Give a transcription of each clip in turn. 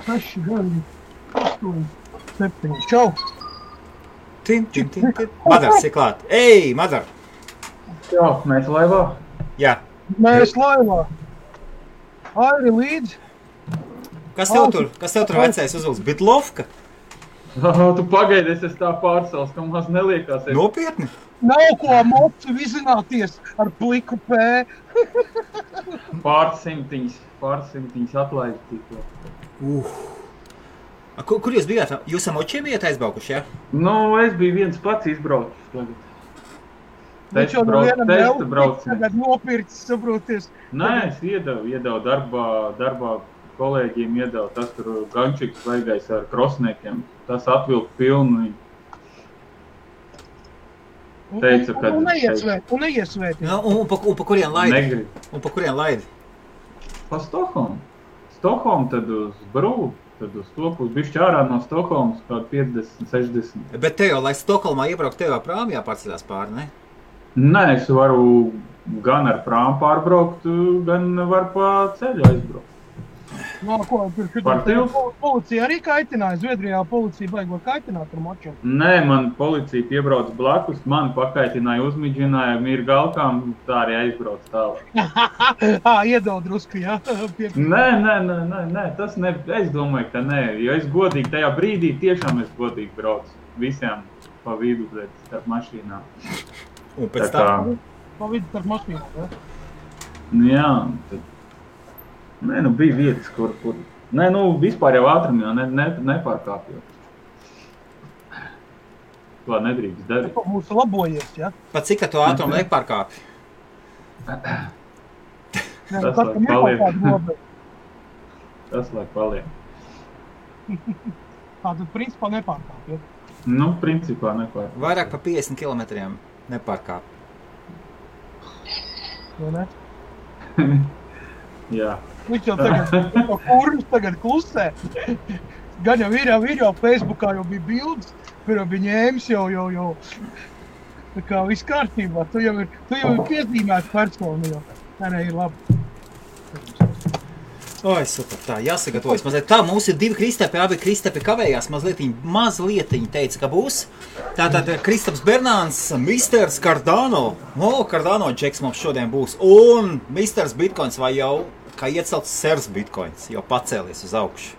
6, 9, 8, 7. Čau! Tim. Madars ir klāt. Ei, Madar! Jā, mēs laivā. Jā. Mēs laivā. Airi līdzi. Kas tev tur vecais uzvilks? Bitlovka? Tu pagaidi, es tā pārsals, ka maz neliekās. Nopietni? Nav ko mocu vizināties ar pliku pē. Pārsimtiņas atlaist tikko. Kur jūs bijāt? Jūs ar močiem bijāt aizbraukuši, jā? Nu, es biju viens pats izbraucis tagad. Viņš jau no vienam neupiks, tagad nopircis, saproties. Nē, es iedevu darbā kolēģiem iedevu. Tas tur gančiks vaigais ar krosniekiem. Tas atvilka pilnu. Teica, ka... Un neiesvēti. Un pa kurien laidi? Negrib. Un pa kurien laidi? Pa Stokholmu. Stokholmu tad uz Brū. Tad uz to pusi bišķi ārā no Stokholmas kaut 50, 60. Bet te jau, lai Stokholmā iebraukt, tev jau prāmi jāpārceļās pāri, ne? Nē, es varu gan ar prāmu pārbraukt, gan var pa ceļu aizbraukt. No, ko, policija arī kaitināja? Zviedrijā policija baigo kaitināt ar močiem? Nē, man policija piebrauc blakus, mani pakaitināja, uzmidžināja, ir galkām, tā arī aizbrauc tālāk. Iedod drusku, jā? Nē, tas ne, es domāju, ka nē, jo es godīgi tajā brīdī tiešām es godīgi braucu visiem pa vidu, starp mašīnām. Un pēc tā? Pa vidu starp mašīnām, jā? Jā, tad... Nē, nu bija vietas, kur... Nē, nu vispār jau ātrumā nepārkāpjot. To nedrīkst darīt. Tas būs labojies, jā? Pat cik tu ātrumu nepārkāpi? Tas lai paliek. Tas lai paliek. Tad principā nepārkāpjot. Nu, principā nepārkāpjot. Vairāk pa 50 kilometriem nepārkāp. Vai ne? Jā. Viņš jau tagad klusē. Gan jau ir jau Facebookā jau bija bildes, kur jau bija ņēmis jau. Tā kā viss kārtībā. Tu jau ir piezīmēts personu jau. Nē, ir labi. Oi, super, tā, jāsagatavojas mazliet. Tā, mums ir 2 Kristapi, abi Kristapi kavējās mazlietiņi teica, ka būs. Tātad Kristaps Bernāns, Misters Cardano. Cardano džeks mums šodien būs. Un Misters Bitcoins vai jau, kā iecelts Sers Bitcoins, jau pacēlies uz augšu.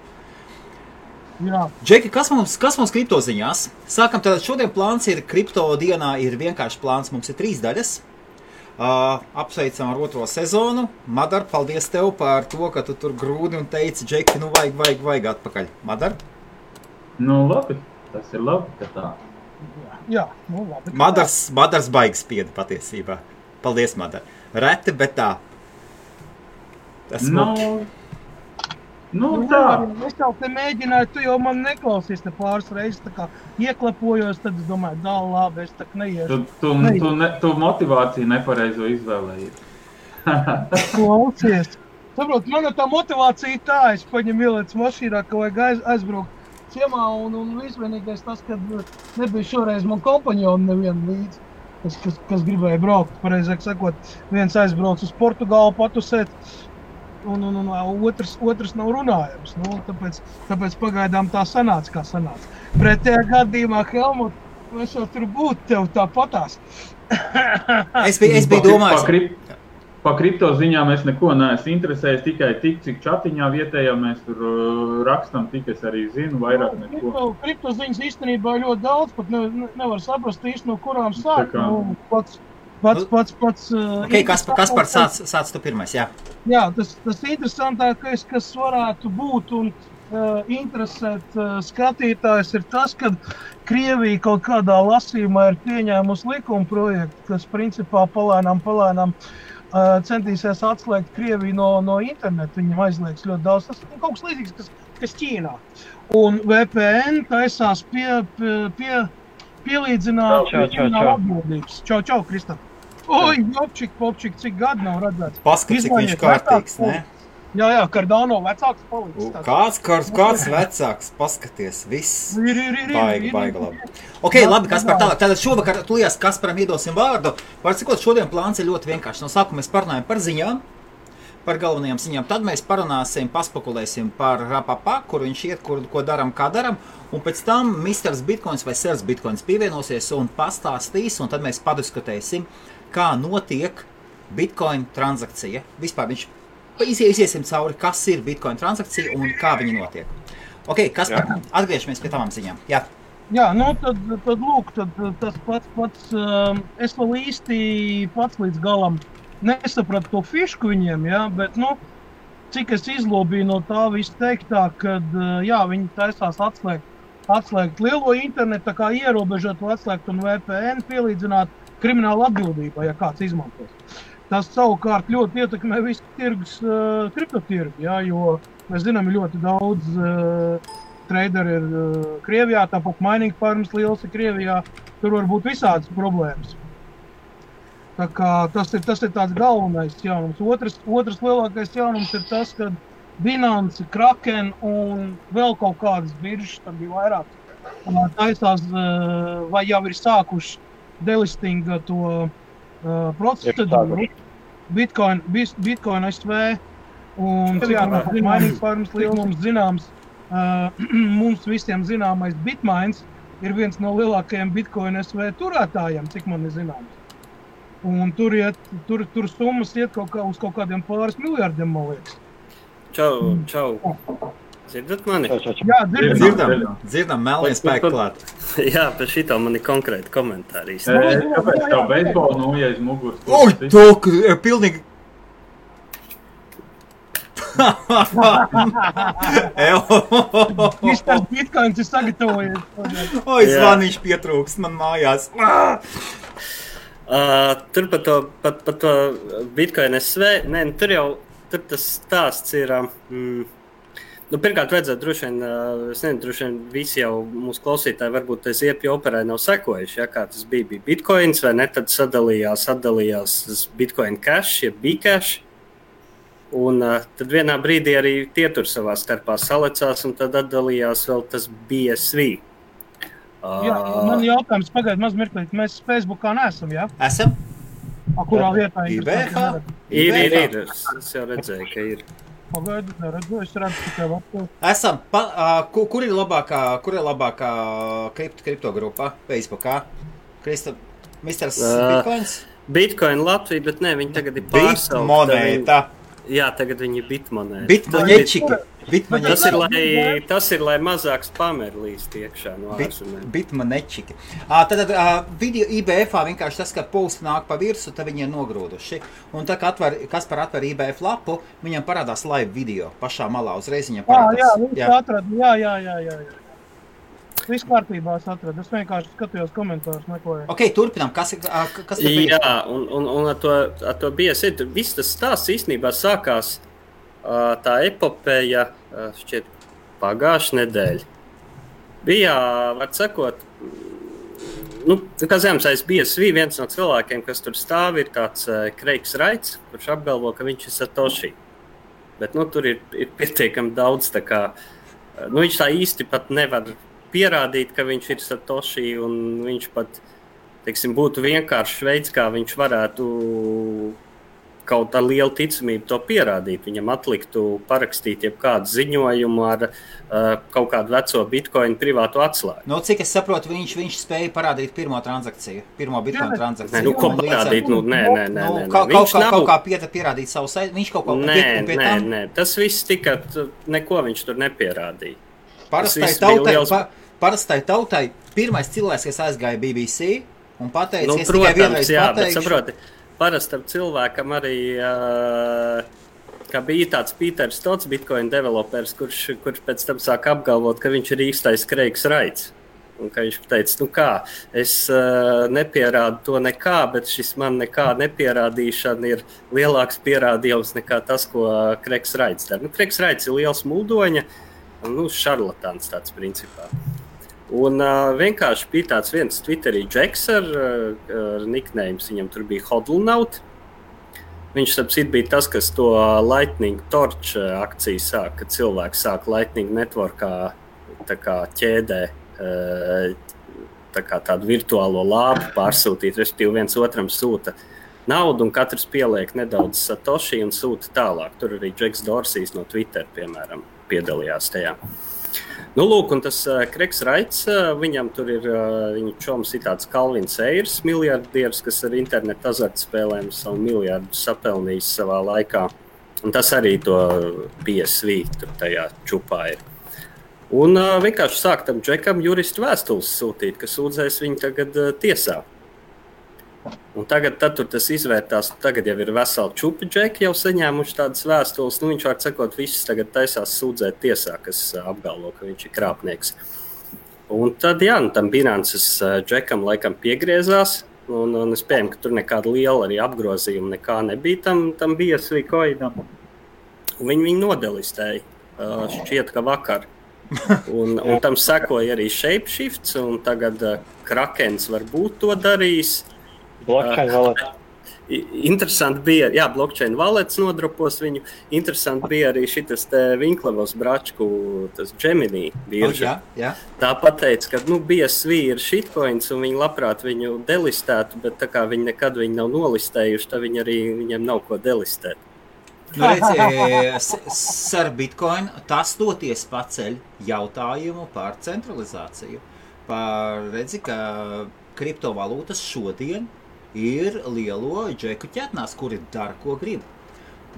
Jā. Džeki, kas mums kripto ziņās? Sākam, tātad šodien plāns ir, kripto dienā ir vienkārši plāns, mums ir 3 daļas. Apsveicam ar 2. sezonu. Madar, paldies tev par to, ka tu tur grūdi un teici, Džeki, nu vajag atpakaļ. Madar? Nu labi, tas ir labi, ka tā. Jā, nu labi. Madars baigas spieda patiesībā. Paldies, Madar. Reti, bet tā. Tas Nu tā. Es jau te mēģināju, tu jau man neklausies te pāris reizes, tā kā ieklepojos, tad es domāju, labi, es tak neiešu. Tu motivāciju nepareizo izvēlējies. Klausies. Saprot, man tā motivācija tā, es paņemu ielēc mašīnā, ka vajag aizbraukt ciemā un visvienīgais tas, kad nebija šoreiz man kompanjoni nevienu līdzi, kas gribēja braukt. Pareizāk sakot, viens aizbrauc uz Portugālu patusēt, un otrs nav runājams. Nu, tāpēc pagaidām tā sanāca, kā sanāca. Pretējā gadījumā, Helmut, mēs jau tur būtu tev tāpatās. Es biju domājis. Pa kripto ziņām es neko neesmu interesējis, tikai tik, cik čatiņā vietējā mēs tur rakstam, tik es arī zinu, vairāk neko. Kripto ziņas īstenībā ļoti daudz, pat nevar saprast īsti no kurām sāk. Nu, pats. Okay, Kaspar, sāc tu pirmais, jā. Jā, tas interesantākais, kas varētu būt un interesēt skatītājs, ir tas, ka Krievija kaut kādā lasījumā ir pieņēmusi likuma projektu, kas principā palēnām centīsies atslēgt Krieviju no internetu. Viņam aizliegs ļoti daudz. Tas ir kaut kas līdzīgs, kas Ķīnā. Un VPN taisās pielīdzināt atbildības. Čau, Kristap. Oi, popčik, cik gadu nav redzēts. Paskat, cik viņš kārtīgs, ne? Jā, Cardano vecāks palicis. Kāds vecāks, paskaties, viss. Baiga labi. Ok, labi, Kaspar, tālāk. Tātad šovakar tulījās Kasparam iedosim vārdu. Var cikot, šodien plāns ir ļoti vienkārši. No sākuma mēs parunājam par ziņām. par galvenajām ziņām. Tad mēs parunāsim, paspekulēsim par Rapapa, kur viņš iet, ko daram, kā daram. Un pēc tam Misters Bitcoins vai Sirs Bitcoins pievienosies un pastāstīs, un tad mēs padiskutēsim, kā notiek Bitcoin transakcija. Vispār viņš iziesim cauri, kas ir Bitcoin transakcija un kā viņa notiek. Ok, Kaspar, atgriežamies pie tavām ziņām. Jā. Jā, nu tad lūk, tas pats, es vēl īsti pats līdz galam nesapratu to fišku viņiem, jā, bet, nu, cik es izlobīju no tā visu teiktā, kad, jā, viņi taisās atslēgt lielo internetu, tā kā ierobežot atslēgt un VPN pielīdzināt kriminālu atbildību, ja kāds izmantos. Tas savukārt ļoti ietekmē visu tirgus, kriptotirgu, jā, jo mēs zinām, ļoti daudz traderi ir Krievijā, tāpat mining farms liels ir Krievijā, tur var būt visādas problēmas. Tā kā tas ir tāds galvenais jaunums. Otrs lielākais jaunums ir tas, ka Binance, Kraken un vēl kaut kādas biržas, tad bija vairāk, taisās vai jau ir sākuši delistinga to procedūru. Bitcoin SV un mining farms liels mums zināms, mums visiem zināmais Bitmains ir viens no lielākajiem Bitcoin SV turētājiem, cik man ir zināms. Un tur summas iet uz kaut kādiem pāris miljardiem, man liekas. Čau. Dzirdat mani? Jā, dzirdam, melnie spēki klāt. Jā, par šito man ir konkrēti komentāri. Kāpēc tev beisbolu nūja aiz muguras? Oi, tok, pilnīgi... Misters Bitcoins ir sagatavojies. Oi, zvaniņš pietrūkst man mājās. Tur par to Bitcoin SV, tur tas stāsts ir, pirmkārt vajadzētu droši vien visi jau mūsu klausītāji varbūt tas iepju operē nav sekojuši, ja, kā tas bija Bitcoins vai ne, tad sadalījās Bitcoin Cash, ja Bcash, un tad vienā brīdī arī tie tur savā starpā salecās un tad atdalījās vēl tas BSV. Jā, man jautājums pagaid maz mirklīt, mēs Facebookā neesam, jā? Esam? Kurā vietā? IBH? Ir, es jau redzēju, ka ir. Pagaidu, neredzu, es redzu tikai vaktu. Esam, kur ir labākā kriptogrupa Facebookā? Misters Bitcoins? Bitcoin Latvija, bet ne, viņi tagad ir pārsaukta. Bitmonēta. Jā, tagad viņi ir bitmonēta. Bitmoņečiki. Tas ir, lai mazāk spameri līst iekšā no ārzemēm. Bitmonečiki. Tad video IBF vienkārši tas, ka posti nāk pa virsu, tad viņi ir nogrūduši. Un tā, Kaspar atver IBF lapu, viņam parādās live video pašā malā, uzreiz viņam parādās. Jā, atradu, jā. Viss kārtībā es atradu, es vienkārši skatījos komentārus meklēju. Ok, turpinām, kas Jā, un ar to BSV, viss tas stāsts īstenībā sākās tā epopeja šķiet pagājušā nedēļa. Bija, var sakot, kā zināms, aiz BSV viens no cilvēkiem, kas tur stāv, ir tāds Kreigs Raits, kurš apgalvo, ka viņš ir Satoshi. Bet tur ir pietiekami daudz, tā kā, viņš tā īsti pat nevar pierādīt, ka viņš ir Satoshi, un viņš pat, teiksim, būtu vienkāršs veids, kā viņš varētu kaut ar lielu ticamību to pierādīt. Viņam atliktu parakstīt jebkādu ziņojumu ar kaut kādu veco Bitcoin privātu atslēgu. Cik es saprotu, viņš spēja parādīt pirmo Bitcoin transakciju. Ko parādīt? Nē. Kaut kā pierādīt savu saiti, viņš kaut kā pie tam? Nē, tas viss tika, neko viņš tur nepierādīja. Parastai tautai pirmais cilvēks, kas aizgāja BBC un pateica, es protams, tikai vienreiz pateikšu. Bet saproti, parastam cilvēkam arī, kā bija tāds Pīters Stots, Bitcoin developers, kurš pēc tam sāk apgalvot, ka viņš ir īstais Kreigs Raits. Un ka viņš teica, es nepierādu to nekā, bet šis man nekā nepierādīšana ir lielāks pierādījums nekā tas, ko Kreigs Raits dara. Kreigs Raits ir liels muldoņa, šarlatāns tāds principā. Un vienkārši bija tāds viens Twitterī Džeks ar nicknames, viņam tur bija Hodlnaut. Viņš sapcīt bija tas, kas to Lightning Torch akciju sāk, kad cilvēki sāk Lightning Networkā tā kā ķēdē tā kā tādu virtuālo lāpu pārsūtīt, respektīvi viens otram sūta naudu, un katrs pieliek nedaudz satoši un sūta tālāk. Tur arī Džeks Dorsijs no Twitter, piemēram, piedalījās tajā. Nu, lūk, un tas Kreigs Raits, viņam tur ir, viņa čoms ir tāds Kalvins Eirs, miljardieris, kas ar internetu azartspēlēm savu miljardu sapelnījis savā laikā. Un tas arī to PSV tur tajā čupā ir. Un vienkārši sāk tam Džekam juristu vēstules sūtīt, ka sūdzēs viņu tagad tiesā. Un tagad tur tas izvērtās, tagad jau ir veseli čupi Džeki jau saņēmuši tādas vēstules. Nu, viņš var sakot, visus tagad taisās sūdzēt tiesā, kas apgalvo, ka viņš ir krāpnieks. Un tad, jā, tam Binances Džekam laikam piegriezās. Un es pieņemu, ka tur nekāda liela arī apgrozījuma nekā nebija tam BSV coinam. Viņi nodelistēja, šķiet, ka vakar. Un tam sekoja arī Shapeshifts, un tagad Krakens varbūt to darīs. Blockchain wallet. Interesanti bija, jā, blockchain wallets nodropos viņu. Interesanti bija arī šitas te Vinklevos Bračku, tas Gemini birža. Jā. Tā pateica, ka BSV ir shitcoins un viņi labprāt viņu delistētu, bet tā kā viņi nekad viņu nav nolistējuši, tad viņiem nav ko delistēt. Nu, redzi, ar Bitcoin tas toties paceļ jautājumu par centralizāciju. Redzi, ka kriptovalūtas šodien ir lielo džeku ķetnās, kuri dara, ko grib.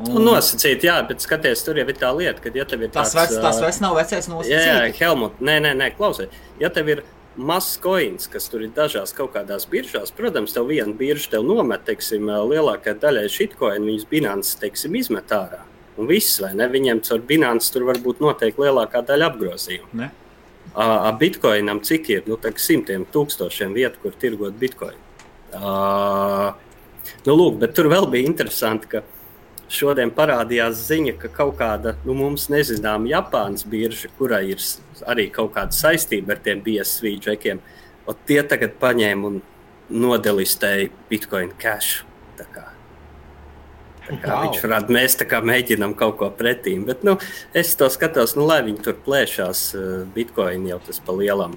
Nosacīt, jā, bet skaties, tur jau ir tā lieta, ka ja tev ir tas vairs nav vecais nosacīt. Jā, Helmut, nē, klausies. Ja tev ir mazs coins, kas tur ir dažās kaut kādās biržās, protams, tev viena birža tev nomet, teiksim, lielākā daļai shitcoin, viņas Binance, teiksim, izmet ārā. Un viss, vai ne? Viņiem caur Binance tur varbūt noteikti lielākā daļa apgrozījumu. Ne? Bitcoinam cik ir? Nu, simtiem tūkstošiem vietu, kur tirgot Bitcoin. Lūk, bet tur vēl bija interesanti, ka šodien parādījās ziņa, ka kaut kāda, mums nezinām Japānas birža, kurai ir arī kaut kāda saistība ar tiem BSV džekiem, un tie tagad paņēma un nodelistēja Bitcoin Cash. Tā kā viņš varētu, mēs tā kā mēģinām kaut ko pretīm, bet es to skatos, lai viņi tur plēšās, Bitcoin jau tas pa lielam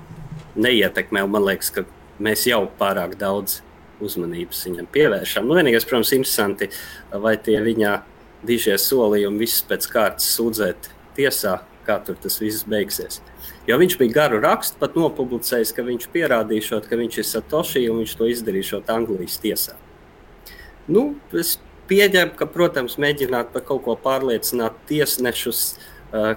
neietekmē, un man liekas, ka mēs jau pārāk daudz uzmanības viņam pievēršam. Vienīgais, protams, interesanti, vai tie viņa dižie solījumi visus pēc kārtas sūdzēt tiesā, kā tur tas viss beigsies. Jo viņš bija garu rakstu pat nopublicējis, ka viņš pierādīšot, ka viņš ir Satoshi, un viņš to izdarīšot Anglijas tiesā. Es pieņemu, ka, protams, mēģināt par kaut ko pārliecināt tiesnešus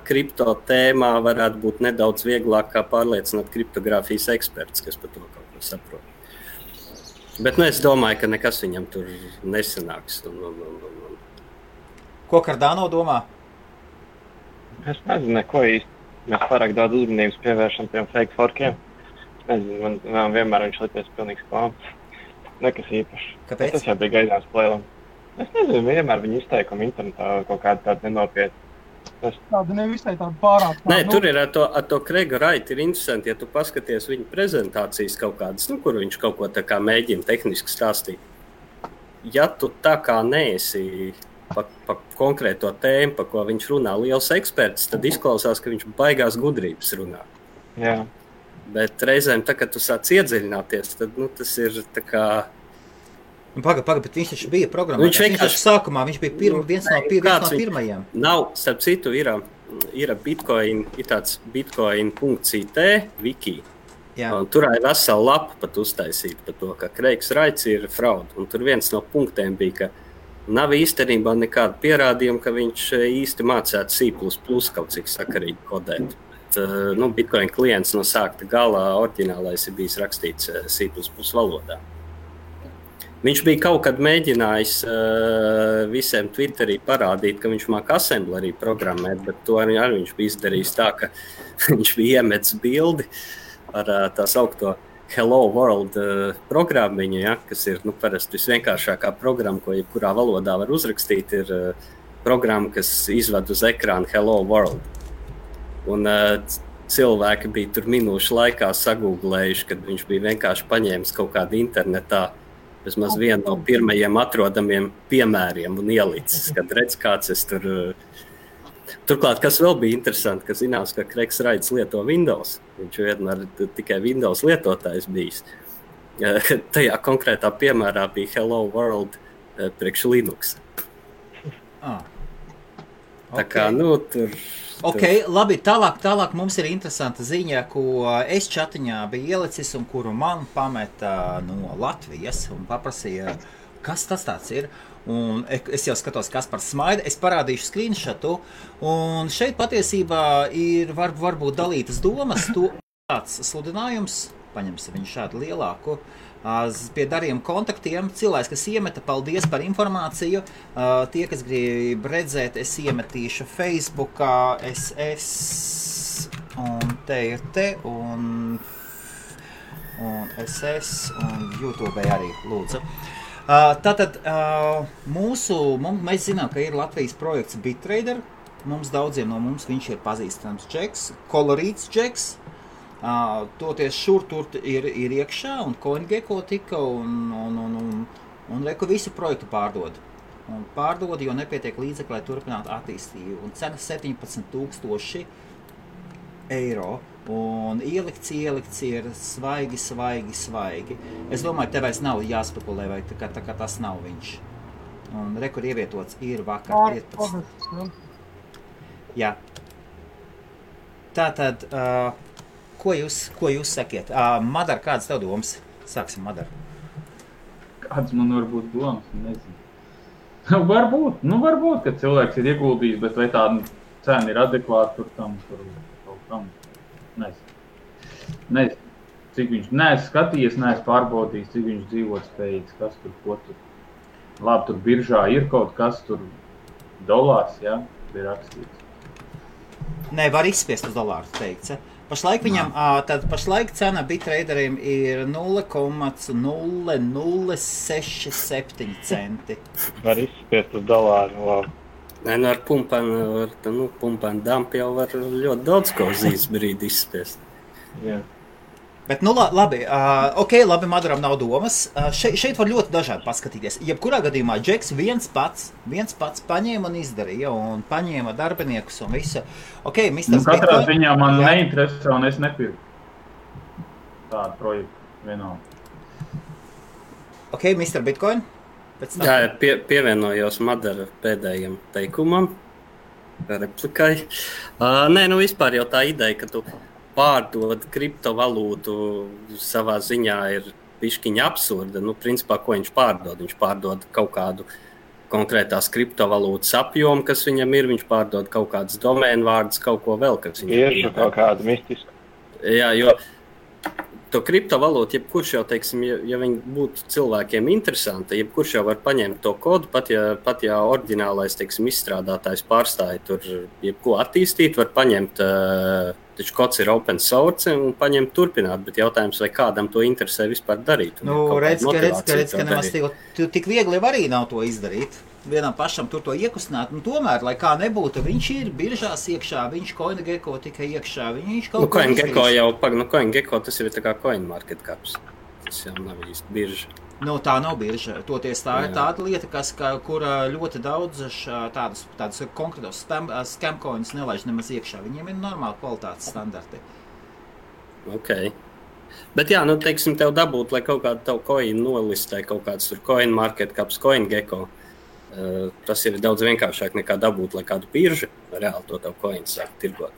kripto tēmā varētu būt nedaudz vieglāk kā pārliecināt kriptogrāfijas eksperts, kas par to kaut ko saprot. Bet es domāju, ka nekas viņam tur nesanāks. Ko Cardano domā? Es nezinu, neko īsti. Mēs pārāk daudz uzmanības pievēršam tiem fake forkiem. Es nezinu, man vienmēr viņš licies pilnīgs klāms. Nekas īpašs. Kāpēc? Tas jau bija gaidāms plēlam. Es nezinu, vienmēr viņa izteikumi internetā kaut kāda tāda nenopietna. Tāda nevisai tāda pārāk. Nē, tur ir ar to Kreiga Raitu ir interesanti, ja tu paskaties viņa prezentācijas kaut kādas, kur viņš kaut ko tā kā mēģina tehniski stāstīt. Ja tu tā kā neesi pa konkrēto tēmu, pa ko viņš runā liels eksperts, tad izklausās, ka viņš baigās gudrības runā. Jā. Bet reizēm, tā, kad tu sāc iedziļināties, tad tas ir tā kā... Pagaid, bet viņš taču bija programmā. Viņš sākumā, viņš bija viens no pirmajiem. Nav, starp citu, ir Bitcoin, ir tāds bitcoin.it wiki. Un tur ir vesela lapa pat uztaisīta par to, ka Kreigs Raits ir fraud. Un tur viens no punktiem bija, ka nav īstenībā nekāda pierādījuma, ka viņš īsti mācētu C++ kaut cik sakarīgi kodēt. Bet, Bitcoin klients no sākta galā oriģinālais ir bijis rakstīts C++ valodā. Viņš bija kaut kad mēģinājis visiem Twitterī parādīt, ka viņš māk assemblerī programmēt, bet to arī viņš bija izdarījis tā, ka viņš bija iemetis bildi ar tā saukto Hello World programmiņu, ja, kas ir parasti visvienkāršākā programma, ko jebkurā valodā var uzrakstīt, ir programma, kas izved uz ekrānu Hello World. Un cilvēki bija tur minūšu laikā sagūglējuši, kad viņš bija vienkārši paņēmis kaut kādu internetā vismaz vienu no pirmajiem atrodamiem piemēriem un ielicis, kad redz, kāds es tur... Turklāt, kas vēl bija interesanti, ka zinās, ka Kreigs Raits lieto Windows. Viņš vienmēr tikai Windows lietotājs bijis. Tajā konkrētā piemērā bija Hello World priekš Linux. Tā kā, tur... Ok, labi, tālāk mums ir interesanta ziņa, ko es čatiņā biju ielicis un kuru man pameta no Latvijas un paprasīja, kas tas tāds ir. Un es jau skatos, kas par smaida, es parādīšu screenshotu, un šeit patiesībā ir varbūt dalītas domas, to tāds sludinājums, paņemsim viņu šādu lielāku, pie darījuma kontaktiem, cilvēks, kas iemeta, paldies par informāciju, tie, kas grib redzēt, es iemetīšu Facebookā, SS, un te ir un SS, un YouTube arī, lūdzu. Tātad mēs zinām, ka ir Latvijas projekts BitTrader. Daudziem no mums viņš ir pazīstams džeks, kolorīts džeks. Toties šur tur ir iekšā un CoinGecko tika un reku visu projektu pārdod. Un pārdod, jo nepietiek līdzekļi, lai turpinātu attīstību. Un cena 17,000 eiro. Un ielikts ir svaigi. Es domāju, tev vairs nav jāspekulē, vai tā kā tas nav viņš. Un rekur ievietots ir vakar 15. Jā. Tātad, ko jūs sakiet? Madar, kādas tev domas? Sāksim, Madar. Kāds man var būt domas? Nezinu. Varbūt, ka cilvēks ir ieguldījis, bet vai tā cena ir adekvāta tur kaut kam. Nezinu, cik viņš neesmu skatījies, neesmu pārbaudījis, cik viņš dzīvot spējīgs, kas tur, ko tur. Labi, tur biržā ir kaut kas tur dolārs, jā, ir rakstīts. Nē, var izspiest uz dolāru, teikts. Pašlaik viņam, pašlaik cena BitTraderiem ir 0,0067 centi. Var izspiest uz dolāru, labi. Nē, ar pumpēnu dampu jau var ļoti daudz ko uz īsts brīdi izspiest. Jā. Bet, labi, labi, Madaram nav domas. Šeit var ļoti dažādi paskatīties. Jebkurā gadījumā Džeks viens pats paņēma un izdarīja, un paņēma darbiniekus un visu. Ok, Mr. Katrā ziņā man neinteresē, un es nepirku tādu projektu vienalga. Ok, Mr. Bitcoin? Jā, pievienojos Madara pēdējiem teikumam, replikai. Nē, vispār jau tā ideja, ka tu pārdod kriptovalūtu savā ziņā ir bišķiņa absurda. Principā, ko viņš pārdod? Viņš pārdod kaut kādu konkrētās kriptovalūtas apjomu, kas viņam ir. Viņš pārdod kaut kādas domēnu vārdus, kaut ko vēl, kas viņam ir. Tieši kaut kādu mistisku. Jā, jo to kriptovalūtu, jebkurš jau, teiksim, ja viņi būtu cilvēkiem interesanti, jebkurš jau var paņemt to kodu, pat ja oriģinālais, teiksim, izstrādātājs pārstāja tur jebko attīstīt, var paņemt, taču kods ir open source un paņemt turpināt, bet jautājums, vai kādam to interesē vispār darīt. Redz, ka nemaz tik viegli arī nav to izdarīt. Vienam pašam tur to iekustināt, tomēr, lai kā nebūtu, viņš ir biržās iekšā, viņš CoinGecko tikai iekšā, viņš kaut ko izdarīs. CoinGecko tas ir tā kā CoinMarketCaps, tas jau nav īsti birža. Tā nav birža, toties tā ir tāda lieta, kura ļoti daudz tādas konkrētos scamcoins nelaiž nemaz iekšā, viņiem ir normāli kvalitātes standarti. Ok. Bet jā, teiksim, tev dabūt, lai kaut kādu tavu coin nolistē, kaut kāds tur CoinMarketCaps, CoinGecko. Tas ir daudz vienkāršāk nekā dabūt, lai kādu biržu reāli to tavu coinu sāk tirgot.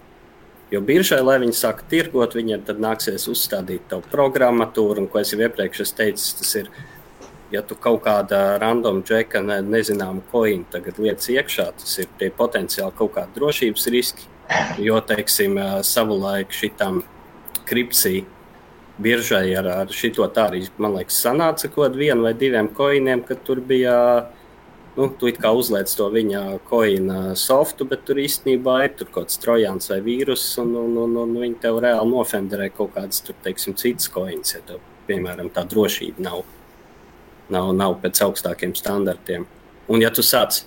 Jo biržai, lai viņi sāk tirgot, viņiem tad nāksies uzstādīt tavu programmatūru, un ko es jau iepriekš teicu, tas ir, ja tu kaut kāda random džeka nezināmu coinu tagad lietas iekšā, tas ir tie potenciāli kaut kādi drošības riski, jo, teiksim, savulaik šitam kripsī biržai ar šito tā arī, man liekas, sanāca kaut vienu vai diviem coiniem, kad tur bija tu it kā uzliec to viņa coina softu, bet tur īstenībā ir tur kaut kāds trojāns vai vīrus, un viņi tev reāli nofenderē kaut kādas, tur, teiksim, citas coins, ja tev, piemēram, tā drošība nav pēc augstākiem standartiem. Un ja tu sāc,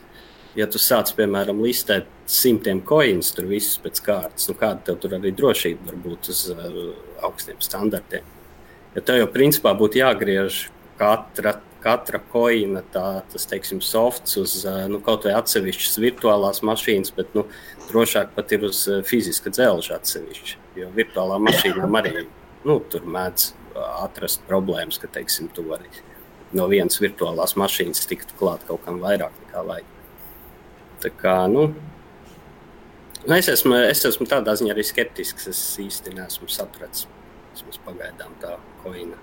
piemēram, listēt 100 coins, tur visus pēc kārtas, kāda tev tur arī drošība var būt uz augstiem standartiem. Ja tev jau principā būtu jāgriež katra coina, tas, teiksim, softs uz kaut vai atsevišķas virtuālās mašīnas, bet drošāk pat ir uz fiziska dzelža atsevišķi, jo virtuālā mašīnām arī tur mēdz atrast problēmas, ka, teiksim, tu vari no vienas virtuālās mašīnas tiktu klāt kaut kam vairāk nekā vajag. Tā kā, es esmu tādā ziņā arī skeptisks, es īsti neesmu sapratis. Vismaz pagaidām tā koina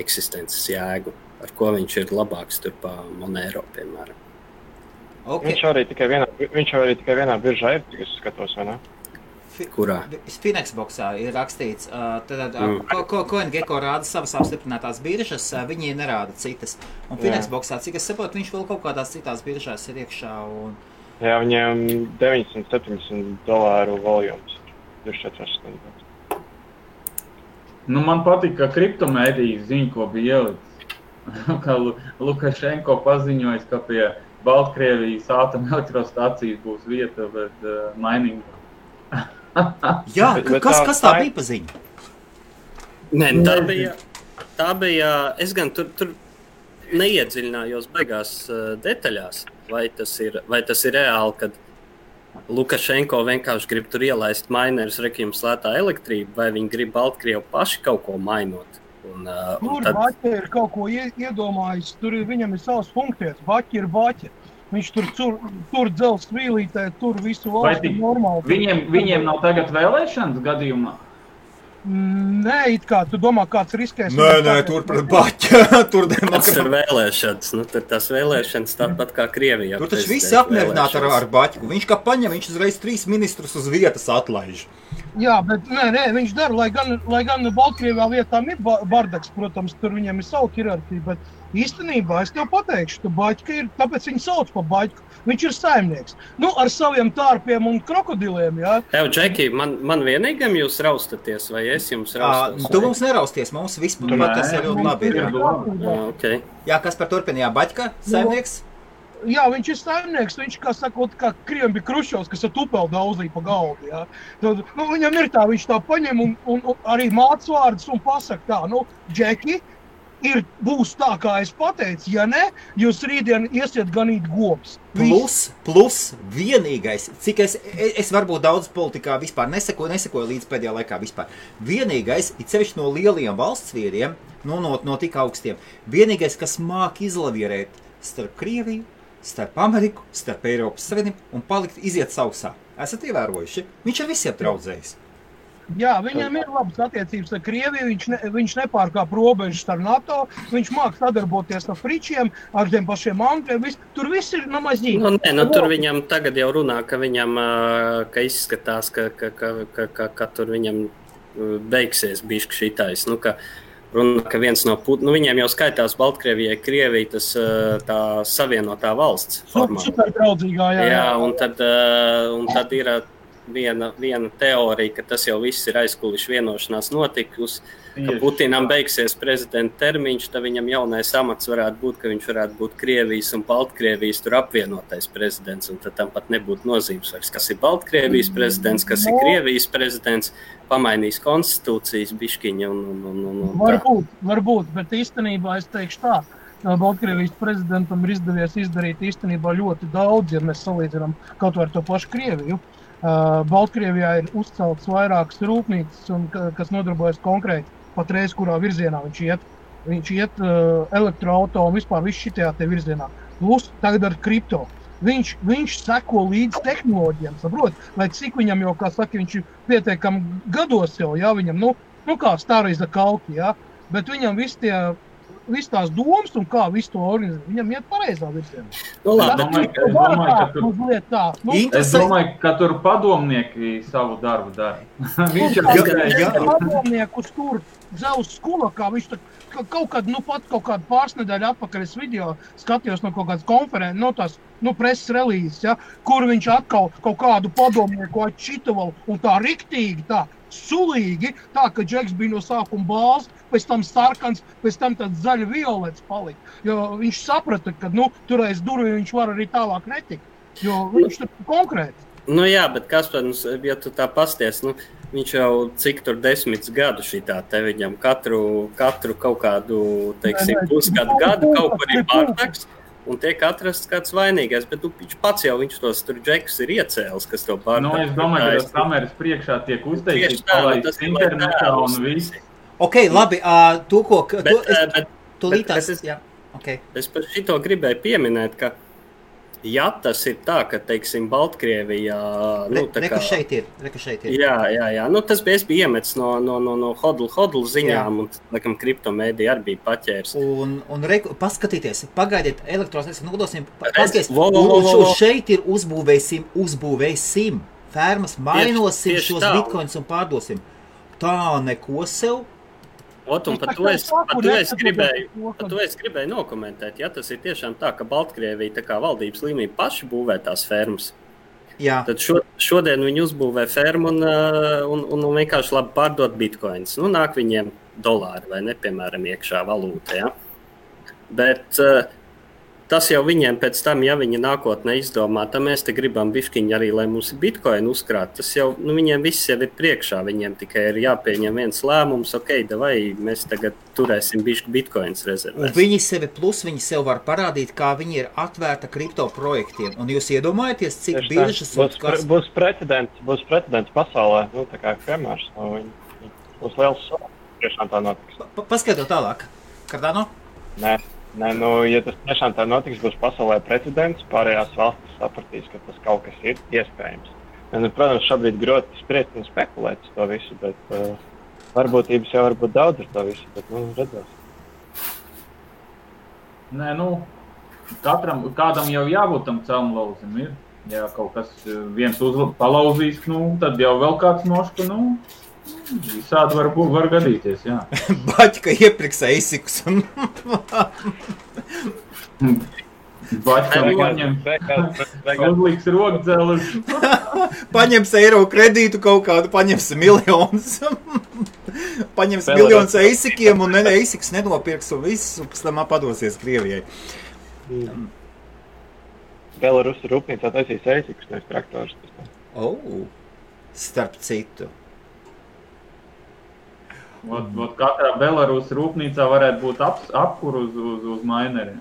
eksistences jēgu, ar ko viņš ir labāks tur pa Monero, piemēram. Okay. Viņš jau arī tikai vienā biržā ir, es skatos, vai ne? Kurā? Finexboxā ir rakstīts, CoinGecko rāda savas apstiprinātās biržas, viņi nerāda citas. Un Finexboxā, cik es saprotu, viņš vēl kaut kādās citās biržās ir iekšā. Un... Jā, viņiem $970 voljums 24 stundas. Man patīk, ka kriptomēdijas ziņa, ko bija ielicis. Kā Lukašenko paziņojis, ka pie Baltkrievijas atomelektrostacijas būs vieta, bet mining. Jā, kas tā bija pa ziņu? Nē, tā bija, es gan tur neiedziļinājos beigās detaļās, vai tas ir reāli, kad Lukašenko vienkārši grib tur ielaist minerus, jums lētā elektrība, vai viņi grib Baltkrievu paši kaut ko mainot. Tur Baķi ir kaut ko iedomājis, viņam ir savas funkcijas, Baķi ir Baķi. Viņš tur dzels vīlītē, tur visu valstu normāli. Viņiem nav tagad vēlēšanas gadījumā? Nē, it kā, tu domā, kāds riskēs? Nē, tur pret Baķi. Tas ir vēlēšanas, tur tās vēlēšanas tāpat kā Krievijā. Tur taču visi apmierināti ar Baķiku. Viņš kā paņem, viņš uzreiz 3 ministrus uz vietas atlaiž. Jā, bet nē, viņš dara, lai gan Baltkrievijā vietām ir bardaks, protams, tur viņiem ir savu hierarhiju, bet īstenībā es tev pateikšu, ka Baķika ir, tāpēc viņu sauc pa Baķiku. Viņš ir saimnieks. Ar saviem tārpiem un krokodiliem, jā. Tev, Džeki, man vienīgam jūs raustaties, vai es jums raustos? Tu mums nerausties, mums vispār tas ir ļoti labi. Okay. Jā, kas par turpinājā Baķika saimnieks? Jā, viņš ir saimnieks, viņš, kā sakot, kā Kriem bija Krušovs, kas ar tupeli daudzīja pa galdu, jā. Tad, viņam ir tā, viņš tā paņem un arī māc vārdus un pasaka tā, Džeki, būs tā, kā es pateicu, ja ne, jūs rītdien iesiet ganīt govs. Plus vienīgais, cik es varbūt daudz politikā vispār nesekoju līdz pēdējā laikā vispār. Vienīgais, it sevišķi no lielajiem valsts vīriem, no tik augstiem, vienīgais, kas māk izlavierēt starp Krieviju, starp Ameriku, starp Eiropas Savienību un iziet sausā. Esat ievērojuši? Viņš ar visiem traudzējis. Jā, viņam ir labas attiecības ar Krieviju, viņš nepārkāp robežas ar NATO, viņš māk sadarboties ar fričiem, ar tiem pašiem angļiem, tur viss ir namazīgs. Tur viņam tagad jau runā, ka viņam, ka izskatās, ka tur viņam beigsies bišķi šitais, runā, ka viens no viņiem jau skaitās Baltkrievijai, Krievija, tas tā savienotā valsts formā. Super draudzīgā, jā. Jā, un tad ir viena teorija, ka tas jau viss ir aizkuliši vienošanās notikusi, ka Putinam beigsies prezidenta termiņš, tad viņam jaunais amats varētu būt, ka viņš varētu būt Krievijas un Baltkrievijas tur apvienotais prezidents, un tad tam pat nebūtu nozīmes vairs, kas ir Baltkrievijas prezidents, kas ir Krievijas prezidents, pamainīs konstitūcijas biškiņa un Varbūt, bet īstenībā es teikšu tā, Baltkrievijas prezidentam ir izdevies izdarīt īstenībā ļoti daudz, ja mēs salīdzinām kaut vai ar to pašu Krieviju. Baltkrievijā ir uzcelts vairākas rūpnīcas, kas nodarbojas konkrēti patreiz, kurā virzienā viņš iet. Viņš iet elektroauto un vispār viss šitajā te virzienā. Plus tagad ar kripto. Viņš seko līdz tehnoloģijām, saprot, lai cik viņam jau, kā saka, viņš ir pietiekami gados jau, jā, viņam, kā Starīza Kalki, jā, bet viņam viss tās domas un kā visu to organizēt, viņam iet pareizā virzienā. Es domāju, ka tur padomnieki savu darbu dara. Viņš ir padomniekus tur Zeus Skulakā, viņš kaut kādu pārsnedēļu atpakaļ es video skatījos no kaut kādas konferences, preses relīzes, ja, kur viņš atkal kaut kādu padomnieku atšitoval un tā riktīgi, tā sulīgi, tā, ka Džeks bija no sākuma bāls, pēc tam sarkans, pēc tam tāds zaļa violets palika. Jo viņš saprata, ka, tur aiz durvīm viņš var arī tālāk netikt, jo viņš tur konkrēti. Jā, bet Kaspar, ja tu tā pasties, viņš jau cik tur 10 gadu šitā te viņam katru kaut kādu, teiksim, pusgadu kaut kur ir bardaks. Un tiek atrasts kāds vainīgais, bet viņš pats jau tos tur džekus ir iecēlis, kas to pārdā. Es domāju, ka tas kameras priekšā tiek uzteikts, palaists internetā un viss. Ok, labi, tu lītās, jā. Okay. Es par šito gribēju pieminēt, ka ja tas ir tā, ka, teiksim, Baltkrievijā... Reka šeit ir. Jā. Tas bija iemetis no hodl ziņām, un, laikam, kriptomēdija arī bija paķērs. Un paskatieties, pagaidiet, elektrosnieks nodosim, paskatieties, šeit ir uzbūvēsim, fermas, mainosim tieši šos bitcoins un pārdosim. Tā neko sev. Un par to es gribēju nokomentēt. Ja tas ir tiešām tā, ka Baltkrievija tā kā valdības līmenī paši būvē tās fermas, tad šodien viņi uzbūvē fermu un vienkārši labi pārdot bitcoins. Nāk viņiem dolāri vai ne, piemēram, iekšā valūta. Ja? Bet tas jau viņiem pēc tam, ja viņi nākotnē izdomā, tad mēs te gribam bišķiņi arī, lai mums ir bitcoin uzkrāt. Tas jau, viņiem viss jau ir priekšā, viņiem tikai ir jāpieņem viens lēmums, davai, mēs tagad turēsim bišķi bitcoins rezervēs. Un viņi sev var parādīt, kā viņi ir atvērta kripto projektiem. Un jūs iedomājaties, cik biržas būs precedents pasaulē, tā kā piemērs, būs liels tiešām tā notiks. Paskatot tālāk, Cardano? Nē, ja tas tiešām tā notiks, būs pasaulē precedents, pārējās valstis sapratīs, ka tas kaut kas ir iespējams. Protams, šobrīd groti spriest un spekulēt uz to visu, bet varbūtības jau var būt daudz ar to visu, bet redzēs. Nē, kādam jau jābūt tam celmlauzim ir. Ja kaut kas viens palauzīs, tad jau vēl kāds noška, visādi var gadīties, jā. Baķka iepriks eisikus. Baķka uzliks rokdzelus. Paņems eiro kredītu kaut kādu, paņems miljonus. Paņems miljonus eisikiem un eisiks nenopirks un viss, un pēc tam padosies Krievijai. Belarusa rūpnīcā taisīs eisikus, nevis traktors. Starp citu. Katrā Belarusa rūpnīcā varētu būt apkur uz maineriem.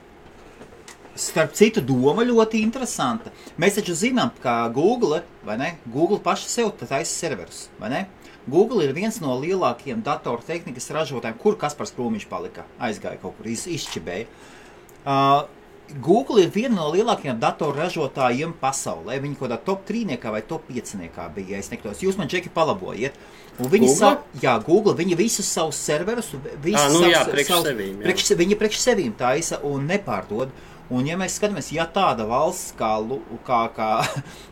Starp citu, doma ļoti interesanta. Mēs taču zinām, ka Google, vai ne? Google paši sev taisa serverus, vai ne? Google ir viens no lielākajiem datortehnikas ražotājiem, kur Kaspars Krūmiņš palika, aizgāja kaut kur, izšķibēja. Google ir viena no lielākajiem datorražotājiem pasaulē. Viņi kaut kādā top 3 vai top 5 bija, ja es nekļūdos. Jūs man, Džeki, palabojiet. Un viņi Google, viņi visus savus serverus, viņi priekš sevīm taisa un nepārdod. Un ja mēs skatāmies, ja tāda valsts kā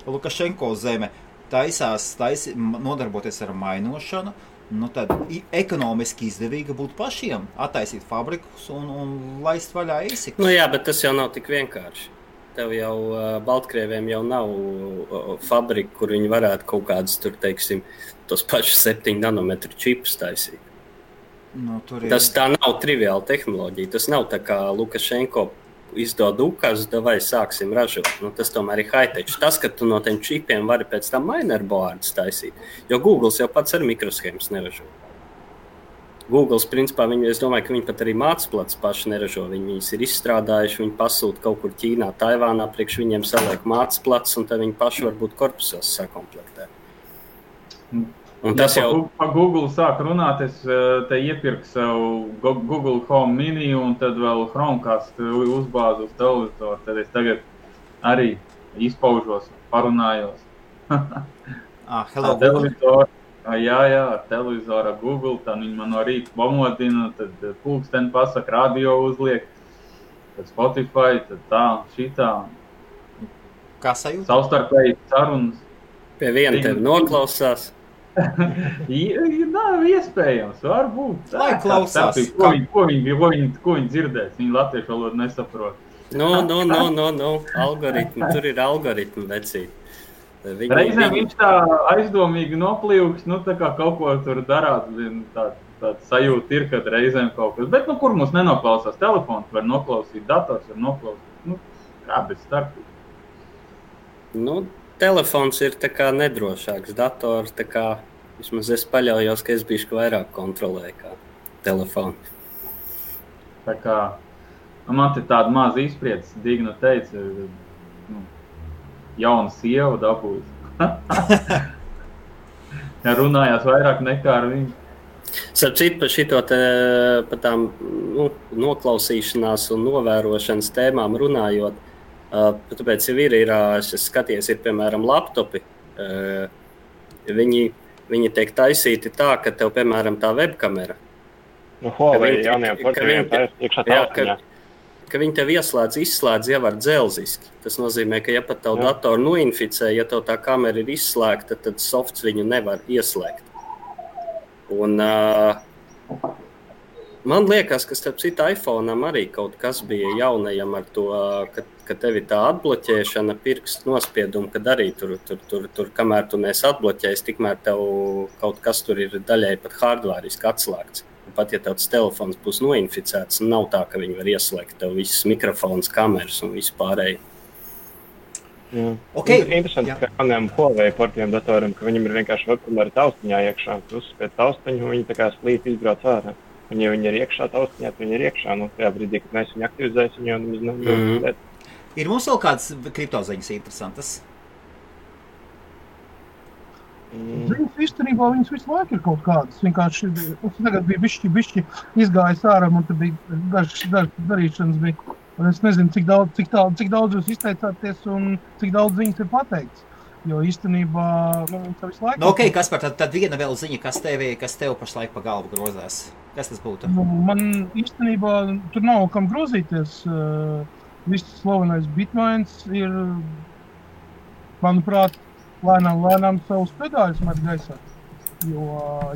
Lukašenko zeme taisās nodarboties ar mainošanu, tad ekonomiski izdevīgi būtu pašiem attaisīt fabrikus un laist vaļā eisikus. Jā, bet tas jau nav tik vienkārši. Tev jau Baltkrieviem jau nav fabrika, kur viņi varētu kaut kādas tur, teiksim, tos pašus 7 nanometru čipus taisīt. Tas tā nav triviāla tehnoloģija. Tas nav tā kā Lukašenko izdod ukas, vai sāksim ražot. Tas tomēr ir high-tech. Tas, ka tu no tiem čipiem vari pēc tam minerboardus taisīt, jo Google jau pats ar mikroshēmas neražo. Google, principā, es domāju, ka viņi pat arī mācplats paši neražo. Viņas ir izstrādājuši, viņi pasūta kaut kur Ķīnā, Taivānā, priekš viņiem saliek mācplats, un tad viņi paši varbūt korpusos sakomplektē. Un tas jau... Pa Google sāk runāt, es te iepirku savu Google Home Mini un tad vēl Chromecast uzbāzu uz televizoru. Tad es tagad arī izpaužos, parunājos. Hello, televizoru. Jā, ar televizoru Google, tad viņi man no rīta pamodina, tad pulksteni pasaka, radio uzliek, tad Spotify, tad tā, šitā. Kā sajūta? Savstarpēji sarunas. Pie viena tevi noklausās. Nav iespējams, varbūt. Lai klausās. Ko viņi dzirdēs? Viņi latviešu valodu nesaprot. Algoritmi, tur ir algoritmi vecīt. Reizēm viņš tā aizdomīgi noplīvks, tā kā kaut ko tur darāt, tāda sajūta ir, kad reizēm kaut kas. Bet, kur mums nenoklausās? Telefons var noklausīt, dators var noklausīt. Kā bez starpības? Telefons ir tā kā nedrošāks, dators tā kā, vismaz es paļaujos, ka es bišķi vairāk kontrolēju kā telefonu. Tā kā, man te tāda maza izpriedze, Digna teica, jauna sieva dabūjas. Ja runājās vairāk nekā ar viņu. Starp citu, par šito par tām noklausīšanās un novērošanas tēmām runājot, tāpēc jau ir es skaties, ir piemēram laptopi. Viņi tiek taisīti tā, ka tev, piemēram, tā webkamera. Huawei jaunajām porcelīnām tā ir iekšā taustiņā. Ka viņi tev izslēdz jau ar dzelziski. Tas nozīmē, ka ja pat tavu datoru noinficē, ja tev tā kamera ir izslēgta, tad softs viņu nevar ieslēgt. Un man liekas, ka starp citu iPhone'am arī kaut kas bija jaunajam ar to, ka tevi tā atbloķēšana pirkstu nospiedumu, kad arī tur kamēr tu neesi atbloķējis, tikmēr tev kaut kas tur ir daļai pat hardvāriski atslēgts. Pat ja tavs telefons būs noinficēts, nav tā, ka viņi var ieslēgt tev visas mikrofons, kameras un visu pārēju. Okay. Interesanti, ka jaunajām Huawei portiem datoriem, ka viņam ir vienkārši webkamera taustiņā iekšā. Tu uzspēc taustiņu, viņi tā kā slīp izbrauc ārā. Un ja viņi ir iekšā taustiņā, tad viņi ir iekšā. Nu, tajā brīdī, kad mēs viņu aktivizēsim, jau nemaz nav. Ir mums vēl kādas kriptoziņas interesantas? Ziņas īstenībā viņas visu laiku ir kaut kādas. Vienkārši tagad bija bišķi izgājis ārā, un te bija dažas darīšanas bija. Un es nezinu, cik daudz jūs izteicāties un cik daudz ziņas ir pateikts. Jo īstenībā tā visu laiku... Ok, Kaspar, tad viena vēl ziņa, kas tev pašlaik pa galvu grozās. Kas tas būtu? Man īstenībā tur nav kam grozīties. Viss slavenais Bitmains ir, manuprāt, lēnām savus pedāļus met gaisā. Jo,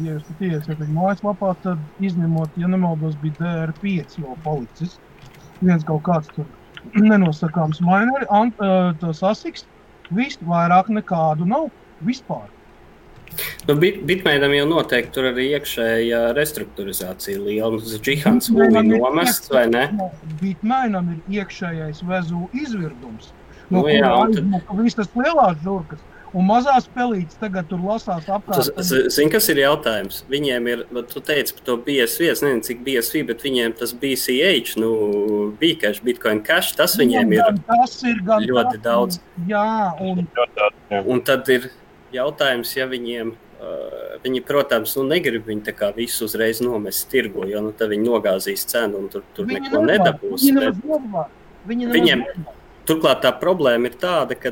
ja jūs pat iesiet viņu mājaslapā, tad izņemot, ja nemaldos, bija DR5 jau palicis. Viens kaut kāds tur nenosakāms mineri, tas ASICS, viss vairāk nekādu nav vispār. Bitmainam jau noteikti tur arī iekšēja restruktūrizācija liela. Džihans būvī nomests, vai ne? Bitmainam ir iekšējais vezu izvirdums. Viss tas lielās žurkas. Un mazās pelītes tagad tur lasās apkārt. Zini, kas ir jautājums? Viņiem ir, tu teici par to BSV, es nezinu, cik BSV, bet viņiem tas BCH, Bcash, Bitcoin Cash, tas viņiem ir ļoti daudz. Jā, un tad ir jautājums, ja viņi, protams, negrib viņi tā kā visu uzreiz nomest tirgu, jo tad viņi nogāzīs cenu un tur neko nedabūs. Viņiem, turklāt tā problēma ir tāda, ka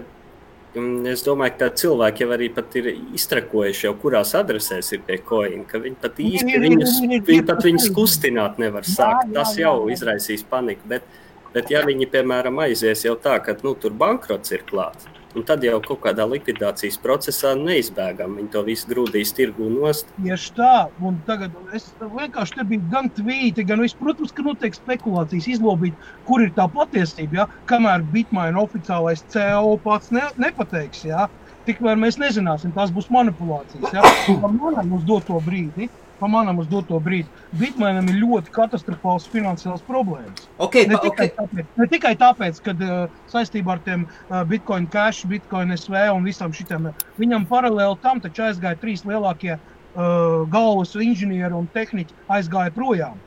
es domāju, ka cilvēki jau arī pat ir iztrakojuši jau, kurās adresēs ir pie coin, ka viņi pat viņus kustināt nevar sākt. Tas jau izraisīs paniku, bet ja viņi, piemēram, aizies jau tā, ka tur bankrots ir klāts, un tad jau kaut kādā likvidācijas procesā neizbēgam. Viņi to visu grūdīs tirgū nost. Tieši tā, un tagad es vienkārši te biju gan tvīti, gan viss, protams, ka notiek spekulācijas izlobīt, kur ir tā patiesība, ja? Kamēr Bitmain oficiālais CEO pats nepateiks, ja? Tikmēr mēs nezināsim, tās būs manipulācijas, ja? Pa manam uz doto brīdi. Bitmainam ir ļoti katastrofāls finansiāls problēmas. Ne tikai tāpēc, ka saistībā ar tiem Bitcoin Cash, Bitcoin SV un visam šitiem, viņam paralēli tam taču aizgāja 3 lielākie galvas inženieri un tehniķi aizgāja projām,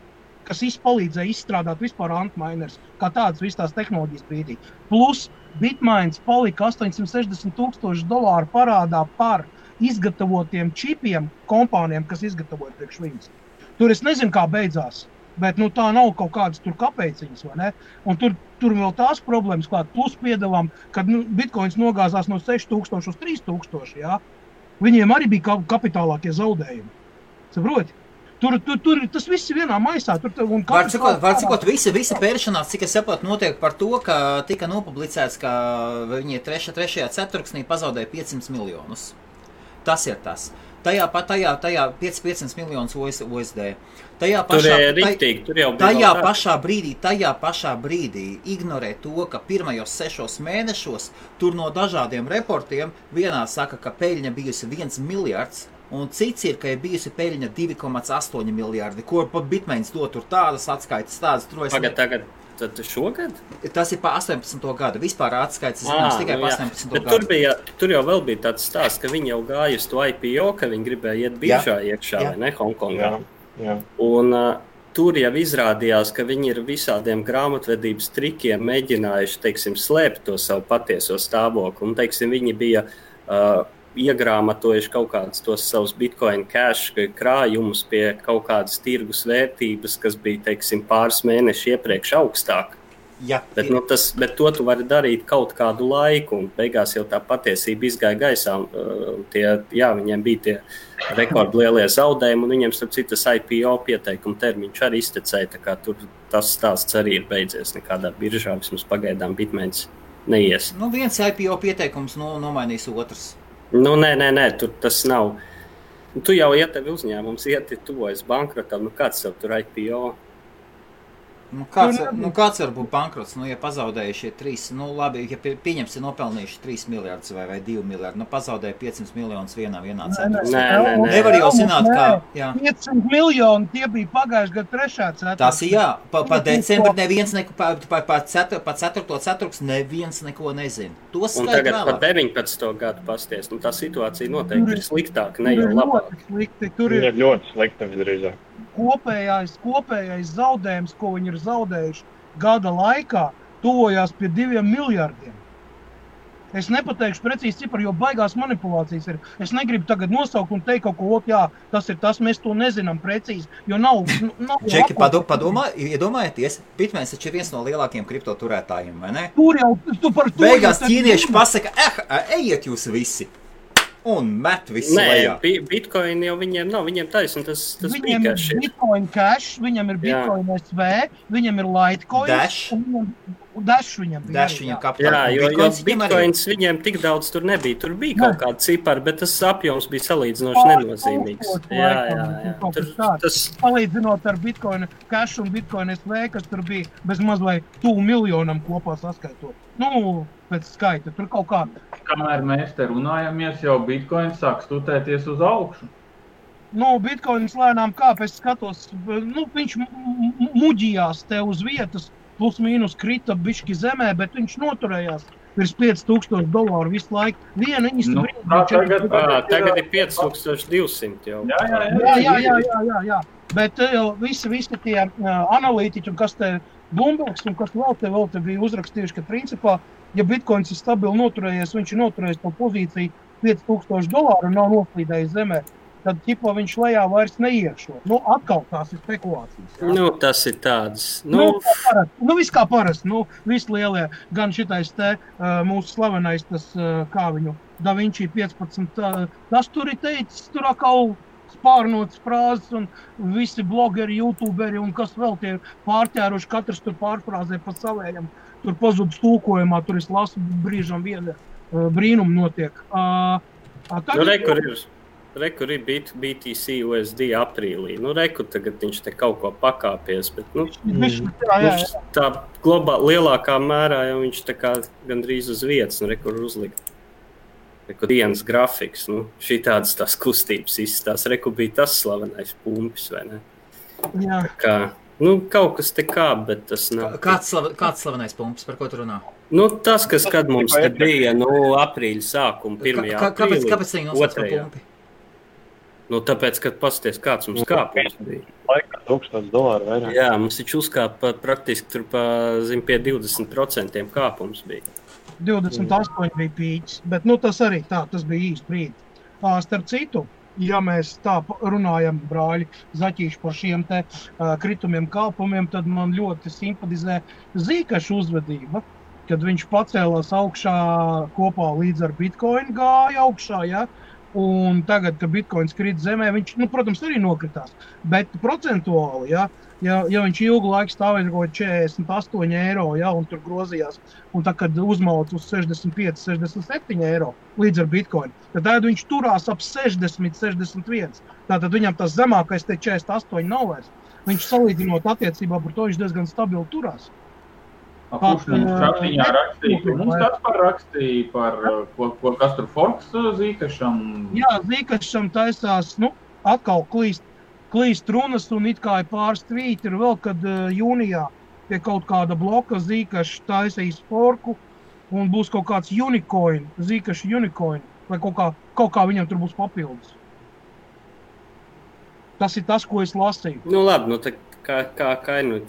kas palīdzēja izstrādāt vispār antminers, kā tādas visas tās tehnoloģijas brīdī. Plus Bitmains palika $860,000 parādā par izgatavotiem čipiem kompānijām, kas izgatavoja priekš viņas. Tur es nezinu, kā beidzās, bet tā nav kaut kādas tur kapeciņas, vai ne? Un tur vēl tās problēmas klāt, plus piedalām, kad Bitcoins nogāzās no 6,000 uz 3,000, jā. Viņiem arī bija kapitālākie zaudējumi. Saproti? Tur tas viss ir vienā maisā. Var cikot, visa pēršanās, cik es saprotu, notiek par to, ka tika nopublicēts, ka viņi 3. ceturksnī pazaudēja 500 miljonus. Tas ir tas. Tajā 500 miljonus USD. Tajā pašā brīdī ignorē to, ka pirmajos 6 mēnešos tur no dažādiem reportiem vienā saka, ka peļņa bijusi 1 miljards, un cits ir, ka ir bijusi peļņa 2,8 miljardi, ko pat Bitmains dod tur tādas atskaitas, tādas. Tagad Tad šogad? Tas ir pa 18. gadu. Vispār atskaits zināms tikai pa 18. Bet gadu. Tur jau vēl bija tāds stāsts, ka viņi jau gāja uz to IPO, ka viņi gribēja iet biržā iekšā, vai ne, Hongkongā. Jā. Un tur jau izrādījās, ka viņi ir visādiem grāmatvedības trikiem mēģinājuši, teiksim, slēpt to savu patieso stāvokli. Un, teiksim, viņi bija iegrāmatojuši kaut kādus tos savus Bitcoin cash krājumus pie kaut kādas tirgus vērtības, kas bija, teiksim, pāris mēneši iepriekš augstāk. Ja, bet to tu vari darīt kaut kādu laiku, un beigās jau tā patiesība izgāja gaisā. Viņiem bija tie rekordlielie zaudējumi, un viņiem, starp citu, tas IPO pieteikuma termiņš arī iztecēja, tā kā tur tas stāsts arī ir beidzies nekādā biržā, vismaz pagaidām Bitmains neies. Viens IPO pieteikums nomainīs otrs. Nē, tur tas nav. Tu jau tevi uzņēmums tuvojas bankrotam, kāds tev tur IPO? Kāds var būt bankrots? Ja pazaudējušie 3, labi, ja pieņemsi nopelnījuši 3 miljardus vai 2 miljardi, pazaudēja 500 miljonus vienā ceturksnī. Nē. Nevar jau zināt, kā... 500 miljoni, tie bija pagājuši gadu 3. ceturksnī. Tas ir jā, pa decembri neviens pa 4. ceturksni neviens neko nezina. Un tagad pa 19. gadu pasties, tā situācija noteikti ir sliktāka, ne jau labāk. Tur ir ļoti slikta visdrīzāk. Kopējais zaudējums, ko viņi ir zaudējuši gada laikā, tuvojās pie 2 miljardiem. Es nepateikšu precīzi ciparu, jo baigās manipulācijas ir. Es negribu tagad nosaukt un teikt kaut ko, tas ir tas, mēs to nezinām precīzi, jo nav Čeki, iedomājieties, Bitmains taču ir viens no lielākiem kriptoturētājiem, vai ne? Tur jau, beigās ķīnieši pasaka, ejiet jūs visi! Un met visu lejā. Bitcoin jau viņiem nav, viņiem taisn, tas viņiem ir Bitcoin Cash, viņam ir Bitcoin SV, viņam ir Litecoin. Dash viņam bija. Dash viņam kapitāla. Jā, jo Bitcoins viņiem tik daudz tur nebija. Tur bija kaut kāda cipara, bet tas apjoms bija salīdzinoši nenozīmīgs. Jā. Salīdzinot ar Bitcoin Cash un Bitcoin SV, kas tur bija bez maz vai 2 miljonam kopā saskaitot. Pēc skaita, tur kaut kā. Kamēr mēs te runājamies, jau Bitcoin sāk stutēties uz augšu. Bitcoins lēnām kāp, es skatos, viņš muģījās te uz vietas, plus mīnus krita bišķi zemē, bet viņš noturējās virs $5,000 visu laiku. Tagad ir 5200 jau. Jā. Bet visi tie analītiķi, un kas te Bloombergs, un kas vēl te bija uzrakstījuši, ka principā, ja Bitcoins ir stabili noturējies, viņš ir noturējis to pozīciju $5,000 un nav noslīdējis zemē, tad ķipa viņš lejā vairs neiešo. Atkal tās ir spekulācijas. Jā. Tas ir tāds. Viss kā parasti. Visi lielie, gan šitais te mūsu slavenais, tas, kā viņu, Da Vinci 15, tas tur ir teicis, tur atkal spārnotas frāzes un visi blogeri, youtuberi un kas vēl tie pārķēruši, katrs tur pārfrāzē pa savējam. Tur pazudus tūkojumā, tur es lasu brīžam viena brīnuma notiek. Rekur ir BTC USD aprīlī. Tagad viņš te kaut ko pakāpies, bet tā lielākā mērā jau viņš tā kā gandrīz uz vietas, rekur uzlikt. Reku dienas grafiks, šī tādas tās kustības izstās. Reku bija tas slavenais pumpis, vai ne? Jā. Kaut kas te kā, bet tas nav. Kāds slavenais pumpis, par ko tu runā? Tas, kas kad mums te bija, aprīļa sākuma, 1. aprīlī. Kāpēc viņi nosauc par pumpi? Tāpēc, kad pasties, kāds mums kāpums bija. Laikā $1,000 vairāk. Jā, mums taču uzkāpa praktiski tur pie 20% kāpums bija. 28 bija pīķis, bet tas arī tas bija īsti brīdi. Starp citu, ja mēs tā runājam, brāļi, zaķīši par šiem te kritumiem kāpumiem, tad man ļoti simpatizē Zīkaša uzvedība, kad viņš pacēlās augšā kopā līdz ar Bitcoin gāja augšā, ja? Un tagad, kad Bitcoins krīt zemē, viņš, protams, arī nokritās, bet procentuāli, ja viņš ilgu laiku stāvēja kaut 48 eiro, ja, un tur grozījās, un tā, kad uzmauc uz 65, 67 eiro līdz ar Bitcoin, tad viņš turās ap 60, 61. Tātad viņam tas zemākais te 48 nav vairs. Viņš salīdzinot attiecībā par to, viņš diezgan stabili turās. Kurš mums šādiņā rakstīja? Mums kāds rakstīja par kas tur forks Zīkašam? Jā, Zīkašam taisās, atkal klīst runas un it kā ir pāris tvīti ir vēl, kad jūnijā pie kaut kāda bloka Zīkašs taisīs forku un būs kaut kāds unicoin, Zīkaša unicoin, vai kaut kā viņam tur būs papildus. Tas ir tas, ko es lasīju. Labi, kā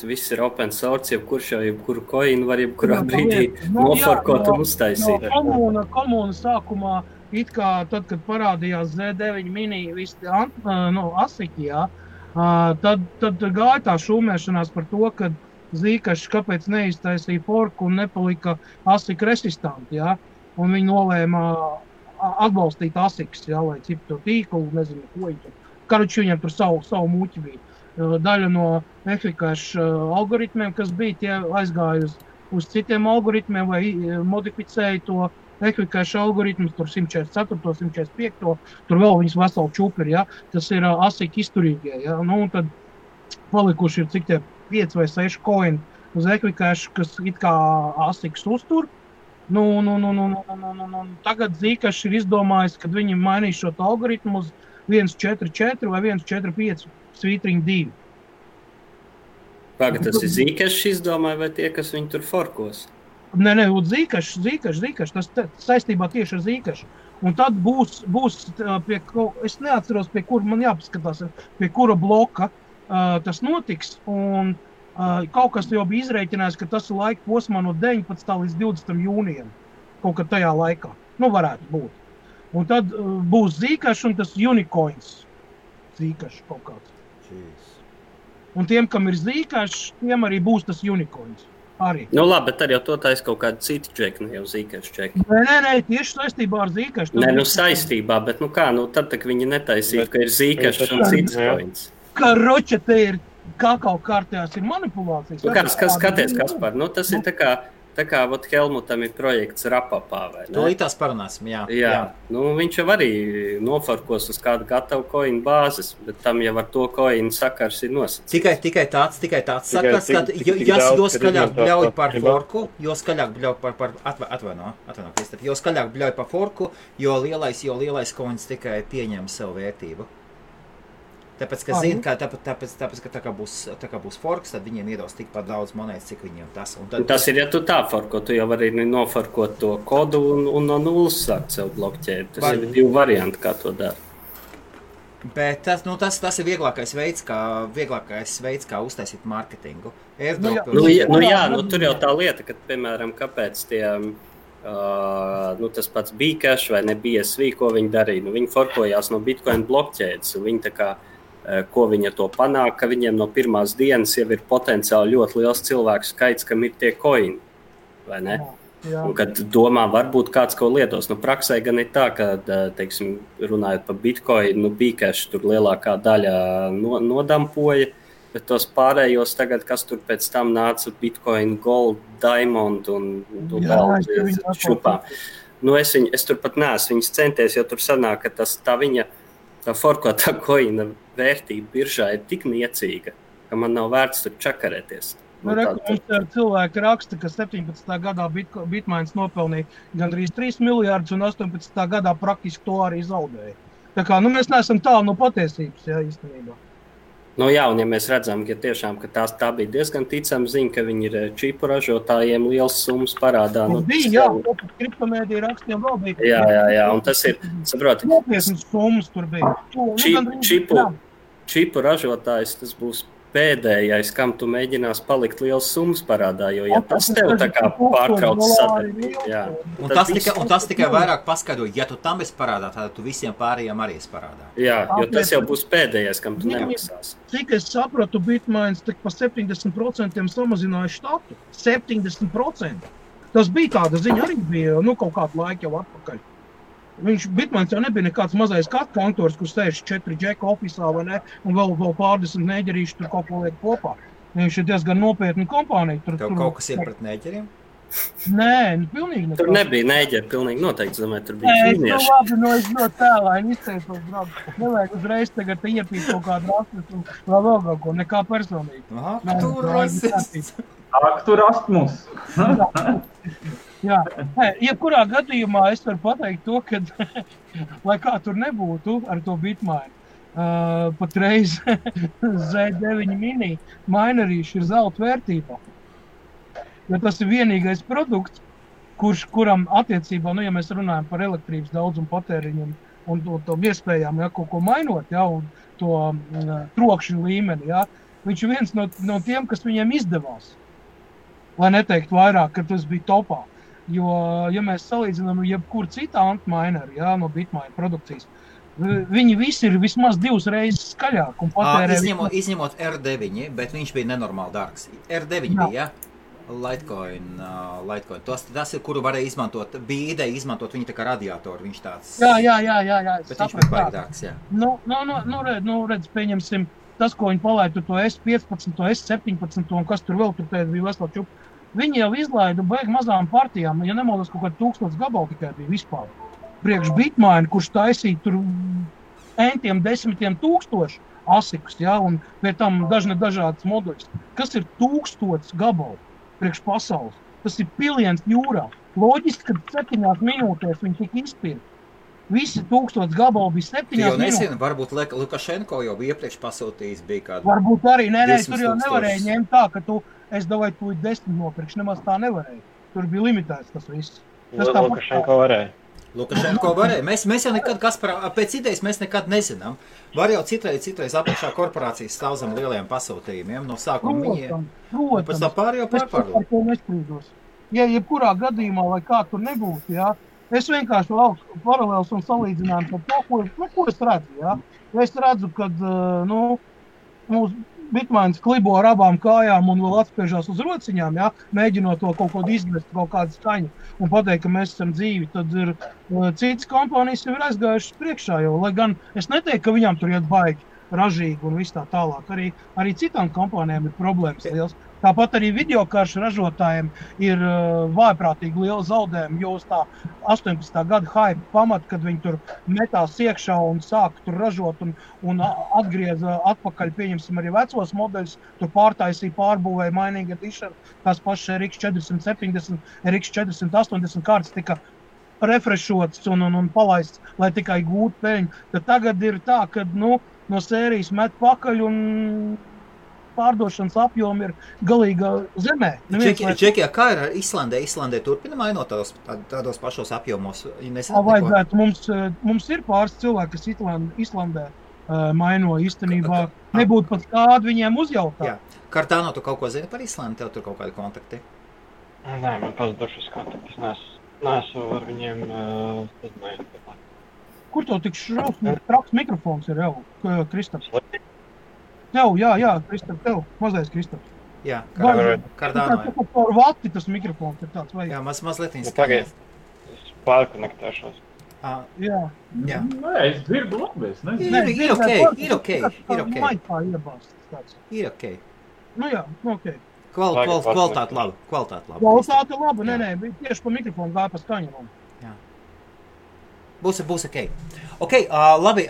viss ir open source, jebkuru coinu var jebkurā brīdī noforkot un uztaisīt. Komūna sākumā it kā tad, kad parādījās Z9 mini visi asiki, jā, tad gāja tā šūmēšanās par to, ka Zīkašs kāpēc neiztaisīja forku un nepalika asik resistanti, jā, un viņi nolēma atbalstīt asiks, jā, lai ciptu tīklu, nezinu, ko viņi tur. Karuči viņam tur savu muķi bija. Daļa no efikašu algoritmiem, kas bija, tie aizgāja uz citiem algoritmiem vai modificēja to efikašu algoritmus, tur 144, 145, tur vēl viņas veseli čupiri, ja? Tas ir asik izturīgie, ja? Nu, un tad palikuši ir cik tie 5 vai 6 coin uz efikašu, kas it kā asiks uztur. Nu, tagad Zīkašs ir izdomājis, kad viņi mainīs šo algoritmu uz 1.4.4 vai 1.4.5 svītriņu 2. Pagad, tas ir Zīkašs izdomāja vai tie, kas viņu tur forkos? Nē, Zīkašs, tas saistībā tieši ar Zīkašu. Un tad būs es neatceros, pie kura man jāpaskatās, pie kura bloka tas notiks, un kaut kas jau bija izrēķinājis, ka tas ir laika posmā no 19. līdz 20. jūnijam, kaut kad tajā laikā. Nu, varētu būt. Un tad būs Zīkašs un tas unicoins Zīkašs kaut kāds. Jeez. Un tiem, kam ir Zīkašs, tiem arī būs tas unicoins. Arī. Nu labi, bet tad jau to taisa kaut kāda cita čeka, ne jau Zīkašs čeka. Nē, tieši saistībā ar Zīkašs. Nē, saistībā, bet tad tak viņi netaisītu, ka ir Zīkašs un cits coins. Karoče, te ir kakao kārtējās ir manipulācijas. Nu, skaties, Kaspar, tas ir tā kā Helmutam ir projekts Rapapā, vai ne? To tās parunāsim, jā. Nu, viņš jau arī nofarkos uz kādu gatavu coin bāzes, bet tam jau ar to coin sakars ir nosacīts. Tikai tāds sakars, ka jo skaļāk bļauj par forku, jo skaļāk bļauj par atvaino, Kristap, jo skaļāk bļauj par forku, jo lielais coins tikai pieņem savu vērtību. Tāpēc, ka zina, ka tā kā būs forks, tad viņiem iedos tikpat daudz monētas, cik viņiem tas. Tas ir, ja tu tā forko, tu jau vari noforkot to kodu un no nulles sākt sev blokķēt. Tas ir 2 varianti, kā to dara. Bet tas ir vieglākais veids, kā uztaisīt marketingu. Tur jau tā lieta, ka, piemēram, kāpēc tie... tas pats Bcash vai ne BSV, ko viņi darīja. Viņi forkojās no Bitcoin blokķēdes. Viņi tā kā, ko viņi ar to panāk, ka viņiem no pirmās dienas jau ir potenciāli ļoti liels cilvēku skaits, kam ir tie coini, vai ne? Jā. Un kad domā, varbūt kāds ko lietos. Praksē gan ir tā, ka, teiksim, runājot par Bitcoin, Bcash tur lielākā daļa nodampoja, bet tos pārējos tagad, kas tur pēc tam nāca Bitcoin, Gold, Diamond un vēl šupām. Es tur pat neesmu viņas centies, jo tur sanāk, ka tā forkotā koina vērtība biržā ir tik niecīga, ka man nav vērts tur čakarēties. Cilvēki raksta, ka 17. gadā Bitmains nopelnīja gandrīz 3 miljārdus un 18. gadā praktiski to arī zaudēja. Tā kā, mēs neesam tālu no patiesības, jā, īstenībā. Un ja mēs redzam, ka tiešām ka tā bija diezgan ticama ziņa, ka viņi ir čipu ražotājiem liels summas parādā. Bija, kriptomēdija rakstiem vēl bija. Jā, un tas ir, saproti. Nopietnas summas tur bija. Čipu ražotājs, tas būs pēdējais, kam tu mēģinās palikt liels summas parādā, jo ja tas tev tā kā pārtrauc sadarbību. Un tas tikai vairāk paskaidro, ja tu tam esi parādā, tad tu visiem pārējiem arī esi parādā. Jā, jo tas jau būs pēdējais, kam tu nemaksās. Cik es sapratu, Bitmains tik pa 70% samazināja štatu. 70%. Tas bija tāda ziņa, arī bija kaut kādu laiku jau atpakaļ. Bitmains jau nebija nekāds mazais kantors, kur sēž 4 džeka ofisā vai ne, un vēl pārdesmit neģerīši tur kaut ko liek kopā. Viņš ir diezgan nopietni kompānija. Tev kaut kas ir pret neģeriem? Nē, pilnīgi nekā. Tur nebija neģeri, pilnīgi noteikti, domāju, tur bija ķīnieši. Es ļoti tēlāini izteicos, brāl. Nevajag uzreiz tagad iepīt kaut kādu rastus un vēl kaut ko, nekā personīgi. Aha, tu rasists. Tu rastmus. Jā, jebkurā gadījumā es varu pateikt to, ka, lai kā tur nebūtu ar to Bitmain, patreiz Z9 mini minerīši ir zelta vērtībā. Jo tas ir vienīgais produkts, kuram attiecībā, ja mēs runājam par elektrības daudzumu patēriņu un to iespējām, kaut ko mainot, un to trokšņu līmeni, viņš ir viens no tiem, kas viņiem izdevās. Lai neteikt vairāk, ka tas bija topā. Jo, ja mēs salīdzinām jebkuru citu antmaineru, no Bitmine produkcijas, viņi visi ir vismaz 2 reizes skaļāk un patērē... Izņemot R9, bet viņš bija nenormāli dārgs. R9 bija, Litecoin. Tas ir, kuru varēja izmantot, bija ideja izmantot viņu tā kā radiatoru, viņš tāds... Jā. Bet viņš bija baigi dārgs, jā. Redz, pieņemsim, tas, ko viņi palaidu, to S15, to S17 un kas tur vēl tur bija vesela čupa. Viņi jau izlaidu baigi mazām partijām, ja nemaldos kaut kādu 1000 gabalu tikai bija vispār. Priekš Bitmine, kurš taisīja tur entiem 10,000 asikus, un pie tam dažādas moduļus. Kas ir 1000 gabalu priekš pasaules? Tas ir piliens jūrā. Loģiski, ka 7 minūtēs viņi tika izpirkt. Visi 1000 gabalu bija 7 minūtēs. Jo nezinu, varbūt Lukašenko jau bija iepriekš pasūtījis, bija kādu... Varbūt arī, tur jau nevarēja ņemt tā, ka es davai tu 10 nopirkšu, nemaz tā nevarēja. Tur bija limitēts tas viss. Lukašenko varēja. Lukašenko varēja. Mēs jau nekad, pēc idejas mēs nekad nezinām. Var jau citreiz apakšā korporācijas stāv zem lielajiem pasūtījumiem. No sākuma viņiem. Pēc tā pārējo pārpārdos. Ja jebkurā gadījumā, lai kā tur nebūtu, es vienkārši lauku paralēls un salīdzinājumu par to, ko es redzu, Es redzu, kad, mūsu Bitmines klibo ar abām kājām un vēl atspiežās uz rociņām, mēģinot to kaut ko izmest, kaut kādu skaņu un pateikt, ka mēs esam dzīvi, tad ir citas kompānijas jau ir aizgājušas priekšā, jo, lai gan es neteiktu, ka viņām tur iet baigi ražīgi un viss tā tālāk. Arī citām kompānijām ir problēmas liels. Tāpat arī videokaršu ražotājiem ir vājprātīgi liela zaudējuma, jo uz tā 18. gada hype pamat, kad viņi tur metās iekšā un sāka tur ražot un atgrieza atpakaļ, pieņemsim arī vecos modeļus, tur pārtaisīja, pārbūvēja Mining Edition, tās pašas RX 470, RX 480 kārtas tika refreshots un palaists, lai tikai gūtu peļņu. Tad tagad ir tā, ka no sērijas met pakaļ un pārdošanas apjomi ir galīga zemē. Džekijā, kā ir ar Islandē? Islandē turpina mainot tādos pašos apjomos? Vajadzētu. Mums ir pāris cilvēki, kas Islandē maino īstenībā. Nebūtu pat kādu viņiem uzjautāt. Jā. Cardano, tu kaut ko zini par Islandi? Tev tur kaut kādi kontakti? Nē, man pazudušas kontaktis. Neesmu ar viņiem uzmējot. Kur tev tik traks mikrofons ir jau, Kristaps? Jā, Kristap, tev. Mazais Kristaps. Jā, Cardano. Par vati tas mikrofons ir tāds vajag. Jā, mazliet tagad es pārkonektēšos. Jā. Nē, es dzirdu labi, es nezinu. Ir ok. Maitā iebāstas tāds. Ir ok. Ok. Kvalitāte laba. Kvalitāte laba, nē, tieši pa mikrofonu gāja pa skaņu. Jā. Būs ok. Ok, labi.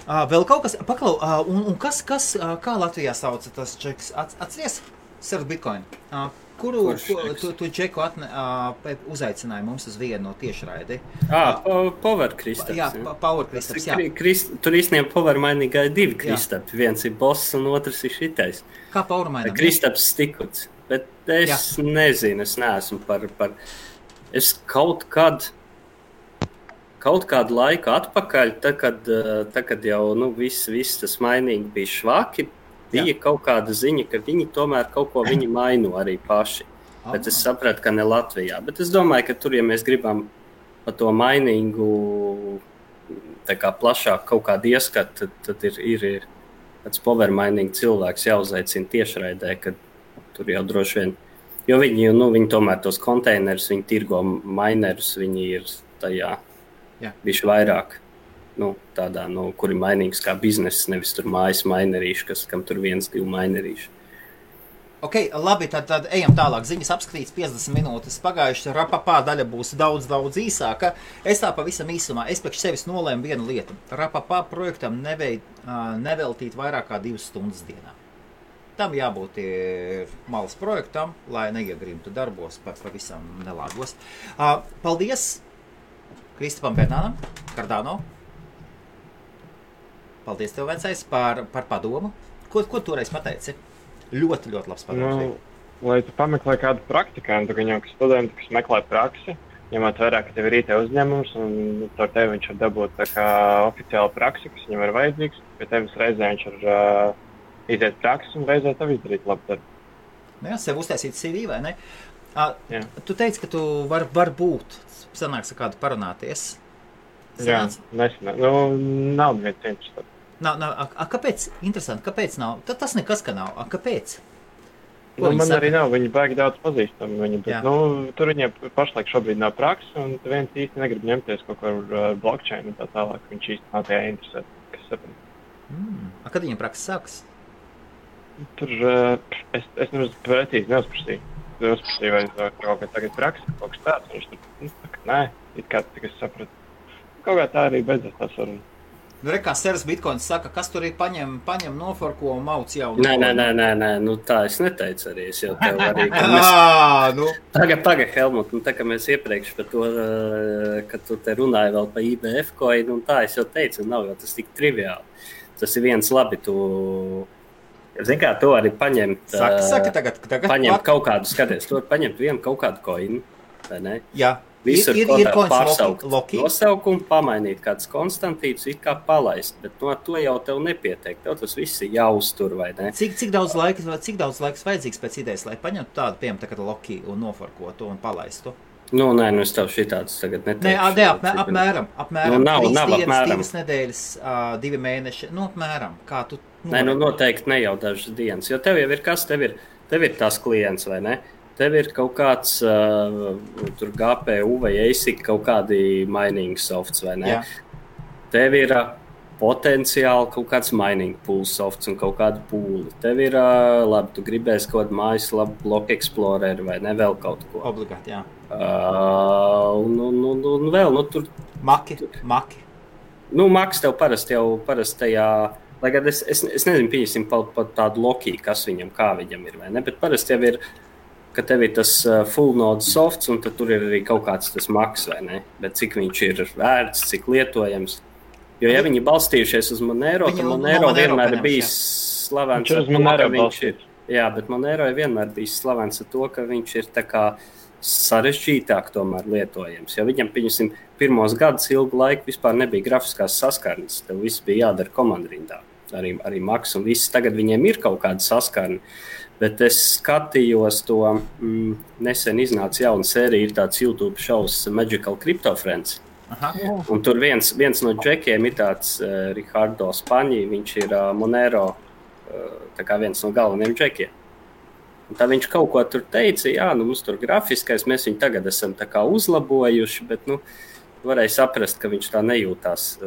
Vēl kaut kas, paklau, un kas, kā Latvijā sauca tas čeks? Atceries? Surf Bitcoin. Kuru tu čeku uzaicināji mums uz vienu no tiešraidi? Power Kristaps. Jā, Power Kristaps, jā. Tur īstenībā Power Mining ir 2 Kristapi. Viens ir boss un otrs ir šitais. Kā Power Mining? Kristaps Stikuts. Bet es nezinu, es neesmu par... Es kaut kādu laiku atpakaļ, kad jau viss tas mainīgi bija švaki, bija kaut kāda ziņa, ka viņi tomēr kaut ko maino arī paši. Bet es sapratu, ka ne Latvijā. Bet es domāju, ka tur, ja mēs gribam pa to mainīgu tā kā plašāk kaut kādu ieskatu, tad ir tāds power mining cilvēks jāuzaicina tiešraidē, kad tur jau droši vien. Jo viņi tomēr tos konteinerus, viņi tirgo minerus, viņi ir tajā. Bišķi vairāk, tādā, kur ir mainīgs kā bizness, nevis tur mājas mainerīši, kam tur 1-2 mainerīši. Ok, labi, tad ejam tālāk. Ziņas apskatīts 50 minūtes pagājuši, Rapapā daļa būs daudz īsāka. Es tā pavisam īsumā, es priekš sevis nolēmu vienu lietu. Rapapā projektam neveltīt vairāk kā 2 stundas dienā. Tam jābūt malas projektam, lai neiegrimtu darbos pavisam nelāgos. Paldies! Kristapam Bernānam, Cardano. Paldies tev, vecais, par padomu. Ko toreiz pateici? Ļoti labs padoms. Lai tu pameklē kādu praktikantu, gan jau studenti, kas meklē praksi, ņemot vērā, ka tev ir IT uzņēmums, un ar tevi viņš var dabūt tā kā oficiāla praksi, kas viņam ir vajadzīgs. Pie tevis reizē viņš var iziet praksi un reizē tev izdarīt labu darbu. Jā, sev uztaisīt CV, vai ne? Jā. Tu teici, ka tu var būt, sanāks ar kādu parunāties. Jā, nesenā. Nu, nav neviens interesants. Kāpēc? Interesanti, kāpēc nav? Tas nekas, ka nav. Kāpēc? Nu, man arī nav, viņi baigi daudz pazīstami viņu, bet, tur viņiem pašlaik šobrīd nav praksa, un viens īsti negrib ņemties kaut ko ar blockchain un tā tālāk, viņš īsti nav tajā interesēt, kas saprot. Kad viņam praksa sāks? Tur, es nemaz precīzi neuzprasīju. Vai kaut kā tagad praksa, kaut kas tāds, viņš tur, nē, it kā es sapratu. Kaut kā tā arī beidzās tā saruna. Kā Seras Bitcoins saka, kas tur ir paņem noforko un mauc jau? Nē, tā es neteicu arī, es jau tev arī. Tagad, Helmut, tā kā mēs iepriekš par to, kad tu te runāji vēl par IBF coin, un tā es jau teicu, nav jau tas tik triviāli. Tas ir viens labi, zini kā, to arī paņemt, saka tagad paņemt kaut kādu, skaties, tu var paņemt vienu kaut kādu coinu, vai ne? Jā. Visur ir pārsaukt nosaukumu, pamainīt kāds konstantīts, it kā palaist, bet no to jau tev nepietiek. Tev tas viss ir jāuztur, vai ne? Cik daudz laiks vajadzīgs pēc idejas, lai paņemtu tādu, piemēram, tagad Loki un noforkotu un palaistu? Nē, es tev šitādus tagad neteikšu. Apmēram. Nav 3 dienas, apmēram. 2 nedēļas, 2 mēneši, apmēram. Kā tu? Noteikti ne jau dažas dienas, jo tev jau ir kas, tev ir tās klients, vai ne? Tev ir kaut kāds tur GPU vai ASIC kaut kādi mining softs, vai ne? Jā. Tev ir potenciāli kaut kāds mining pool softs un kaut kādu pūli. Tev ir, labi, tu gribēsi kaut kādu mājaslapu, Block Explorer vai ne, vēl kaut ko. Obligāti, jā. Un vēl, tur... Maki. Maks tev parasti tajā... Lai gan es nezinu, pieņemsim par tādu Loki, kas viņam, kā viņam ir, vai ne? Bet parasti jau ir... ka tev ir tas full node softs, un tad tur ir arī kaut kāds tas maks, vai ne? Bet cik viņš ir vērts, cik lietojams. Jo, ja viņi balstījušies uz Monero, tad Monero vienmēr ir bijis slavens ar to, ka viņš ir... Jā, bet Monero ir vienmēr bijis slavens ar to, ka viņš ir tā kā sarežģītāk tomēr lietojams. Jo viņam, pieņemsim, pirmos gadus ilgu laiku vispār nebija grafiskās saskarnes. Tev viss bija jādara komandrindā. Arī maks un viss. Tagad viņiem ir kaut kāda saskarne. Bet es skatījos to, nesen iznāca jauna sērija, ir tāds YouTube šovs Magical Crypto Friends. Aha. Un tur viens no džekiem ir tāds Ricardo Spaņi, viņš ir Monero, tā kā viens no galvenajiem džekiem. Un tā viņš kaut ko tur teica, jā, mums tur grafiskais, mēs viņu tagad esam tā kā uzlabojuši, bet, varēja saprast, ka viņš tā nejūtās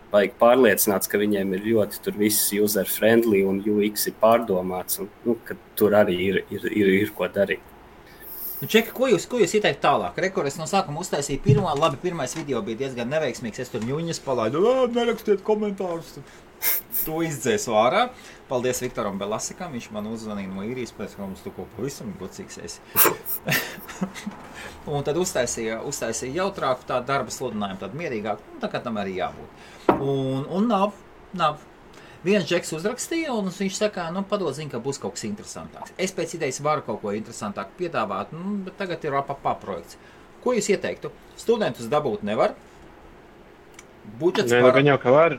vajag pārliecināts, ka viņiem ir ļoti tur viss user-friendly un UX ir pārdomāts, un ka tur arī ir ko darīt. Čeka, ko jūs ieteikt tālāk? Es no sākuma uztaisīju pirmais video bija diezgan neveiksmīgs, es tur ņuņas palaidu, nerakstiet komentārus, to izdzēsu ārā. Paldies Viktoram Belasikam, viņš man uzzvanīja no īrijas, pēc kā mums tu ko pavisam gocīgs esi. Un tad uztaisīja jautrāku tādu darba sludinājumu, tādu mierīgāku, tā kā tam arī jābūt. Un nav. Viens džeks uzrakstīja, un viņš saka, padod zini, ka būs kaut kas interesantāks. Es pēc idejas varu kaut ko interesantāk piedāvāt, bet tagad ir projekts. Ko jūs ieteiktu? Studentus dabūt nevar? Budžets var? Gan jau, ka var.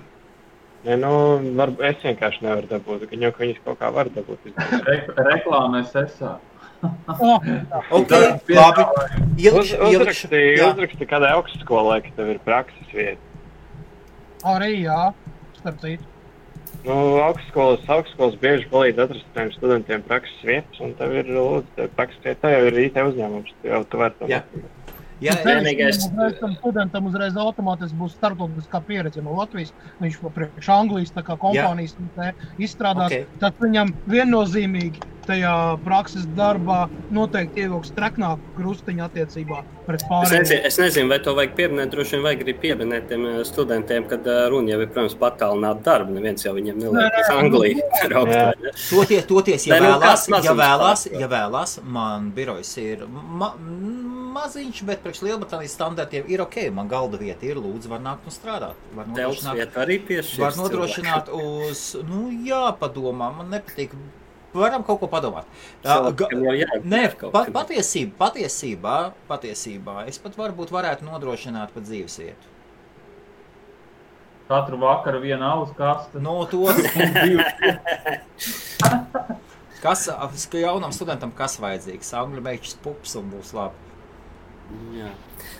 Es vienkārši nevaru dabūt, gan jau, ka viņas kaut kā var dabūt. Reklāmēs esā. Ok, labi. Uzraksti kādai augstskolai, ka tev ir prakses vieta. Arī jā, starp citu. Augstskolas bieži palīdz atrast tiem studentiem prakses vietas, un tev ir lūdzu, prakses vieta, tā jau ir IT uzņēmums, tu vari to mācīt. Tam studentam uzreiz automātiski būs starptautiskā pieredze no Latvijas, viņš priekš Anglijas tā kā kompānijas izstrādās, tad viņam viennozīmīgi tajā prakses darbā noteikti ievilks treknāku krustiņu attiecībā pret pārējiem. Es nezinu, vai to vajag pieminēt, droši vien vajag arī pieminēt tiem studentiem, kad runa jau ir, protams, patālināt darbu, neviens jau viņiem neliek uz Angliju. Toties, ja vēlās, man birojs ir maziņš, bet priekš Lielbritānijas standartiem ir ok, man galda vieta ir, lūdzu, var nākt un strādāt. Tevs vieta arī piešķirs. Var nodrošināt uz, padomā, man nepatīk. Varam kaut ko padomāt. Patiesībā es pat varētu nodrošināt pat dzīves vietu. Katru vakaru viena alus kaste. Kas jaunam studentam kas vajadzīgs? Angļu meičs pups un būs labi. Jā.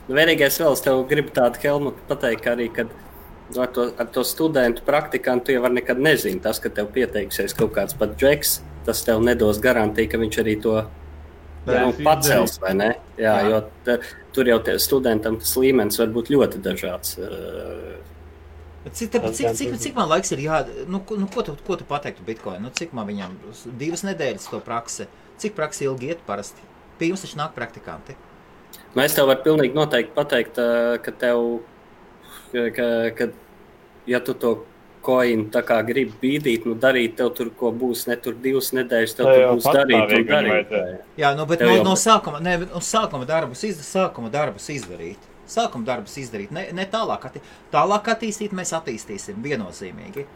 Nu, vienīgais vēl es tev gribu tādu, Helmut, pateikt, ka arī, kad ar to studentu praktikantu jau var nekad nezinu. Tas, ka tev pieteiksies kaut kāds pat džeks, tas tev nedos garantiju, ka viņš arī to pacels, vai ne? Jā. Jo tur jau studentam tas līmenis var būt ļoti dažāds. Cik man laiks ir ko tu pateiktu Bitcoin? Cik man viņam 2 nedēļas to praksi? Cik praksi ilgi iet parasti? Pie jums taču nāk praktikanti. Es tev varu pilnīgi noteikti pateikt, ka tev, ja tu to coin tā kā gribi bīdīt, darīt, tev tur ko būs, ne tur 2 nedēļas, tev tur būs darīt. Jā, bet no sākuma darbus izdarīt. Sākuma darbus izdarīt, ne tālāk attīstīt, mēs attīstīsim viennozīmīgi.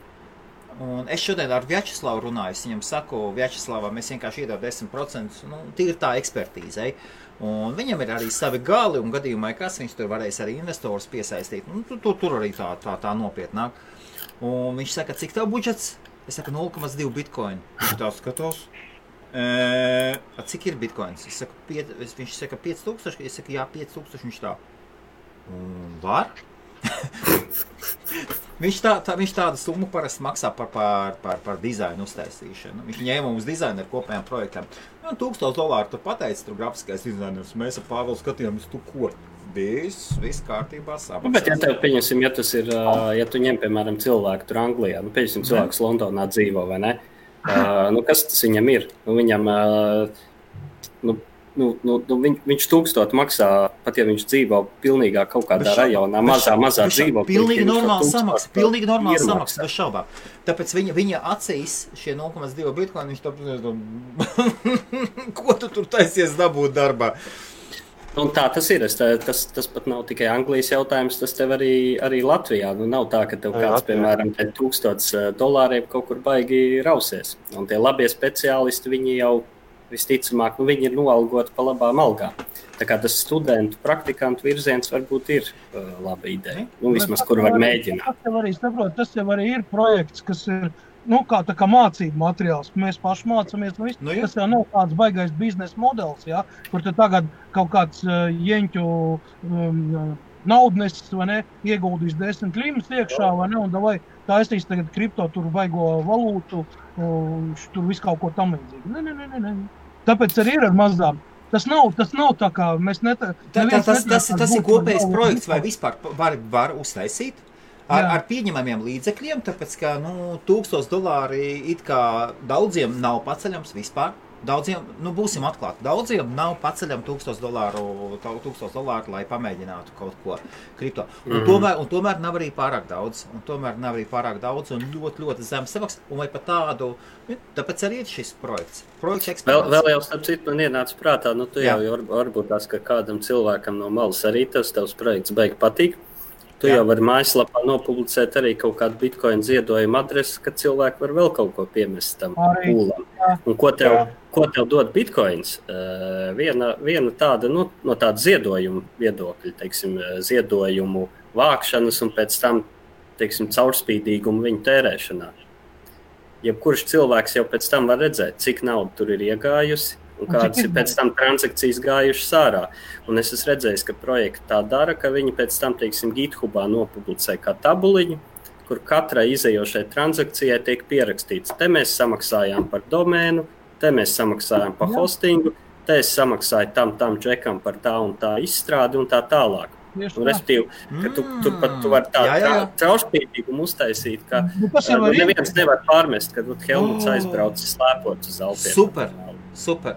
Un es šodien ar Vjačeslavu runāju, es viņam saku, Vjačeslavam es vienkārši iedodu 10%, tīri tā ekspertīzei. Un viņam ir arī savi gali, un gadījumā, kas viņš tur varēs arī investorus piesaistīt. Tur arī tā nopietnāk. Un viņš saka, cik tev budžets? Es saku, 0,2 bitcoin. Viņš tā skatos. Cik ir bitcoins? Viņš saka, 5000. Es saku, jā, 5000. Viņš tā. Un var? Viņš tādu summu parasti maksā par dizainu uztaisīšanu. Viņš ņēma mums dizainu ar kopējām projektām. $1000 tu pateici, tur grafiskais dizainers. Mēs ar Pāvelu skatījāmies, tu ko? Viss kārtībā samaksās. Bet ja tev pieņemsim, ja tu ņem, piemēram, cilvēku tur Anglijā, pieņemsim cilvēks Londonā dzīvo, vai ne? Kas tas viņam ir? Viņam, viņš 1000 maksā, pat ja viņš dzīvo pilnīgā kaut kādā rajonā, mazā dzīvo. Pilnīgi normāli samaksa, bez šaubām. Tāpēc viņa acīs šie 0,2 bitcoin, viņš ko tu tur taisies dabūt darbā? Un tā tas ir. Tas pat nav tikai Anglijas jautājums, tas tev arī Latvijā. Nav tā, ka tev kāds, piemēram, $1000 kaut kur baigi rausies. Un tie labie speciālisti, viņi jau visticamāk, viņi ir noalgoti pa labām algām. Tā kā tas studentu, praktikantu virziens varbūt ir laba ideja. Vismaz, kur var mēģināt. Tas jau arī ir projekts, kas ir kā mācību materiāls, ka mēs paši mācāmies. Tas jau nav kāds baigais biznesa modelis, ja, kur te tagad kaut kāds jeņķu naudnesis, vai ne, ieguldīs 10 klimas iekšā, vai ne, un davai taisīs tagad kripto, tur vaigo valūtu, tur visu kaut ko tam līdzīgi. Ne. Tāpēc arī ir ar mazām. Tas nav tā kā mēs Tas ir kopējs projekts, vai vispār var uztaisīt? Ar pieņemamiem līdzekļiem, tāpēc, ka $1000 it kā daudziem nav paceļams vispār. Daudziem, būsim atklāti, daudziem nav paceļam $1000, lai pamēģinātu kaut ko kripto. Un tomēr nav arī pārāk daudz. Un ļoti, ļoti zem samaks. Un vai pat tādu, tāpēc arī ir šis projekts. Vēl jau starp citu man ienāca prātā, tu jau varbūt tās, ka kādam cilvēkam no malas arī tavs projekts beig patīk. Tu jau vari mājaslapā nopublicēt arī kaut kādu bitcoin ziedojumu adresi, ka cilvēki var vēl kaut ko piemest tam pūlam. Un ko tev dod bitcoins? Viena tāda, no tāda ziedojumu viedokļa, teiksim, ziedojumu vākšanas un pēc tam, teiksim, caurspīdīgumu viņu tērēšanā. Jebkurš cilvēks jau pēc tam var redzēt, cik nauda tur ir iegājusi, un kādas ir pēc tam transakcijas gājušas ārā. Un es esmu redzējis, ka projekti tā dara, ka viņi pēc tam, teiksim, GitHubā nopublicē kā tabuliņu, kur katrai izējošai transakcijai tiek pierakstīts. Te mēs samaksājām par domēnu, te mēs samaksājām par hostingu, te es samaksāju tam džekam par tā un tā izstrādi un tā tālāk. Un respektīvi, ka tu vari tā caurspīdīgumu uztaisīt, ka neviens nevar pārmest, kad Helmuts aizbraucis slēpot uz Alpiem. Super,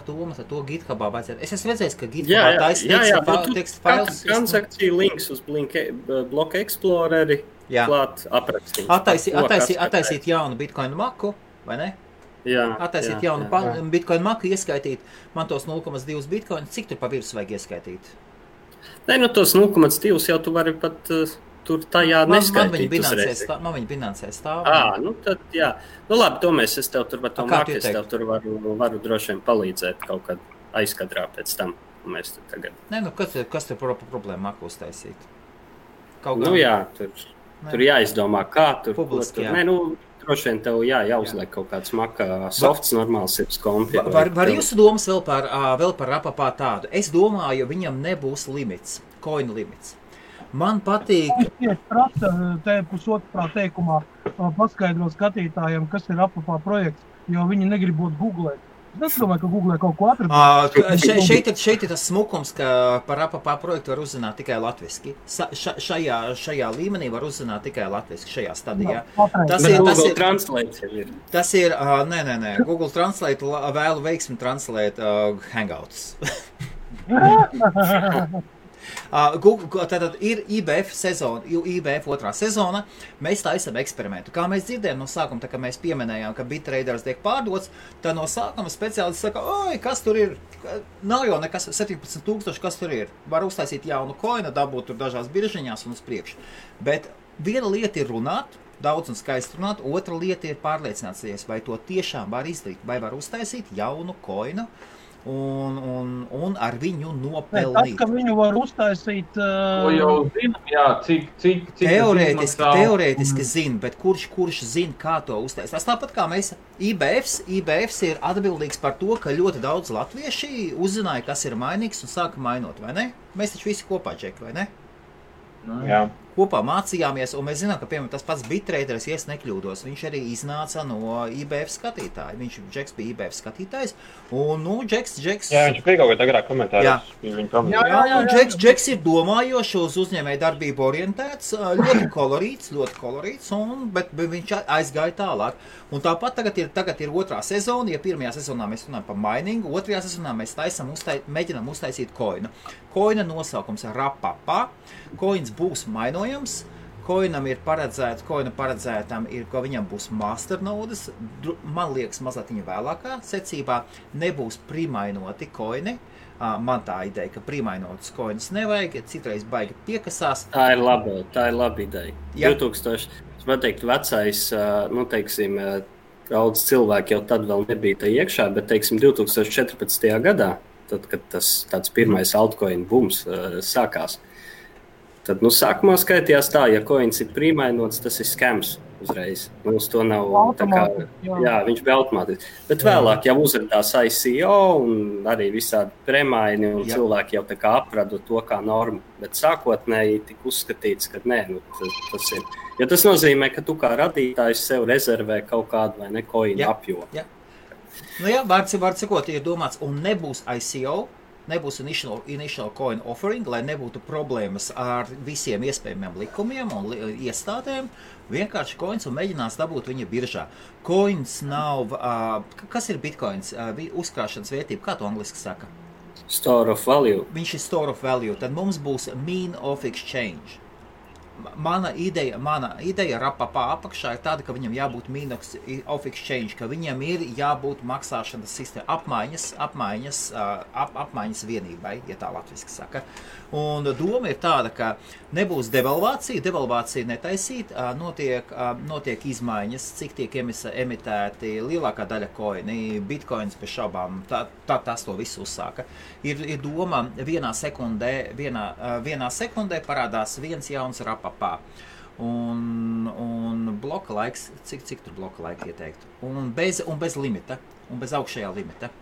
Tomas, ar to GitHubā vajadzētu. Es esmu redzējis, ka GitHubā teksta fails. Transakcija links uz Block Exploreri klāt aprakstīt. Attaisīt jaunu Bitcoin maku, vai ne? Attaisīt jaunu Bitcoin maku, ieskaitīt man tos 0,2 Bitcoin. Cik tur pa virsmu vajag ieskaitīt? Tos 0,2 jau tu vari pat tur tajā neskaitīt uzreiz. Man viņa binansē stāv. Tad jā. Labi, es tev tur var to māku, es tev tur varu droši vien palīdzēt kaut kad aizkadrā pēc tam. Mēs tur tagad. Kas tur problēma maku uztaisīt? Tur jāizdomā, kā tur. Publiski, tur droši vien tev jāuzliek kaut kāds maka softs normāls ir kompi. Var jūsu domas vēl par Rapapā tādu? Es domāju, viņam nebūs limits, coin limits. Man patīk... Es tieši prasa te pusotrā teikumā paskaidro skatītājiem, kas ir Rapapā projekts, jo viņi negrib būt googlēt. Es domāju, ka googlē kaut ko atradīt. Šeit ir tas smukums, ka par Rapapā projektu var uzzināt tikai latviski. Šajā līmenī var uzzināt tikai latviski, šajā stadijā. Google Translate ir. Tas ir, nē. Google Translate vēlu veiksmi translēt Hangouts. Tātad ir IBF sezona, IBF otrā sezona, mēs taisam eksperimentu. Kā mēs dzirdējām no sākuma, tā kā mēs pieminējām, ka BitTraders tiek pārdots, tad no sākuma speciālisti saka, oi, kas tur ir? Nav jau nekas, 17,000, kas tur ir? Var uztaisīt jaunu koinu, dabūt tur dažās biržiņās un uz priekšu. Bet viena lieta ir runāt, daudz un skaisti runāt, otra lieta ir pārliecināties, vai to tiešām var izdarīt, vai var uztaisīt jaunu koinu, un ar viņu nopelnīt. Tas, ka viņu var uztaisīt... To jau zinām, jā, cik teorētiski zina, bet kurš zina, kā to uztaisīt. Tas tāpat kā mēs, IBFs ir atbildīgs par to, ka ļoti daudz latvieši uzzināja, kas ir mainīgs un sāka mainot, vai ne? Mēs taču visi kopā, Džeki, vai ne? Jā. Kopā mācījāmies, un mēs zinām, ka, piemēram, tas pats BitTraders, ja es nekļūdos, viņš arī iznāca no IBF skatītāja. Džeks bija IBF skatītājs, un, Džeks... Jā, viņš bija kaut kā agrāk komentāros. Jā, Džeks ir domājošs, uz uzņēmēju darbību orientēts, ļoti kolorīts, bet viņš aizgāja tālāk. Un tāpat tagad ir otrā sezona, ja pirmajā sezonā mēs runājam par miningu, otrajā sezonā mēs mēģinām uztaisīt koinu. Koina nosaukums ir Rapapā, koins būs mainojams, koina paredzētam ir, ka viņam būs masternodes, man liekas mazliet viņa vēlākā secībā, nebūs primainoti koini. Man tā ideja, ka primainotas koinas nevajag, citreiz baigi piekasās. Tā ir laba ideja. Ja. 2000, man teikt, vecais, teiksim, daudz cilvēki jau tad vēl nebija tā iekšā, bet, teiksim, 2014. gadā, tad, kad tas tāds pirmais altcoin bums sākās, tad, sākumā skaitījās tā, ja coins ir primainots, tas ir scams uzreiz. Uz to nav tā kā, jā, viņš bija automātiski. Bet vēlāk jau uzradās ICO un arī visādi premaini un cilvēki jau tā kā apradu to kā normu. Bet sākotnēji tika uzskatīts, ka nē, tas ir. Jo tas nozīmē, ka tu kā radītājs sev rezervē kaut kādu vai ne coinu apjomu. Jā. Vārds sakot, ir domāts, un nebūs ICO, nebūs initial coin offering, lai nebūtu problēmas ar visiem iespējamiem likumiem un iestādēm. Vienkārši coins un mēģinās dabūt viņa biržā. Coins nav... kas ir bitcoins? Uzkrāšanas vērtība. Kā to angliski saka? Store of value. Viņš ir store of value. Tad mums būs mean of exchange. Mana ideja Rapapā apakšā ir tāda, ka viņam jābūt mean of exchange, ka viņam ir jābūt maksāšanas sistēma, apmaiņas vienībai, ja tā latviski saka. Un doma ir tāda, ka nebūs devalvācija netaisīt, notiek izmaiņas, cik tiek emitēti lielākā daļa koini, bitcoins bez šaubām, tas to visu uzsāka. Ir doma vienā sekundē parādās viens jauns Rapapā. Un bloka laiks, cik tur bloka laika ieteikt? Un bez limita, un bez augšējā limita.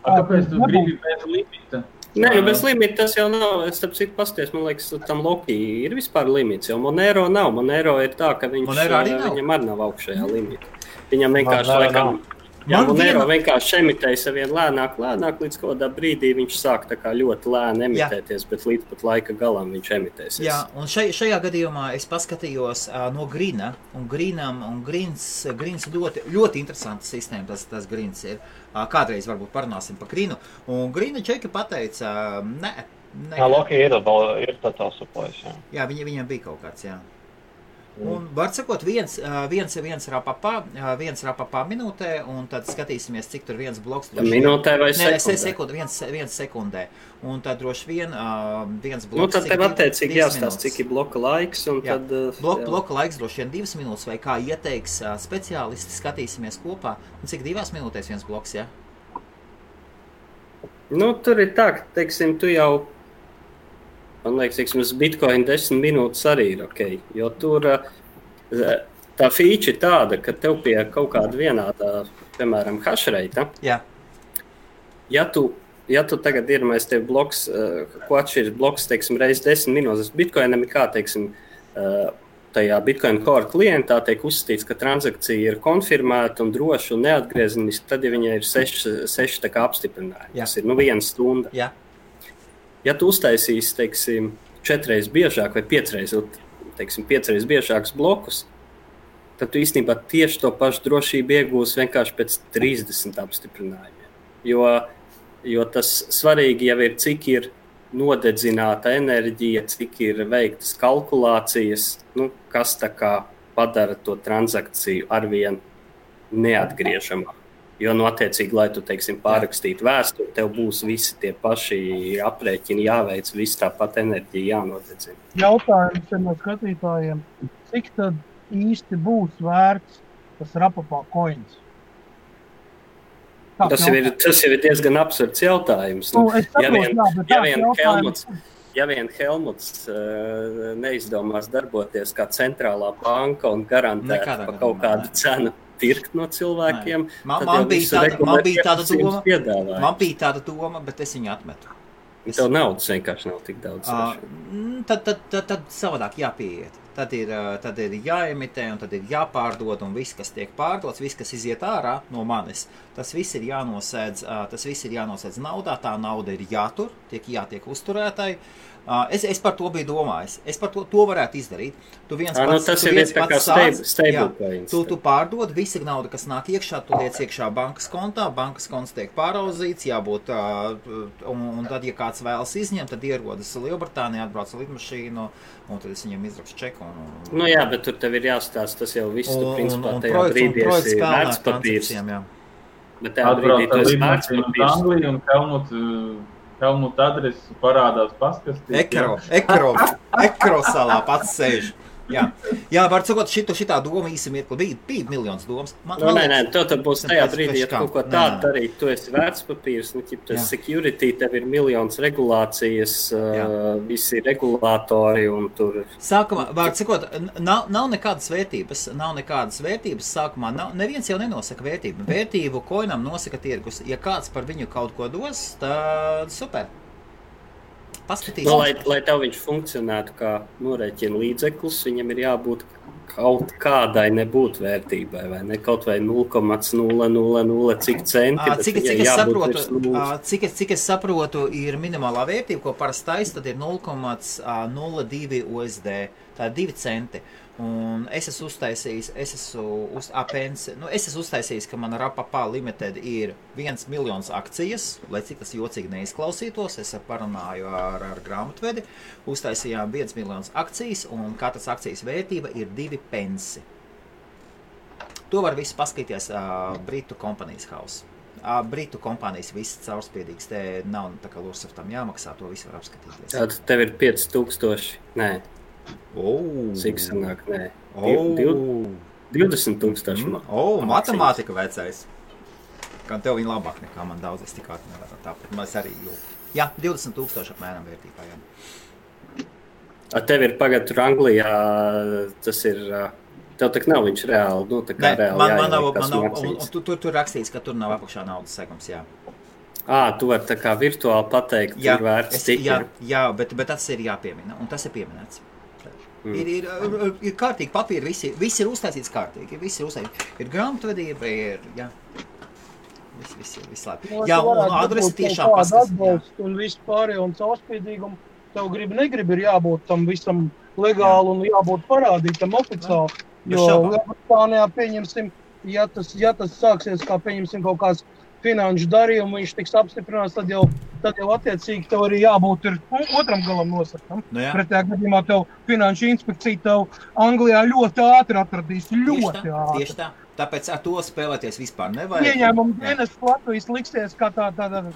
Kāpēc tu gribi bez limita? Nē, bez limita tas jau nav. Es starp citu pasties, man liekas, tam Loki ir vispār limits, jo Monero nav. Monero ir tā, ka viņam arī nav augšējā limita. Viņam vienkārši laikam... Jā, Monero vienkārši emitēja savien lēnāk, līdz kādā brīdī viņš sāk tā kā ļoti lēni emitēties, bet līdz pat laika galam viņš emitēsies. Jā, un šajā gadījumā es paskatījos no Grina, un Grins ļoti interesanta sistēma, tas Grins ir. Kādreiz varbūt parunāsim par Grinu, un Grina Čeki pateica, nē. Loki ir totāls supplējs, jā. Jā, viņam bija kaut kāds, jā. Un var sakot, viens Rapapā minūtē, un tad skatīsimies, cik tur viens bloks. Minūtē vai sekundē? Viens sekundē. Un tad droši vien viens bloks. Tad tev attiecīgi jāstāst, cik ir bloka laiks. Un jā, tad, bloka laiks droši vien 2 minūtes, vai kā ieteiks speciālisti, skatīsimies kopā. Un cik 2 minūtēs viens bloks, jā? Tur ir tā, ka, teiksim, tu jau... Man liekas, uz Bitcoin 10 minūtes arī ir ok, jo tur tā feature ir tāda, ka tev pie kaut kāda vienādā, piemēram, hashreita, ja tu tagad iedomājies tev bloks, ko atšķiras bloks, teiksim, reiz 10 minūtes, Bitcoinam ir kā, teiksim, tajā Bitcoin Core klientā tiek uzskatīts, ka transakcija ir konfirmēta un droša un neatgriezeniska, tad, ja viņai ir 6 tā kā apstiprinājumi. Tas ir 1 stunda. Jā. Ja tu uztaisīsi, teiksim, 4 reizes biežāk vai 5 reizes, teiksim, 5 reizes biežākus blokus, tad tu īstenībā tieši to pašu drošību iegūsi vienkārši pēc 30 apstiprinājumiem. Jo tas svarīgi jau ir, cik ir nodedzināta enerģija, cik ir veiktas kalkulācijas, kas tā kā padara to transakciju arvien neatgriežamā. Jo, attiecīgi, lai tu, teiksim, pārrakstītu vēsturi, tev būs visi tie paši aprēķini jāveic, visi tāpat enerģija jānodedzina. Jautājums ir no skatītājiem, cik tad īsti būs vērts tas Rapapā coins? Tas jau ir diezgan absurds jautājums. Ja vien Helmuts neizdomās darboties kā centrālā banka un garantēt pa kaut kādu cenu pirkt no cilvēkiem, man bija tāda doma, bet es viņu atmetu. Tev naudas vienkārši nav tik daudz. Tad savādāk jāpieiet. Tad ir jāemitē un tad ir jāpārdod un viss, kas tiek pārdots, viss, kas iziet ārā no manis, tas viss ir jānosēdz naudā, tā nauda ir jātur, jātiek uzturētai. Es par to biju domājis. Es par to varētu izdarīt. Tu pārdod, visa nauda, kas nāk iekšā, tu liec iekšā bankas kontā, bankas konts tiek pāraudzīts, jābūt, un tad, ja kāds vēlas izņemt, tad ierodas Lielbritānijā, atbrauc lidmašīnu, un tad es viņam izrakstu čeku. Jā, bet tur tev ir jāstāsta, tas jau viss, tu principā tajā brīdī esi vērtspapīrs. Bet tajā brīdī tu esi vērtspapīrs. Helmuta adresi parādās paskastīt. Ekro salā pats sēž. Jā, var sakot, šitā doma īsi mirkli bija miljons domas. Nē, tad būs tajā brīdī, ja kaut ko tādu darīt, tu esi vērtspapīrs, security, tev ir miljons regulācijas, visi regulātori un tur. Sākumā, var sakot, nav nekādas vērtības sākumā, neviens jau nenosaka vērtību. Vērtību koinam nosaka tirgus. Ja kāds par viņu kaut ko dos, tad super. Lai tev viņš funkcionētu kā norēķina līdzeklis, viņam ir jābūt kaut kādai nebūt vērtībai, vai ne? Kaut vai 0,000 cik centi. Cik es saprotu, ir minimālā vērtība, ko parasti taisa, tad ir 0,02 USD. Tā ir 2 centi. Un es esmu uztaisījis, ka mana Rapapā Limited ir 1 miljons akcijas, lai cik tas jocīgi neizklausītos, es parunāju ar grāmatvedi, uztaisījām 1 miljons akcijas, un katras akcijas vērtība ir 2 pensi. To var visu paskatīties Britu Companies House. Britu kompānijas viss caurspiedīgs, te nav tā kā Lursaftam jāmaksā, to visu var apskatīties. Tad tev ir 5000, nē. Cik sanāk, nē. 20,000. Matemātika vecais. Kā tev viņa labāk nekā man daudz, es tik nevaru tāpēc. Mēs arī jūtu. Jā, 20,000 apmēram vērtībā, jā. Tev ir pagad tur Anglijā, tas ir, tev tak nav viņš reāli, tā kā reāli jāieliek. Tur rakstīts, ka tur nav apakšā naudas segums, jā. Tu vari tā kā virtuāli pateikt, ir vērts cik. Jā, bet tas ir jāpiemina, un tas ir pieminēts. Ir kārtīgi papīri, visi ir uztaisīts kārtīgi, ir grāmatvedība, viss labi. Jā, un adresi tiešām paskatīt. Un viss pārējo un caurspiedīgumu, tev negribi ir jābūt tam visam legāli un jābūt parādītam oficiāli. Jo Lielbritānijā pieņemsim, ja tas sāksies kā pieņemsim kaut kāds finanšu darījumu, viņš tiks apstiprināts, tad jau attiecīgi tev arī jābūt ir otram galam nosakam. Pretējā gadījumā tev finanšu inspekcija tev Anglijā ļoti ātri atradīs, ātri. Tieši tā. Tāpēc ar to spēlēties vispār nevajag. Ieņēmumu dienas Latvijas liksies kā tāda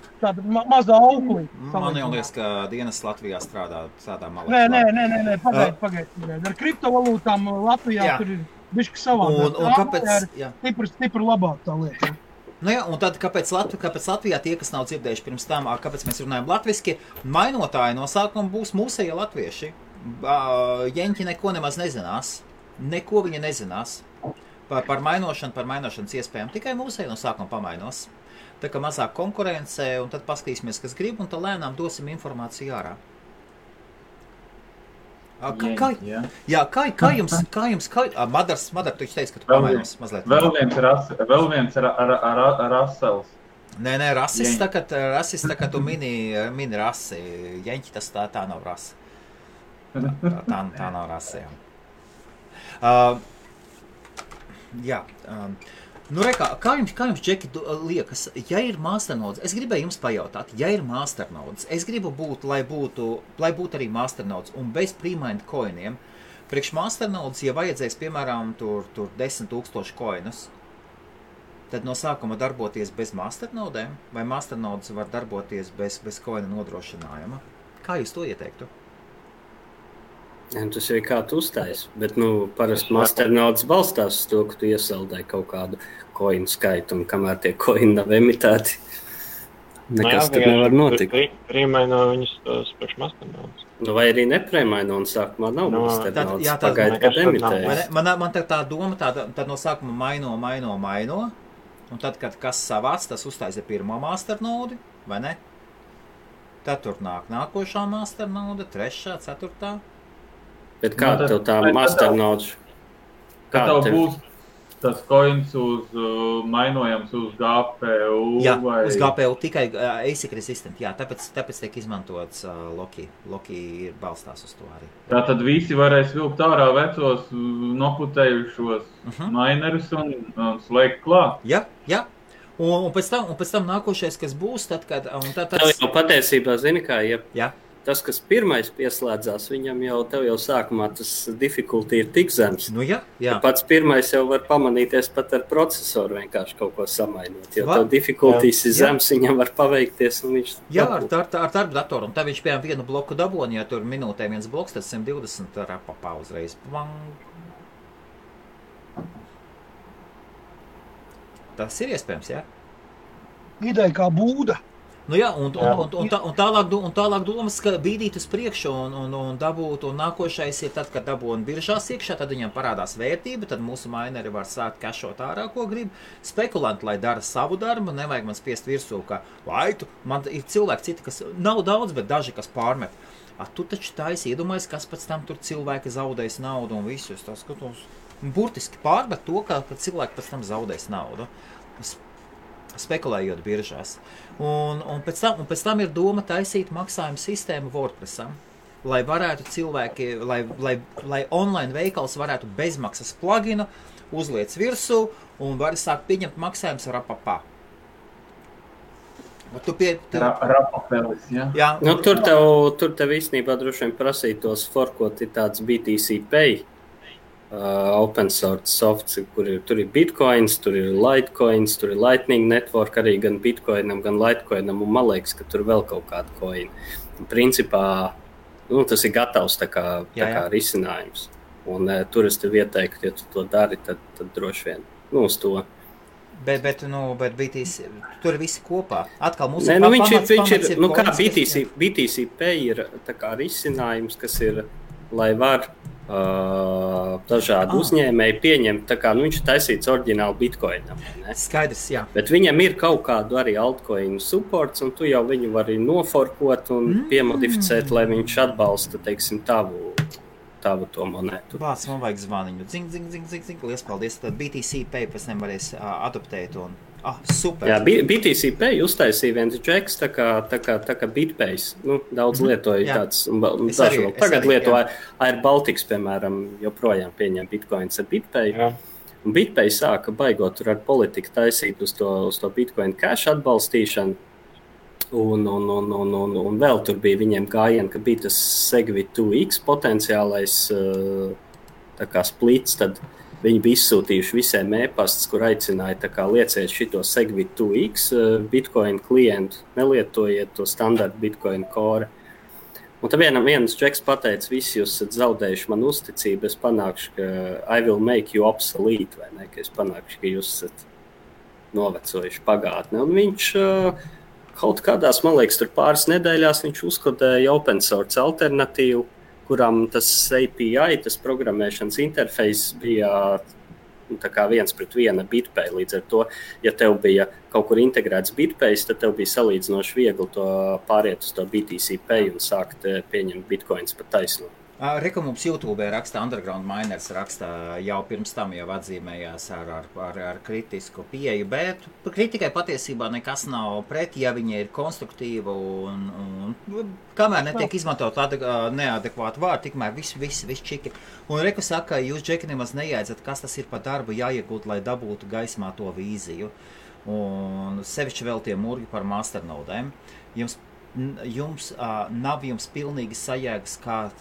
mazā auklī. Man jau liekas, ka dienas Latvijā strādā malā. Nē, pagaid. Ar kriptovalūtām Latvijā tur ir bišķi savādāk. Un kāpēc? Stipri labāk tā lieta. Un tad, kāpēc Latvijā tie, kas nav dzirdējuši pirms tam, kāpēc mēs runājam latviski, mainotāji no sākuma būs mūsējie latvieši. Jeņķi neko nemaz nezinās. Neko viņa nezinās. par mainošanas iespējām. Tikai mūsēji no sākuma pamainos. Tā kā mazāk konkurence, un tad paskatīsimies, kas grib, un tad lēnām dosim informāciju ārā. Kā jums, Madars, tu teici, ka tu pamainos mazliet. Vēl viens Rasels. Nē, rasis, tā kā tu mini rasi. Jeņķi, tas tā nav rasa. Tā nav rasa, jā. Kā jums, Džeki, liekas, ja ir masternodes, es gribēju jums pajautāt, ja ir masternodes, es gribu būt, lai būtu arī masternodes un bez pre-mined coiniem. Priekš masternodes, ja vajadzēs, piemēram, tur 10 000 coinus, tad no sākuma darboties bez masternodēm, vai masternodes var darboties bez coina nodrošinājuma? Kā jūs to ieteiktu? Tas ir kā tu uzstājies, bet parasti masternodes balstās uz to, ka tu iesaldēji kaut kādu coinu skaitu, un kamēr tie coini nav emitēti, nekas tur nevar notikt. Prīmaino viņus priekš masternodes. Vai arī neprēmaino, un sākumā nav masternodes, pagaida, kad emitējas. Man tā doma, tad no sākuma maino, un tad, kad kas savāc, tas uztaisa pirmo masternodi, vai ne? Tad tur nākošā masternode, trešā, ceturtā. Bet kāda tev tā masternodes? Kā tev būs tas coins mainojams uz GPU? Jā, vai... uz GPU tikai ASIC resistant, jā, tāpēc tiek izmantots Loki. Loki ir balstās uz to arī. Tātad visi varēs vilkt ārā vecos noputējušos minerus un slēgt klāt? Jā. Un pēc tam nākošais, kas būs, tad, kad... Tev jau patiesībā, zini kā, Jā. Tas, kas pirmais pieslēdzās, viņam tev jau sākumā tas difficulty ir tik zems. Jā. Pats pirmais jau var pamanīties pat ar procesoru vienkārši kaut ko samainot. Jo tev difficulties ir zems, viņam var paveikties un viņš... Jā, ar darba datoru. Un tā viņš piemēram vienu bloku daboni, ja tur minūtē viens bloks, tad 120 rapapā uzreiz. Tas ir iespējams, jā? Ideja kā būda. Un tālāk domas, ka bīdīt uz priekšu un dabūt, un nākošais ir tad, kad dabūna biržās iekšā, tad viņam parādās vērtība, tad mūsu mineri var sākt kašot ārā, ko grib. Spekulanti, lai dara savu darbu, nevajag man spiest virsū, ka man ir cilvēki citi, kas nav daudz, bet daži, kas pārmet. Tu taču taisi iedomājies, kas pēc tam tur cilvēki zaudēs naudu un visus. Tas skatos, burtiski pārmet to, ka cilvēki pēc tam zaudēs naudu. Spekulējot biržās. Un pēc tam ir doma taisīt maksājumu sistēmu WordPressam, lai varētu cilvēki, lai online veikals varētu bezmaksas pluginu uzliec virsū un var sākt pieņemt maksājumus rapapā. Rapapelis, jā? Tur tev īstenībā droši vien prasītos forkot ir tāds BTC Pay. Open source softs, tur ir bitcoins, tur ir litecoins, tur ir lightning network arī gan bitcoinam, gan litecoinam, un man liekas, ka tur vēl kaut kāda coin. Principā, tas ir gatavs tā kā risinājums. Un tur es tev ieteiktu, ja tu to dari, tad droši vien, uz to. Bet BTC, tur ir visi kopā. Atkal mums BTC Pay ir tā kā risinājums, kas ir, lai var dažādi uzņēmēji pieņemt, tā kā viņš ir taisīts oriģināli bitcoinam. Ne? Skaidrs, jā. Bet viņam ir kaut kādu arī altcoinu supports, un tu jau viņu vari noforkot un piemodificēt, lai viņš atbalsta, teiksim, tavu to monētu. Vāc, man vajag zvaniņu. Zing. Lies paldies. Tad BTC Pay pēc tam varēs adoptēt un... super. Jā, BTC Pay uztaisīja viens džeks, tā kā BitPays. Daudz lietoja tāds. Tagad lietoja Air Baltics, piemēram, joprojām pieņem bitcoins ar BitPay. Jā. Un BitPay sāka baigot tur ar politiku taisīt uz to Bitcoin Cash atbalstīšanu. Un vēl tur bija viņiem gājieni, ka bija tas Segwit 2X potenciālais tā kā splits, tad viņi bija izsūtījuši visiem e-pastus, kur aicināja tā kā lieciet šito Segwit 2X Bitcoin klientu, nelietojiet to standartu Bitcoin core. Un tad viens džeks pateica, visi jūs esat zaudējuši man uzticību, es panākšu, ka I will make you obsolete, vai ne, ka es panākšu, ka jūs esat novecojuši pagātni. Un viņš kaut kādās, man liekas, tur pāris nedēļās viņš uzkodēja open source alternatīvu, kurām tas API, tas programmēšanas interfejs bija tā kā 1:1 BitPay. Līdz ar to, ja tev bija kaut kur integrēts BitPay, tad tev bija salīdzinoši viegli to pāriet uz to BTC Pay un sākt pieņemt bitcoins pa taisno. Reku mums YouTube raksta, Underground Miners raksta, jau pirms tam jau atzīmējās ar kritisku pieeju, bet kritikai patiesībā nekas nav pret, ja viņa ir konstruktīva un kamēr netiek izmantot neadekvātu vārdu, tikmēr viss čiki. Un Reku saka, jūs, Džeki, nemaz nejēdzat, kas tas ir par darbu jāiegūt, lai dabūtu gaismā to vīziju. Un sevišķi vēl tie murgi par masternodēm. Jums nav pilnīgi sajēgas, kā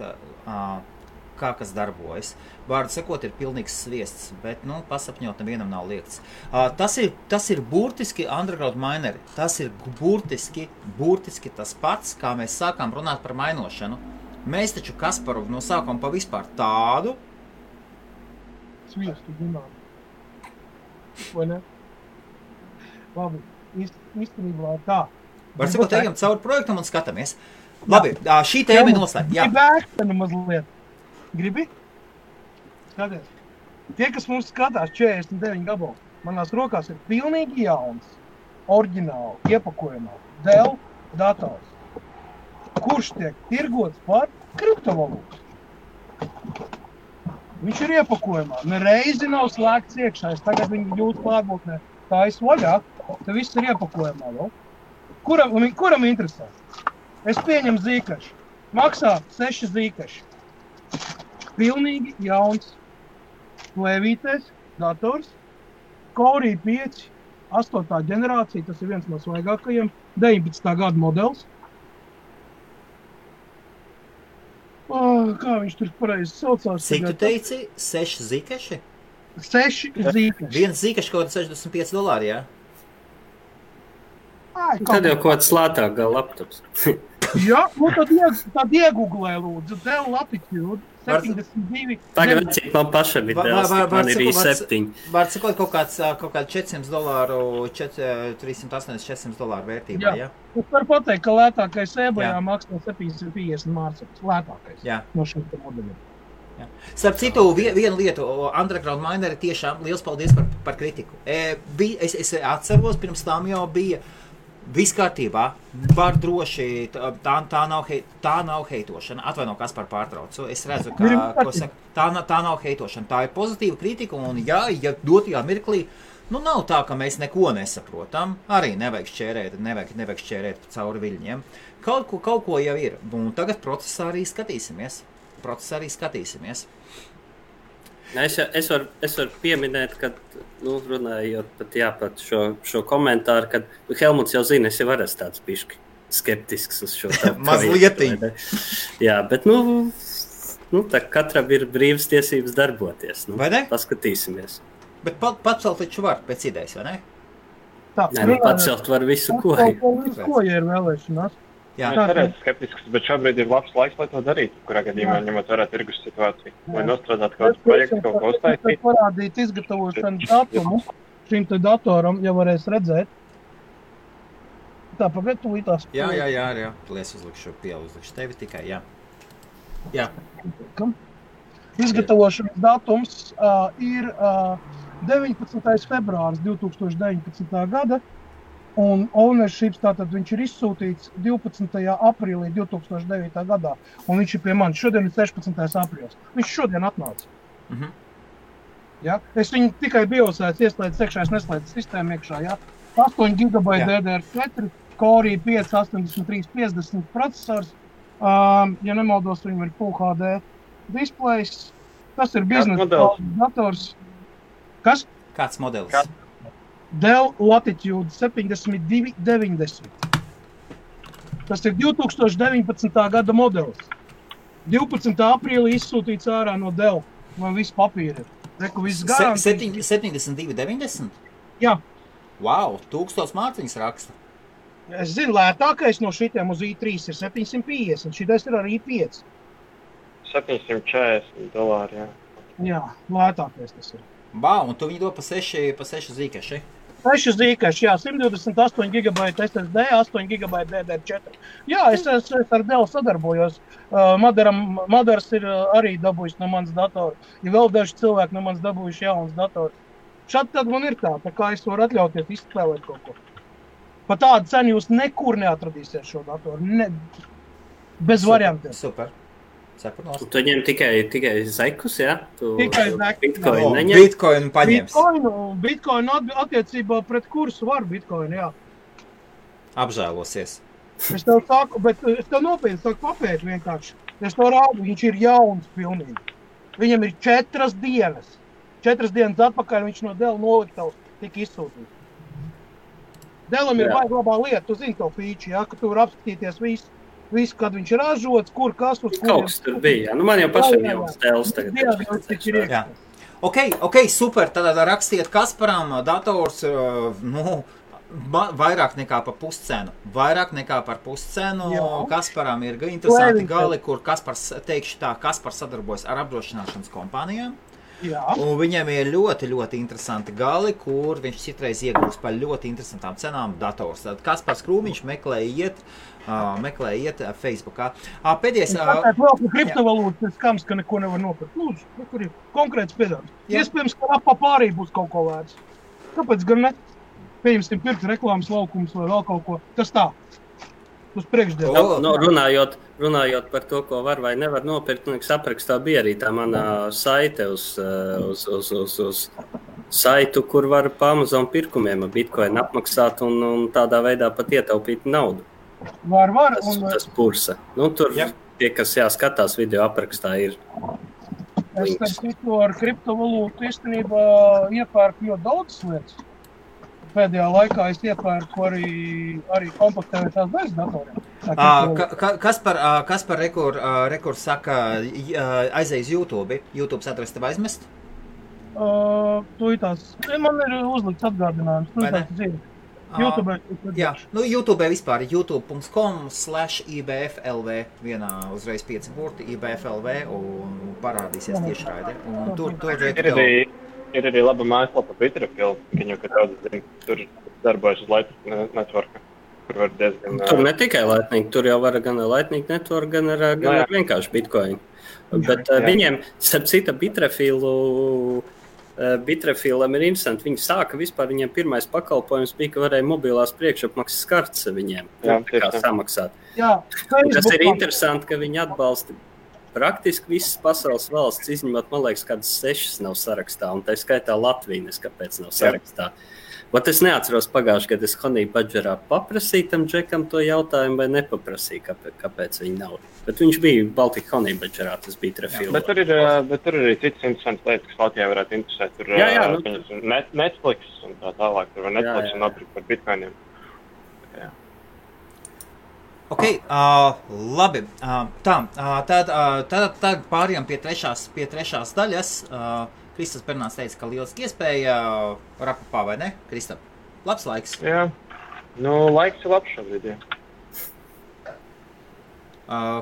kas darbojas. Vārdu sakot, ir pilnīgs sviests, bet, pasapņot nevienam nav liekts. Tas ir burtiski Underground Mineri. Tas ir burtiski tas pats, kā mēs sākām runāt par mainošanu. Mēs taču Kasparu no sākuma pa vispār tādu sviestu zinām. Vai ne? Labi, īstenībā tā. Var sakot, ejam cauri projektam un skatāmies. Labi, šī tēma ir noslēgta. Jā. Gribi ēkstenu mazliet? Gribi? Skaties. Tie, kas mums skatās 49 gabalu, manās rokās ir pilnīgi jauns, oriģināli, iepakojumā, Dell dators, kurš tiek tirgots par kriptovalūtu. Viņš ir iepakojumā, nereizi nav slēgts iekšā, tagad viņi jūtas klātbūtnē, tā es vaļā, te viss ir iepakojumā vēl. Kuram interesē? Es pieņemu zīkašu. Maksā 6 zīkaši. Pilnīgi jauns plēvītais dators. Core i5, 8. ģenerācija, tas ir viens no svaigākajiem, 19. gada modelis. Kā viņš tur pareizi saucās? Cik tu teici? 6 zīkaši? 6 zīkaši. Viens zīkaši kaut $65, jā? Tad jau kaut kāds lētāk gal laptops. Jā, tad iegooglē lūdzu, Dell Latitude 72. Tagad cik man pašam ir Dells, man ir i7. Var sakot kaut kāds $400, $380-400 vērtībā, jā? Es varu pateikt, ka lētākais eBayā maksā 750 mārciņas. Lētākais no šiem modeļiem. Starp citu, vienu lietu, Underground Mineri tiešām liels paldies par kritiku. Es atceros, pirms tam jau bija viss kārtībā, var droši, tā nav heitošana. Atvaino, kas par pārtraucu. Es redzu, ko saka, tā nav heitošana. Tā ir pozitīva kritika, un ja dotajā mirklī, nav tā, ka mēs neko nesaprotam. Arī nevajag šķērēt cauri viļņiem. Kaut ko jau ir. Un tagad procesā arī skatīsimies. Es varu pieminēt, ka, runājot pat šo komentāru, kad Helmuts jau zina, es jau esmu tāds bišķi skeptisks uz šo tā. Mazlietiņ. Jā, bet, tā katram ir brīvas tiesības darboties. Vai ne? Paskatīsimies. Bet pacelt taču var pēc idejas, vai ne? Pacelt var visu ko. Ko, ja ir vēlēšanās? Jā, es arī esmu skeptisks, bet šobrīd ir labs laiks, lai to darītu, kurā gadījumā ņemot vērā tirgus situāciju. Vai nostrādāt kaut kāds projekts, kaut ko uztaisīt? Es parādīt izgatavošanu datumu šim te datoram, ja varēs redzēt. Tā, pagad tūlītās. Jā. Es uzlikšu tevi tikai, jā. Izgatavošanas datums ir 19. februāris 2019. gada. Un ownership, tātad viņš ir izsūtīts 12. aprīlī 2009. gadā. Un viņš ir pie manis. Šodien ir 16. aprīlis. Viņš šodien atnāca. Ja? Es viņu tikai biosēs ieslēdzu iekšā, es neslēdzu sistēmu iekšā. Ja? 8 GB DDR4, Core i5 8350 procesors. Ja nemaldos, viņam ir Full HD displays. Tas ir biznesa dators. Kas? Kāds modelis? Dell Latitude 7290. Tas ir 2019. gada modelis. 12. aprīlī izsūtīts ārā no Dell. Man viss papīri ir. Reku viss garantijas. 7290? Jā. Wow, 1000 mārciņas raksta. Es zinu, lētākais no šitiem uz i3 ir 750. Šitais ir arī i5. $740, jā. Jā, lētākais tas ir. Wow, un tu viņu dod pa 6 zīkaši? Seši zīkaši, jā, 128 GB SSD, 8 GB DDR4. Jā, es ar Dell sadarbojos. Madars ir arī dabūjis no manas datora. Ja vēl daži cilvēki no manas dabūjuši jaunas dators. Šādi tad man ir tā kā es varu atļauties izspēlēt kaut ko. Pa tādu cenu jūs nekur neatradīsiet šo datoru. Bez variantiem. Super. Tu ņem tikai zekus, jā? Tikai zekus. Bitcoin neņem? Bitcoin paņems. Bitcoin attiecībā pret kursu var Bitcoin, jā. Apžēlosies. Es tev saku, bet es tev nopietni saku papēt vienkārši. Es to rādu, viņš ir jauns pilnīgi. Viņam ir 4 dienas. 4 dienas atpakaļ viņš no Dell noliktavas tika izsūtīts. Dellam ir baigi labā lieta, tu zini to feature, jā, ka tu var apskatīties visu, kad viņš ir ražots, kur, kas, uz kur. Kaut kas tur bija, nu man jau pašam jau Dells tagad. Jā. Ok, super, tad rakstiet Kasparam dators, vairāk nekā par puscenu. Vairāk nekā par puscenu. Kasparam ir interesanti gali, kur Kaspars, teikšu tā, Kaspars sadarbojas ar apdrošināšanas kompānijām. Jā. Un viņam ir ļoti, ļoti interesanti gali, kur viņš citreiz iegūst par ļoti interesantām cenām dators. Tad Kaspars Krūmiņš meklē iet Facebookā. Pēdējais... Tāpēc vēl par kriptovalūtas skams, ka neko nevar nopirkt. Lūdzu, kur ir konkrēts piedāvājums. Iespējams, ka apā būs kaut ko vērts. Kāpēc gan ne? Pieņemsim pirkt reklāmas laukums vai vēl kaut ko. Tas tā. Uz priekšdienu. Runājot par to, ko var vai nevar nopirkt, aprakstā bija arī tā manā saite uz saitu, kur var pa Amazon pirkumiem Bitcoin apmaksāt un tādā veidā pat ietaupīt naudu. Var. Tas pursa. Tur tie, kas jāskatās video aprakstā, ir. Es teiktu, ar kriptovalūtu īstenībā iepērku ļoti daudz lietas. Pēdējā laikā es iepērku arī kompaktētās bez datoriem. Kaspar rekur saka, aizēj uz YouTube. YouTube adresi tev aizmest? Man ir uzlikts atgādinājums. YouTube. Jā, YouTube vispār youtube.com/ibflv vienā uzreiz 5 burti ibflv un parādīsies tiešraide. Un tur ir arī laba mājaslapa Bitrefill, viņu, ka daudz zina, tur darbojas uz Lightning Networka, kur var diezgan... Tur ne tikai Lightning, tur jau var gan Lightning Network, gan ar vienkārši Bitcoin. Bet viņiem, starp cita Bitrefillam ir interesanti. Viņi sāka vispār, viņiem pirmais pakalpojums bija, ka varēja mobilās priekšapmaksas kartes viņiem samaksāt. Tas ir interesanti, ka viņi atbalsta praktiski visas pasaules valsts, izņemot, man liekas, kādas 6 nav sarakstā, un tā skaitā Latvijas, kāpēc nav sarakstā. Bet es neatceros pagājuši, kad es Honey Badgerā paprasīju tam džekam to jautājumu, vai nepaprasīju, kāpēc viņi nav. Bet viņš bija Baltika Honey Badgerā, tas bija Trefilā. Bet tur ir arī citas interesantas lietas, kas Latvijā varētu interesēt. Tur Netflix un tā tālāk, tur var Netflix un nopirkt par bitcoiniem. Ok, labi. Tad pārējām pie trešās daļas. Kristaps Bernāns teica, ka lieliski iespēja rapapā, vai ne, Kristap? Labs laiks. Jā, laiks ir labs šobrīd, jā.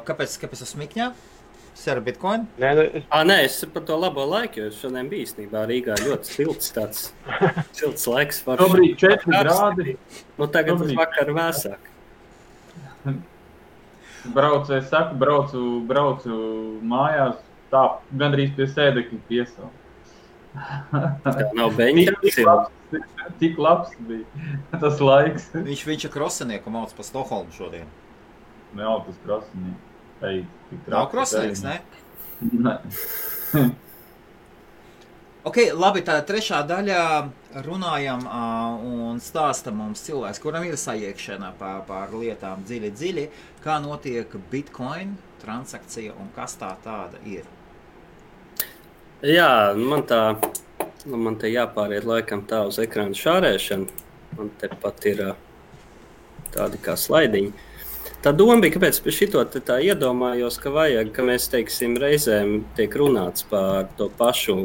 Kāpēc smikņā? Sēra Bitcoin? Nē, es par to labo laiku, jo šodien bija īstenībā Rīgā ļoti silts tāds silts laiks. Šobrīd 4 grādi. Tagad uz vakar vēsāk. Braucu mājās, tā gandrīz pie sēdekļa piesaukt. Nav beņķa. Tik labs bija tas laiks. Viņš ir krosenieku mauc pa Stokholmu šodien. Nav tas krosenieks. Nav krosenieks, ne? Nē. Ok, labi, tā trešā daļā runājam un stāsta mums cilvēks, kuram ir sajiekšana pār lietām dziļi, kā notiek Bitcoin transakcija un kas tā tāda ir. Jā, man te jāpāriet laikam tā uz ekrāna šārēšanu. Man te pat ir tādi kā slaidiņi. Tā doma bija, kāpēc pie šito tā iedomājos, ka vajag, ka mēs, teiksim, reizēm tiek runāts par to pašu,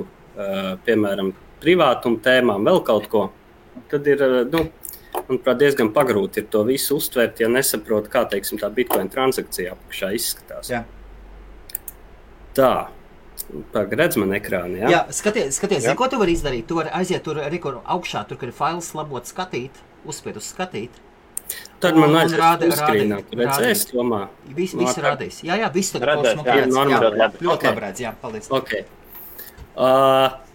piemēram, privātumu tēmām, vēl kaut ko. Tad ir, manuprāt, diezgan pagrūti ir to visu uztvērt, ja nesaprot, kā, teiksim, tā Bitcoin transakcija apakšā izskatās. Jā. Tā. Redz man ekrāni, jā? Jā, skaties, zini, ko tu vari izdarīt? Tu vari aiziet tur augšā, tur, kur ir fails labot skatīt, uzspied uz skatīt. Tad man aiziet uzskrīnā, tu redzēs, domā? Viss rādīs. Jā, viss tur Redzēs, ļoti labi redz, jā, paldies. Ok.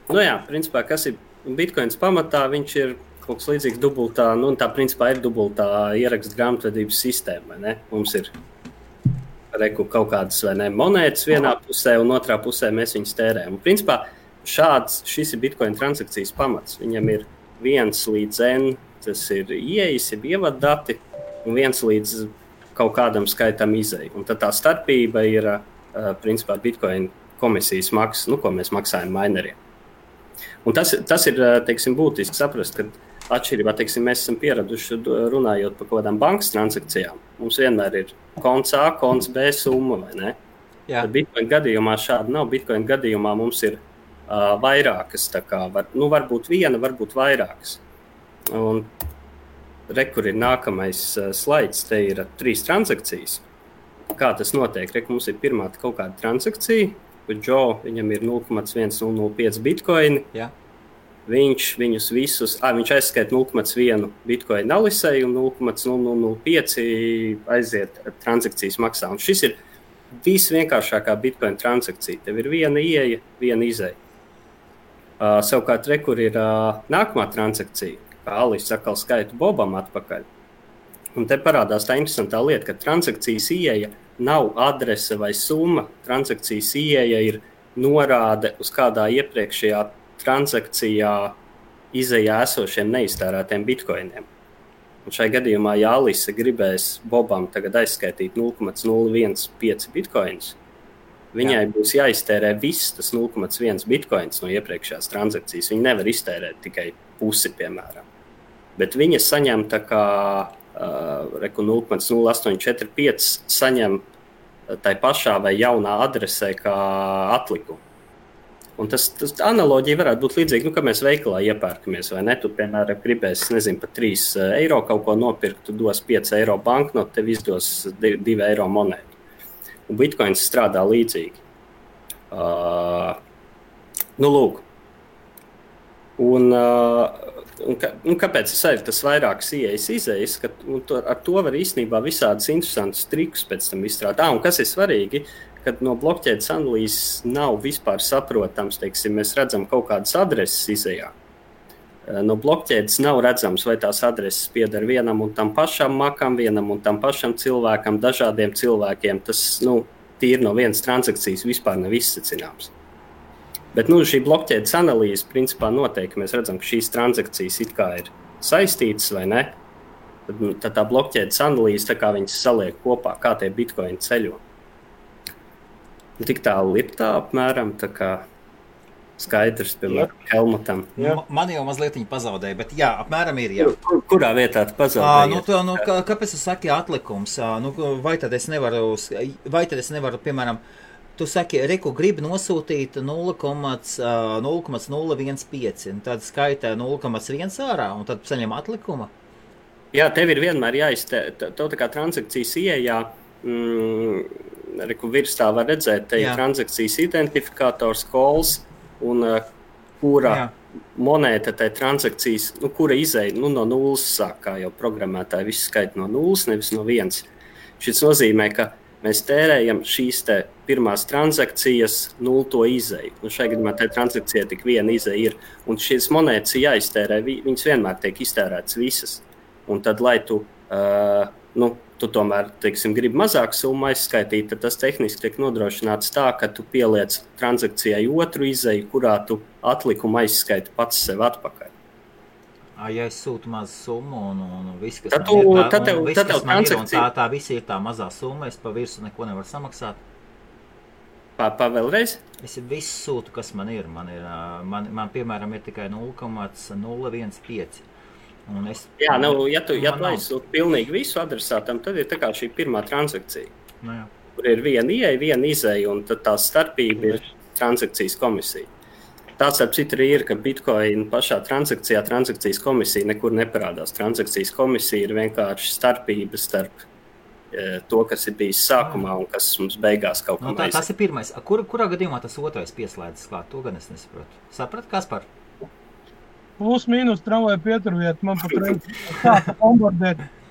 Nu jā, principā, kas ir Bitcoins pamatā, viņš ir kaut kas līdzīgs dubultā, nu tā principā ir dubultā ierakstu grāmatvedības sistēma, vai ne? Mums ir kaut kādas vai ne, monētas vienā pusē un otrā pusē mēs viņus tērējam. Un principā šis ir Bitcoin transakcijas pamats. Viņam ir 1 līdz N, tas ir ieejas, ir ievadati, un 1 līdz kaut kādam skaitam izēju. Un tad tā starpība ir principā Bitcoin komisijas maksas, ko mēs maksājam mineriem. Un tas ir, teiksim, būtiski saprast, ka atšķirībā, teiksim, mēs esam pieraduši runājot par kaut kādām bankas transakcijām. Mums vienmēr ir konts A, konts B summa, vai ne? Jā. Bitcoin gadījumā šādi nav. Bitcoin gadījumā mums ir vairākas, tā kā varbūt viena, varbūt vairākas. Un kur ir nākamais slaids, te ir 3 transakcijas. Kā tas notiek? Mums ir pirmā kaut kāda transakcija, kur Joe, viņam ir 0,1005 bitcoini. Jā. Viņš viņus visus, viņš aizskaita 0,1 bitcoin alisei un 0,0005 aiziet transakcijas maksā. Un šis ir visvienkāršākā bitcoin transakcija. Tev ir viena ieeja, viena izeja. Savukārt, kur ir nākamā transakcija, kā Alis atkal skaita Bobam atpakaļ. Un te parādās tā interesantā lieta, ka transakcijas ieeja nav adrese vai summa. Transakcijas ieeja ir norāde uz kādā iepriekšējā transakcijā izejā esošiem neiztērētiem bitcoiniem. Un šai gadījumā, ja Alise gribēs Bobam tagad aizskaitīt 0,015 bitcoins, viņai būs jāiztērē viss tas 0,1 bitcoins no iepriekšējās transakcijas. Viņa nevar iztērēt tikai pusi, piemēram. Bet viņa saņem tā kā 0,0845 saņem tai pašā vai jaunā adresē kā atlikumu. Un tas analoģija varētu būt līdzīga, ka mēs veikalā iepērkamies, vai ne? Tu, piemēram, gribēsi, par 3 eiro kaut ko nopirkt, tu dos 5 eiro banknotu, tev izdos 2 eiro monētu. Un Bitcoins strādā līdzīgi. Lūk. Un kāpēc ir tas vairākas ieejas izējas, ka ar to var īstenībā visādus interesantus trikus pēc tam izstrādāt. Un kas ir svarīgi, kad no blokķēdes analīzes nav vispār saprotams, teiksim, mēs redzam kaut kādas adreses izejā. No blokķēdes nav redzams, vai tās adreses pieder vienam un tam pašam makam, vienam un tam pašam cilvēkam, dažādiem cilvēkiem. Tas, tīri no vienas transakcijas vispār nav izsacināms. Bet, šī blokķēdes analīze principā noteikti, ka mēs redzam, ka šīs transakcijas it kā ir saistītas vai ne. Tad tā blokķēdes analīze, tā kā viņas saliek kopā, kā tie bitcoini ceļo. Tik tālu ir tā apmēram, tā kā skaidrs, piemēram, Helmutam. Man jau mazliet viņa pazaudēja, bet jā, apmēram ir, jā. Kurā vietā tu pazaudēji? Kāpēc tu saki atlikums? Vai tad es nevaru, piemēram, tu saki, reku gribi nosūtīt 0,015, tad skaitā 0,1 ārā, un tad saņem atlikuma? Jā, tev ir vienmēr jāiztē, tā kā transakcijas ieejā, virs tā var redzēt, te ir transakcijas identifikators, calls, un kura monēta tai transakcijas, kura izēja no nulles sāk, kā jau programmētāji visu skaita no nulles, nevis no 1. Šis nozīmē, ka mēs tērējam šīs te pirmās transakcijas nulto izēju. Un šai gadījumā tai transakcijai tik viena izēja ir. Un šīs monētas ir jāiztērē, viņas vienmēr tiek iztērētas visas. Un tad, lai tu tomēr, teiksim, gribi mazāku summu aizskaitīt, tad tas tehniski tiek nodrošināts tā, ka tu pieliec transakcijai otru izēju, kurā tu atlikumu aizskaiti pats sev atpakaļ. Ja es sūtu mazu summu un viss, kas man ir, tā visi ir tā mazā summa, es pa virsu neko nevaru samaksāt. Vēlreiz? Es visu sūtu, kas man ir. Man piemēram, ir tikai 0,015. Ja tu aizsūti pilnīgi visu adresātam, tad ir tā kā šī pirmā transakcija, kur ir viena ieeja, viena izēja, un tad tā starpība ir transakcijas komisija. Tāds ar citu ir, ka Bitcoin pašā transakcijas komisija nekur neparādās. Transakcijas komisija ir vienkārši starpība starp to, kas ir bijis sākumā un kas mums beigās kaut kā tas ir pirmais. Kurā gadījumā tas otrais pieslēdzas klāt? To gan es nesaprotu. Saprat, Kaspar? Plus mīnus tramvaju pieturviet. Man pat reiz sāka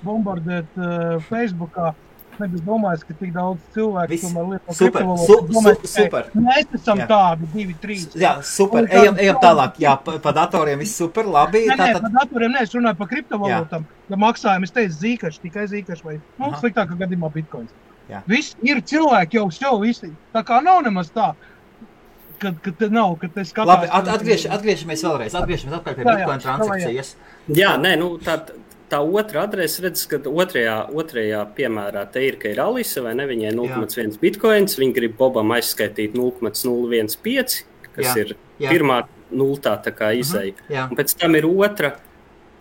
bombardēt Facebookā. Nebija domājis, ka tik daudz cilvēku tomēr lieto kriptovalodu. Super. Mēs esam tādi 2-3. Jā, super. Ejam tālāk. Jā, pa datoriem viss super, labi. Nē, pa datoriem es runāju par kriptovalūtam. Ja maksājam, es teicu Zcash, tikai Zcash vai sliktākā gadījumā Bitcoins. Viss ir cilvēki jau visi. Tā kā nav nemaz tā, kad te skatās. Labi, atgriežamies vēlreiz. Atgriežamies atpakaļ pie Bitcoin transakcijas. Jā, nē, tā otra adrese, redz, ka otrajā piemērā te ir, ka ir Alisa, vai ne, viņai 0,1 bitcoins, viņi grib Bobam aizskaitīt 0,015, kas ir pirmā nultā tā kā izēja. Un pēc tam ir otra,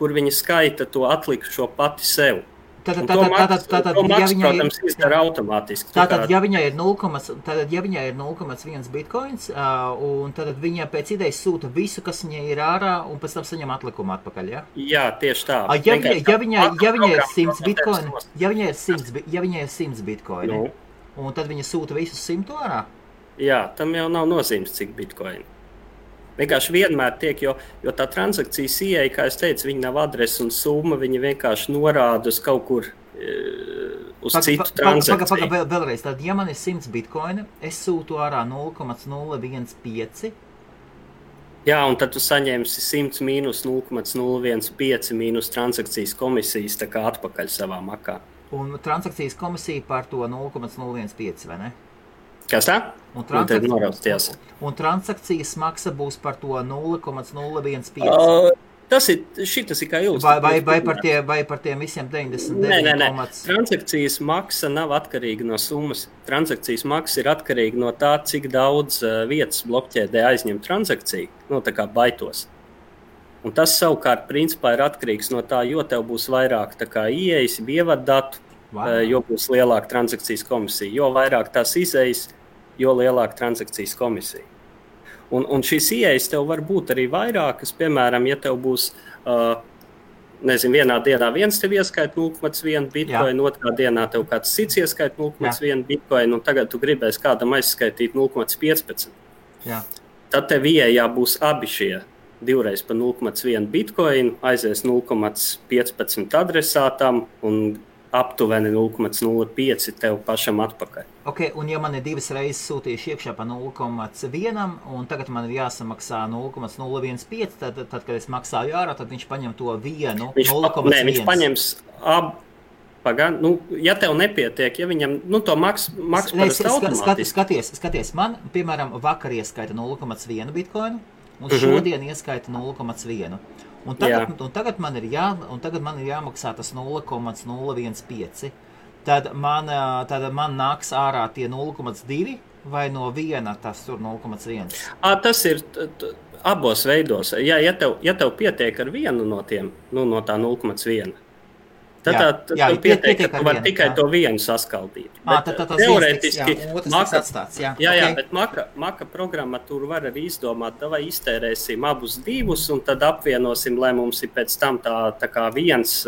kur viņa skaita to atlikšo pati sev. Tātad, protams, izdara automātiski. Tātad, ja viņai ir 0,1 bitcoins, un tad viņa pēc idejas sūta visu, kas viņai ir ārā, un pēc tam saņem atlikumu atpakaļ, ja? Jā, tieši tā. Ja viņai ir 100 bitcoini, ja viņai ir 100 bitcoini, un tad viņa sūta visus 100 ārā? Jā, tam jau nav nozīmes, cik bitcoini. Vienkārši vienmēr tiek, jo tā transakcijas ieeja, kā es teicu, viņa nav adrese un summa, viņa vienkārši norāda uz kaut kur uz citu transakciju. Vēlreiz, tad, ja man ir 100 bitcoini, es sūtu ārā 0,015. Jā, un tad tu saņemsi 100 mīnus 0,015 mīnus transakcijas komisijas tā kā atpakaļ savā makā. Un transakcijas komisija par to 0,015, vai ne? Kas tā? Un transakcijas maksa būs par to 0,015. Šitas ir kā ilustrācija. Vai par tiem visiem 99? Nē. Transakcijas maksa nav atkarīga no summas. Transakcijas maksa ir atkarīga no tā, cik daudz vietas blokķēdē aizņem transakciju, tā kā baitos. Un tas savukārt principā ir atkarīgs no tā, jo tev būs vairāk tā kā ieejas, ievadatu, jo būs lielāka transakcijas komisija. Jo vairāk tās izējas, jo lielāka transakcijas komisija. Un šīs ieejas tev var būt arī vairākas. Piemēram, ja tev būs, vienā dienā viens tev ieskaita 0,1 bitcoin, otrā dienā tev kāds cits ieskaita 0,1 bitcoin, un tagad tu gribēsi kādam aizskaitīt 0,15. Tad tev ieejā būs abi šie divreiz pa 0,1 bitcoin, aizies 0,15 adresātam un aptuveni 0,05 tev pašam atpakaļ. Ok, un ja man ir divas reizes sūtījuši iekšā pa 0,1, un tagad man ir jāsamaksā 0,015, tad, kad es maksāju ārā, tad viņš paņem to vienu 0,1. Nē, viņš paņems ja tev nepietiek, ja viņam, to maks parasti automātiski. Skaties, man, piemēram, vakar ieskaita 0,1 bitcoinu, un šodien ieskaita 0,1. Un tagad man ir jāmaksā tas 0,015. Tad man nāks ārā tie 0,2 vai no viena tas tur 0,1? Tas ir abos veidos. Ja tev pietiek ar vienu no tiem, no tā 0,1. Tad pietiek, ka tu vari tikai to vienu saskaldīt. Teorētiski, bet Maka programmatūru var arī izdomāt, vai iztērēsim abus divus, un tad apvienosim, lai mums ir pēc tam tā kā viens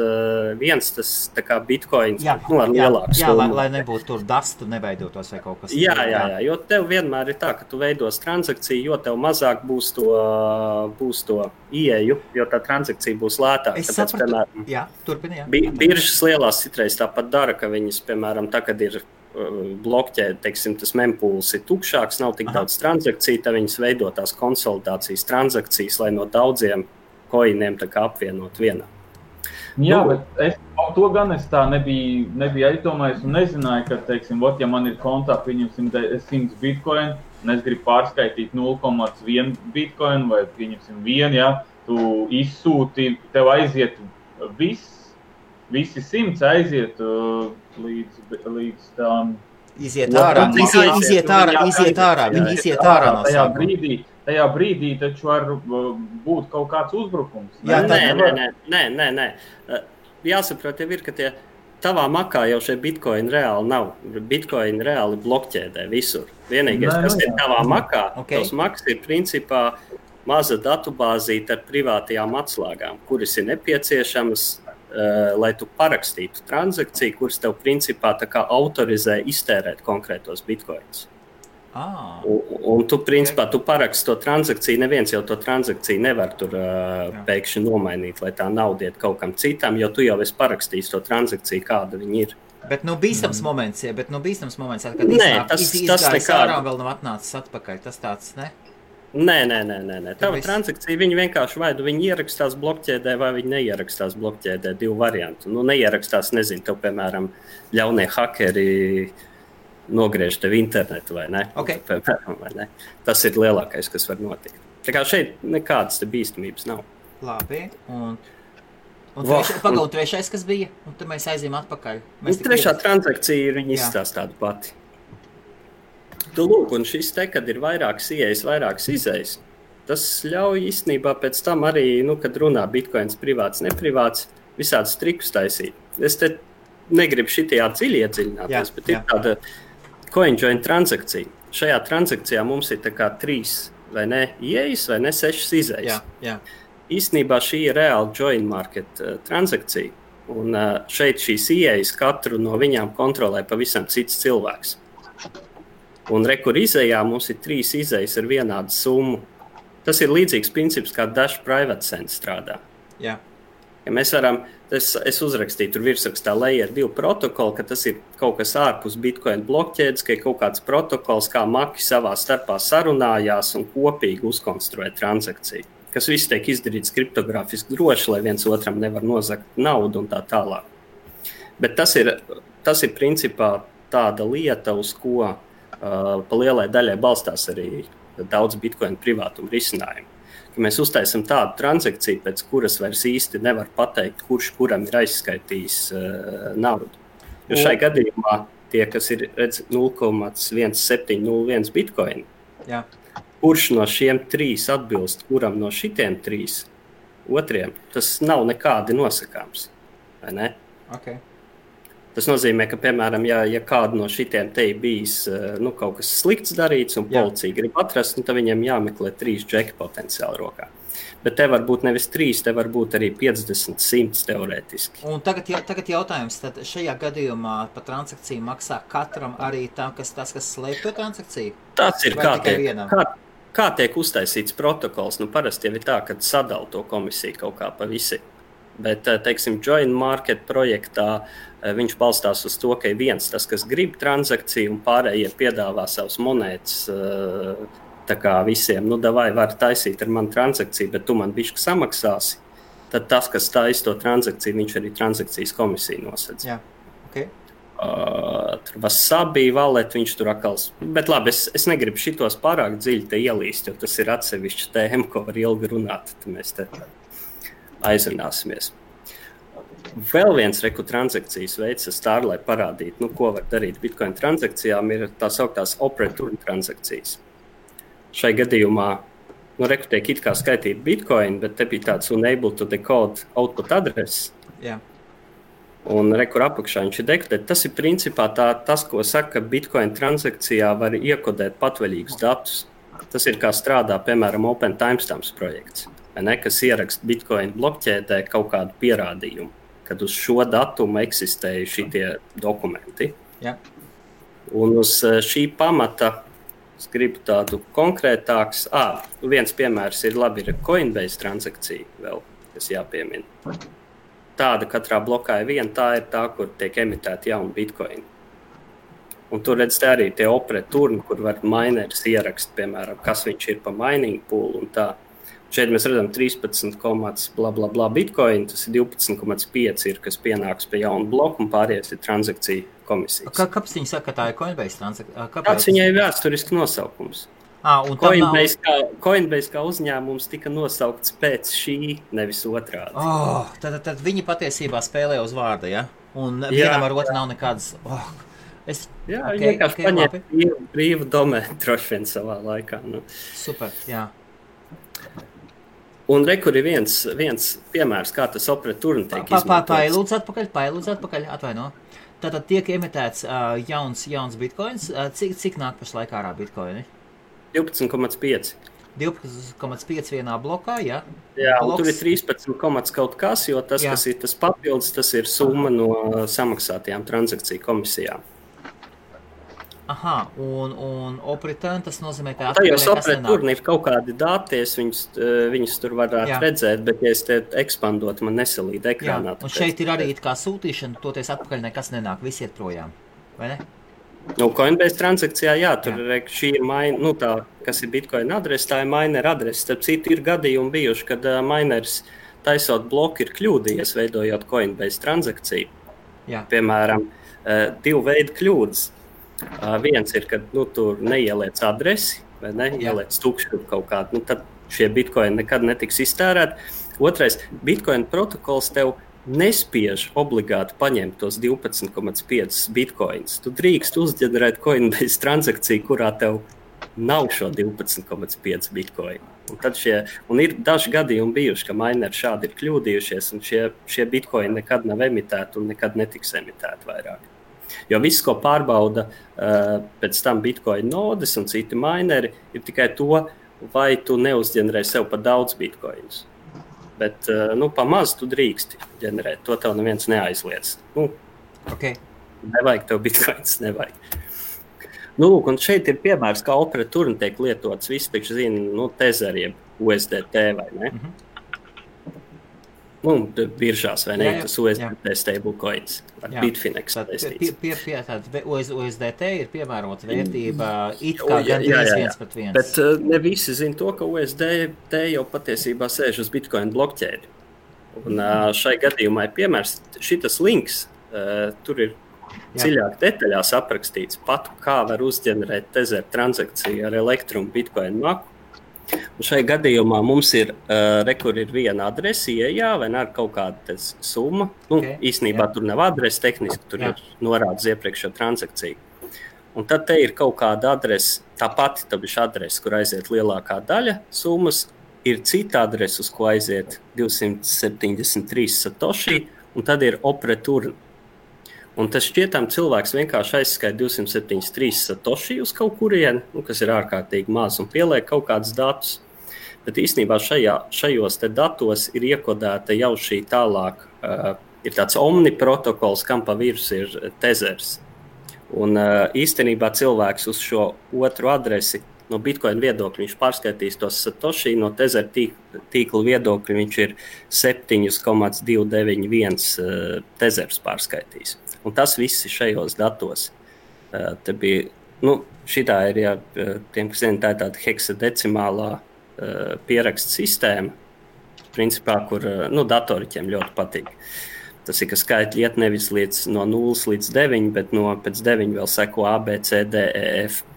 tas tā kā bitcoins, ar lielāku summu. Lai nebūtu tur dastu neveidotos vai kaut kas. Jā, jo tev vienmēr ir tā, ka tu veidos transakciju, jo tev mazāk būs to ieeju, jo tā transakcija būs lētāka. Es sapratu, turpini, Biržas lielās citreiz tāpat dara, ka viņas, piemēram, tā, kad ir blokķē, teiksim, tas mempūls ir tukšāks, nav tik daudz transakciju, tad viņas veido tās konsolidācijas transakcijas, lai no daudziem koiniem tā kā apvienot vienā. Jā, bet to gan es tā nebiju aizdomājis un nezināju, ka, teiksim, ja man ir kontā, pieņemsim 100 bitcoin, un es gribu pārskaitīt 0,1 bitcoin vai pieņemsim 1, tu izsūti, tev aiziet visi 100 aiziet līdz tām... Iziet ārā, viņi iziet ārā no sākuma. Tajā brīdī taču var būt kaut kāds uzbrukums. Nē. Jāsaprot jau ir, ka tavā makā jau šie bitcoini reāli nav. Bitcoini reāli blokķēdē visur. Vienīgais, kas ir tavā makā, tos maks ir principā maza datubāzīte ar privātajām atslēgām, kuras ir nepieciešamas lai tu parakstītu transakciju, kuras tev principā tā kā autorizē iztērēt konkrētos bitcoins. Un tu principā tu paraksti to transakciju, neviens jau to transakciju nevar tur pēkšņi nomainīt, lai tā nauda iet kaut kam citam, jo tu jau esi parakstījis to transakciju, kāda viņa ir. Bet bīstams moments, kad izgājis ārā un vēl nav atnācis atpakaļ, tas tāds, ne? Nē. Tava transakcija, viņi vienkārši vai viņi ierakstās blokķēdē, vai viņi neierakstās blokķēdē, 2 varianti. Neierakstās, nezinu, tev, piemēram, ļaunie hakeri nogriež tev internetu, vai ne? Okay. Piemēram, vai ne? Tas ir lielākais, kas var notikt. Tā kā šeit nekādas te bīstamības nav. Labi, un trešais, kas bija? Un tad mēs aizījām atpakaļ. Trešā transakcija ir viņa izstāst tādu pati. Tu lūk, un šis te, kad ir vairākas ieejas, vairākas izejas, tas ļauj īstenībā pēc tam arī, kad runā bitcoins privāts, neprivāts, visādus trikus taisīt. Es te negribu šitajā dziļi iedziļināties, bet ir tāda CoinJoin transakcija. Šajā transakcijā mums ir tā kā 3 vai ne ieejas, vai ne 6 izejas. Jā. Īstenībā šī ir reāla join market transakcija, un šeit šīs ieejas katru no viņām kontrolē pavisam cits cilvēks. Un rekur izejā mums ir 3 izejas ar vienādu summu. Tas ir līdzīgs princips, kā Dash Private Send strādā. Jā. Ja mēs varam, es uzrakstīju tur virsrakstā Layer 2 protokolu, ka tas ir kaut kas ārpus Bitcoin blokķēdes, ka ir kaut kāds protokols, kā maki savā starpā sarunājās un kopīgi uzkonstruē transakciju. Kas viss tiek izdarīts kriptogrāfiski droši, lai viens otram nevar nozagt naudu un tā tālāk. Bet tas ir principā tāda lieta, uz ko pa lielai daļai balstās arī daudz bitcoin privātuma risinājumu. Ka mēs uztaisam tādu transakciju, pēc kuras vairs īsti nevar pateikt, kurš kuram ir aizskaitījis naudu. Jo šai gadījumā tie, kas ir 0,1701 bitcoin, kurš no šiem 3 atbilst, kuram no šitiem 3 otriem, tas nav nekādi nosakāms. Vai ne? Okay. Tas nozīmē, ka, piemēram, ja kādu no šitiem te ir bijis kaut kas slikts darīts un policija grib atrast, tad viņiem jāmeklē 3 džeki potenciāli rokā. Bet te var būt nevis 3, te var būt arī 50, 100 teorētiski. Un tagad jautājums, tad šajā gadījumā par transakciju maksā katram arī tas, kas slēp to transakciju? Tas ir kā tiek uztaisīts protokols. Parasti jau ir tā, kad sadala to komisiju kaut kā pa visi. Bet, teiksim, Join Market projektā viņš balstās uz to, ka ir viens tas, kas grib transakciju un pārējie piedāvā savus monētas tā kā visiem. Davai var taisīt ar mani transakciju, bet tu man bišķi samaksāsi. Tad tas, kas taisa to transakciju, viņš arī transakcijas komisiju nosedz. Jā, ok. Tur Wasabi wallet, viņš tur akals. Bet labi, es negribu šitos pārāk dziļi te ielīst, jo tas ir atsevišķi tēma, ko var ilgi runāt. Tad mēs te aizrunāsimies. Vēl viens transakcijas veids, lai parādītu, ko var darīt Bitcoin transakcijām, ir tā sauktās operator transakcijas. Šai gadījumā, tiek it kā skaitīt Bitcoin, bet te bija tāds unable to decode output address. Jā. Un rekur apakšā viņš ir dekodēt. Tas ir principā tas, ko saka, Bitcoin transakcijā var iekodēt patvaļīgus datus. Tas ir kā strādā, piemēram, Open Timestamps projekts. Kas ieraksta Bitcoin blokķēdē kaut kādu pierādījumu, kad uz šo datumu eksistēja šitie dokumenti. Jā. Un uz šī pamata es gribu tādu konkrētāks. Viens piemērs ir Coinbase transakcija vēl, kas jāpiemina. Tāda katrā blokā ir viena, tā ir tā, kur tiek emitēta jauna Bitcoin. Un tur redz arī tie operatori, kur var mineris ierakst, piemēram, kas viņš ir pa mining pool un tā. Šeit mēs redzam 13, bla, bla, bla Bitcoin, tas ir 12,5 ir, kas pienāks pie jaunu bloku un pārējais ir transakcija komisijas. Kāpēc viņi saka, ka tā ir Coinbase transakcija? Kāds viņai ir vēsturiski nosaukums? Coinbase kā uzņēmums tika nosaukts pēc šī, nevis otrādi. Tad viņi patiesībā spēlē uz vārda, ja? Un vienam ar otru nav nekādas... Viņi vienkārši paņēma brīvu domēnu droši vien savā laikā. Super, jā. Un rekur ir viens piemērs, kā tas operatorni tiek izmantots. Pailūdz atpakaļ, atvaino. Tātad tiek emitēts jauns bitcoins. Cik nāk pašlaik ārā bitcoini? 12,5. 12,5 vienā blokā, jā? Jā, un tur ir 13 kaut kas, jo tas, Jā. kas ir tas papildus, tas ir summa no samaksātajām transakciju komisijām. Aha, un opreturn, tas nozīmē, ka Tajos nekas nenāk. opreturn ir kaut kādi dati, es viņus tur varētu Jā. redzēt, bet ja es te ekspandotu, man nesalīd Jā, ekrānā. un šeit ir arī it kā sūtīšana, toties atpakaļ nekas nenāk, visi iet projām, vai ne? Nu, Coinbase transakcijā, jā, tur šī ir tā, kas ir Bitcoin adrese, tā ir miner adrese. Starp citu, ir gadījumi bijuši, kad miners taisot bloku ir kļūdījies, veidojot Coinbase transakciju. Jā. Piemēram, divu veidu kļūdas. Viens ir, kad tur neieliec adresi, vai ne, ieliec tukšu kaut kādu, tad šie bitcoini nekad netiks iztērēti. Otrais, Bitcoin protokols tev nespiež obligāti paņemt tos 12,5 bitcoins. Tu drīkst uzģenerēt Coinbase transakciju, kurā tev nav šo 12,5 bitcoin. Un ir daži gadījumi bijuši, ka mineri šādi ir kļūdījušies, un šie bitcoini nekad nav emitēti un nekad netiks emitēti vairāk. Jo viss, ko pārbauda pēc tam bitcoin nodes un citi mineri, ir tikai to, vai tu neuzģenerē sev pa daudz bitcoinus. Bet pa maz tu drīksti ģenerēt, to tev neviens neaizliedz. Okay. Nevajag tev bitcoins, nevajag. Lūk, un šeit ir piemērs, kā opreturn tiek lietots, visi taču zina, Tether jeb USDT, vai ne? Biržās, vai ne? Jā. Tas USDT stablecoins ar Bitfinex saistīts. USDT ir piemērota vērtība it kā gandrīz 1:1. Bet ne visi zina to, ka USDT jau patiesībā sēž uz Bitcoin blokķēdi. Un šai gadījumā ir piemērs, šitas links, tur ir dziļāk detaļās aprakstīts pat, kā var uzģenerēt Tether transakciju ar elektrumu Bitcoin maku. Un šai gadījumā mums ir, kur ir viena adrese, vai ne, ar kaut kāda summa. Īstenībā tur nav adrese tehniski, tur ir norādes iepriekšējo transakciju. Un tad te ir kaut kāda adrese, tā pati adrese, kur aiziet lielākā daļa summas, ir cita adrese, uz ko aiziet 273 satoshi, un tad ir opreturn. Un tas šķietam cilvēks vienkārši aizskaita 273 satoshi uz kaut kurieni, kas ir ārkārtīgi maz, un pieliek kaut kādus datus. Bet īstenībā šajos te datos ir iekodēta jau šī tālāk, ir tāds omni protokols, kam pa virsmu ir Tethers. Un īstenībā cilvēks uz šo otru adresi no Bitcoin viedokļa viņš pārskaitīs tos satoshi, no Tether tīkla viedokļa viņš ir 7,291 Tethers pārskaitīs. Un tas viss ir šajos datos. Te bija, šitā ir, tiem, kas zina, tā ir tāda heksadecimālā pieraksta sistēma, principā, kur datoriķiem ļoti patīk. Tas ir, ka skaitļi iet nevis no 0 līdz 9, bet pēc 9 vēl seko A, B, C, D, E, F.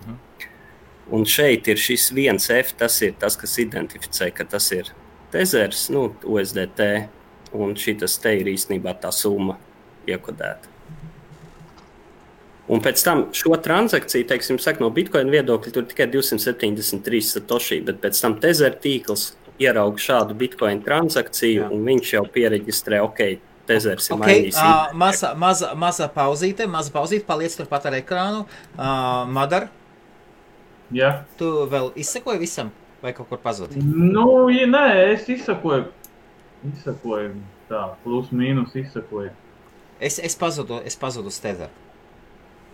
Un šeit ir šis 1F, tas ir tas, kas identificē, ka tas ir Tethers, USDT, un šitas te ir īstenībā tā summa iekodēta. Un pēc tam šo transakciju, teiksim, no Bitcoin viedokļa tur tikai 273 satoshi, bet pēc tam Tether tīkls ierauga šādu Bitcoin transakciju, un viņš jau piereģistrē, Tethers ir mainījis. Maza pauzīte, paliec turpat ar ekrānu. Madar, tu vēl izsekoji visam, vai kaut kur pazudi? Nē, es izsekoju tā, plus mīnus izsekoju. Es pazudu uz Tether.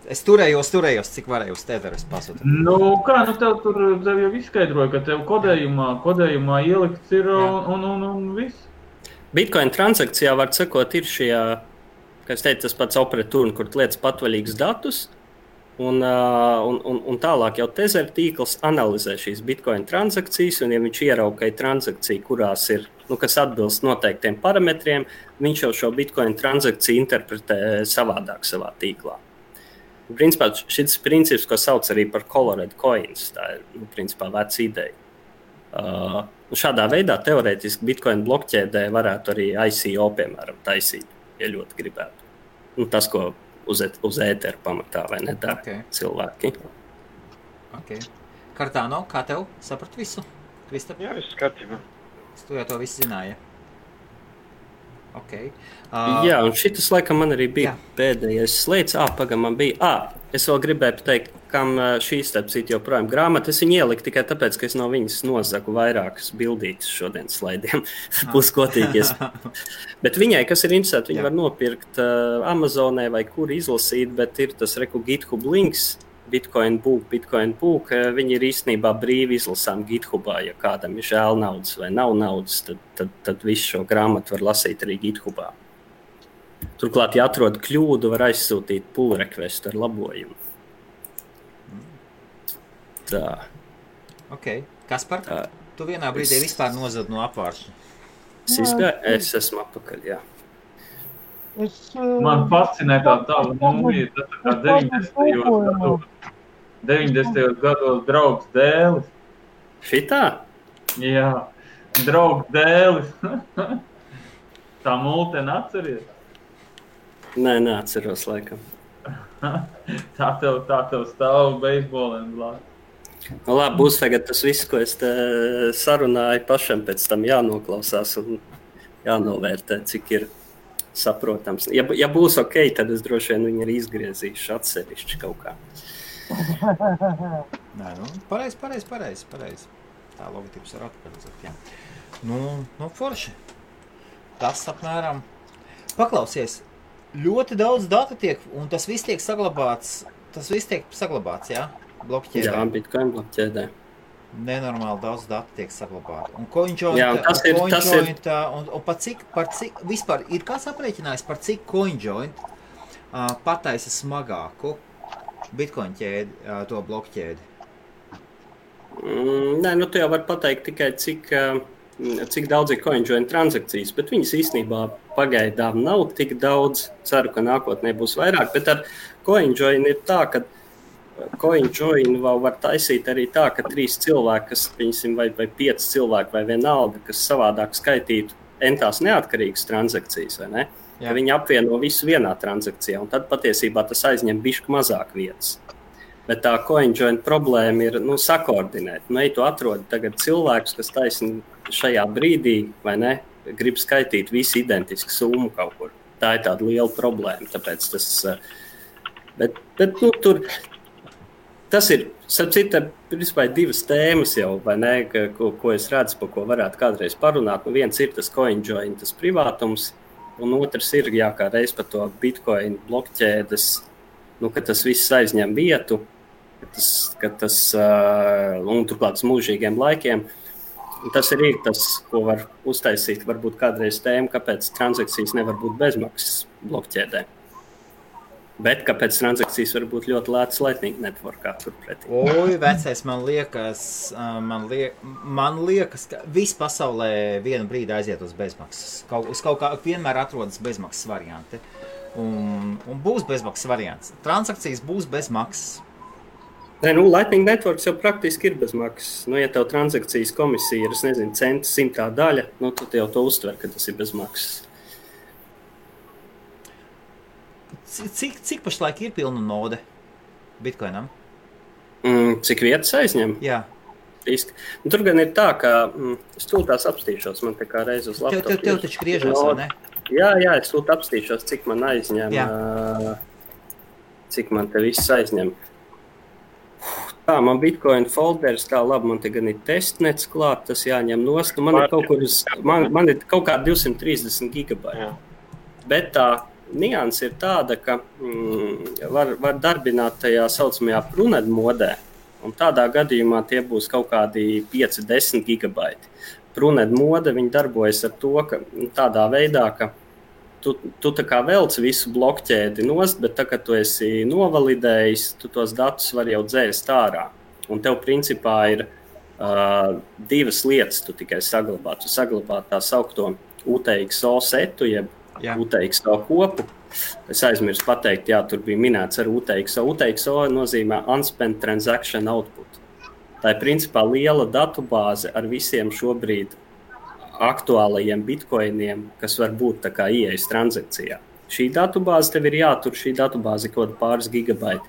Es turējos, cik varēju uz Tether, es pazudu. Tev jau izskaidroja, ka tev kodējumā ielikts ir un viss. Bitcoin transakcijā var sekot ir šie, kā es teicu, tas pats opreturn, kur lietas patvaļīgus datus, un tālāk jau Tether tīkls analizē šīs Bitcoin transakcijas, un ja viņš ierauga, ka ir transakcija, kurās ir, kas atbilst noteiktiem parametriem, viņš jau šo Bitcoin transakciju interpretē savādāk savā tīklā. Principā šis princips, ko sauc arī par colored coins, tā ir, principā, veca ideja. Šādā veidā teorētiski Bitcoin blokķēdē varētu arī ICO, piemēram, taisīt, ja ļoti gribētu. Tas, ko uz ēteru pamatā, vai ne dara cilvēki. Cardano, kā tev? Saprat visu? Kristap? Jā, viss kārtībā. Tu jau to visu zināji. Okay. Jā, un šitas laikam man arī bija pēdējais slēdz. Man bija. Es vēl gribēju pateikt, kam šī starp citu joprojām grāmata. Es viņu ieliku tikai tāpēc, ka es no viņas nozagu vairākas bildītes šodien slaidiem. Būs kotīgies. Bet viņai, kas ir interesanti, viņi var nopirkt Amazonē vai kur izlasīt, bet ir tas GitHub links. Bitcoin Book, viņi ir īstenībā brīvi izlasām GitHubā. Ja kādam ir žēl naudas vai nav naudas, tad visu šo grāmatu var lasīt arī GitHubā. Turklāt, ja atrod kļūdu, var aizsūtīt pull requestu ar labojumu. Tā. Ok. Kaspar, tu vienā brīdī vispār nozad no apvāršana? Es esmu atpakaļ, jā. Man fascinē tā tava mūmija, tas kā 90. gados draugs dēlis. Šitā? Jā, draugs dēlis. Tā multeni atceries? Nē, neatceros laikam. Tā tev stāv beisboliem blāt. Nu, labi, būs tagad tas viss, ko es te sarunāju pašam, pēc tam jānoklausās un jānovērtē, cik ir saprotams. Ja būs ok, tad es droši vien viņu arī izgriezīšu atsevišķi kaut kā. Nē, pareizi. Tā logotips var atpakaļ, jā. Nu, forši. Tas apmēram. Paklausies, ļoti daudz datu tiek, un tas viss tiek saglabāts, jā? Blokķēdē. Jā, Bitcoin blokķēdē. Nenormāli daudz datu tiek saglabāti. Un CoinJoint, un par cik vispār ir kāds aprēķinājis, par cik CoinJoint pataisa smagāku Bitcoin ķēdi, to blokķēdi? Nē, nu tu jau var pateikt tikai cik daudz ir CoinJoint transakcijas, bet viņas īstenībā pagaidām nav tik daudz. Ceru, ka nākotnē būs vairāk, bet ar CoinJoint ir tā, ka CoinJoin var taisīt arī tā, ka 3 cilvēki, vai 5 cilvēki vai vienalga, kas savādāk skaitītu entās neatkarīgas transakcijas, vai ne? Ja viņi apvieno visu vienā transakcijā, un tad patiesībā tas aizņem bišķi mazāk vietas. Bet tā CoinJoin problēma ir sakoordinēt. Ja tu atrodi tagad cilvēkus, kas taisni šajā brīdī, vai ne, grib skaitīt visu identisku summu kaut kur. Tā ir tāda liela problēma, tāpēc tas... Bet tur... Tas ir, starp citu, principā 2 tēmas jau, vai ne, ko es redzu, par ko varētu kādreiz parunāt. Viens ir tas CoinJoin, tas privātums, un otrs ir, kā reiz par to Bitcoin blokķēdes, ka tas viss aizņem vietu, ka tas un turklāt mūžīgiem laikiem. Un tas arī ir tas, ko var uztaisīt, varbūt kādreiz tēma, kāpēc transakcijas nevar būt bezmaksas blokķēdē. Bet kāpēc transakcijas var būt ļoti lētas Lightning networkā turpretī? Oi, vecais, man liekas, ka viss pasaulē vienu brīdi aiziet uz bezmaksas. Uz kaut kā vienmēr atrodas bezmaksas varianti. Un būs bezmaksas variants. Transakcijas būs bez maksas. Nē, Lightning networks jau praktiski ir bez maksas. Ja tev transakcijas komisija ir, cents 100 daļa, tad jau to uztver, ka tas ir bez maksas. Cik pašlaik ir pilna node Bitcoinam? Cik vietas aizņem? Jā. Tur gan ir tā, ka es tūlīt apstīšos, man te kā reiz uz laptopu. Tev taču griežās, vai ne? Jā, es tūlīt apstīšos, cik man aizņem, cik man te viss aizņem. Tā, man Bitcoin folders, tā labi, man te gan ir testnets klāt, tas jāņem nost. Man ir kaut kā 230 gigabaiti. Bet tā nianse ir tāda, ka var darbināt tajā saucamajā Prunet modē, un tādā gadījumā tie būs kaut kādi 5-10 gigabaiti. Prunet mode, viņi darbojas ar to, ka tādā veidā, ka tu tā kā velc visu blokķēdi nost, bet tā, kad tu esi novalidējis, tu tos datus var jau dzēst ārā. Un tev principā ir 2 lietas tu tikai saglabā. Tu saglabā tā saukto UTXO setu, jeb UTXO kopu. Es aizmirsu pateikt, tur bija minēts ar UTXO. UTXO nozīmē Unspent Transaction Output. Tā ir principā liela datubāze ar visiem šobrīd aktuālajiem bitcoiniem, kas var būt tā kā ieejas transakcijā. Šī datubāze tev ir jātur, šī datubāze kaut pāris gigabaiti.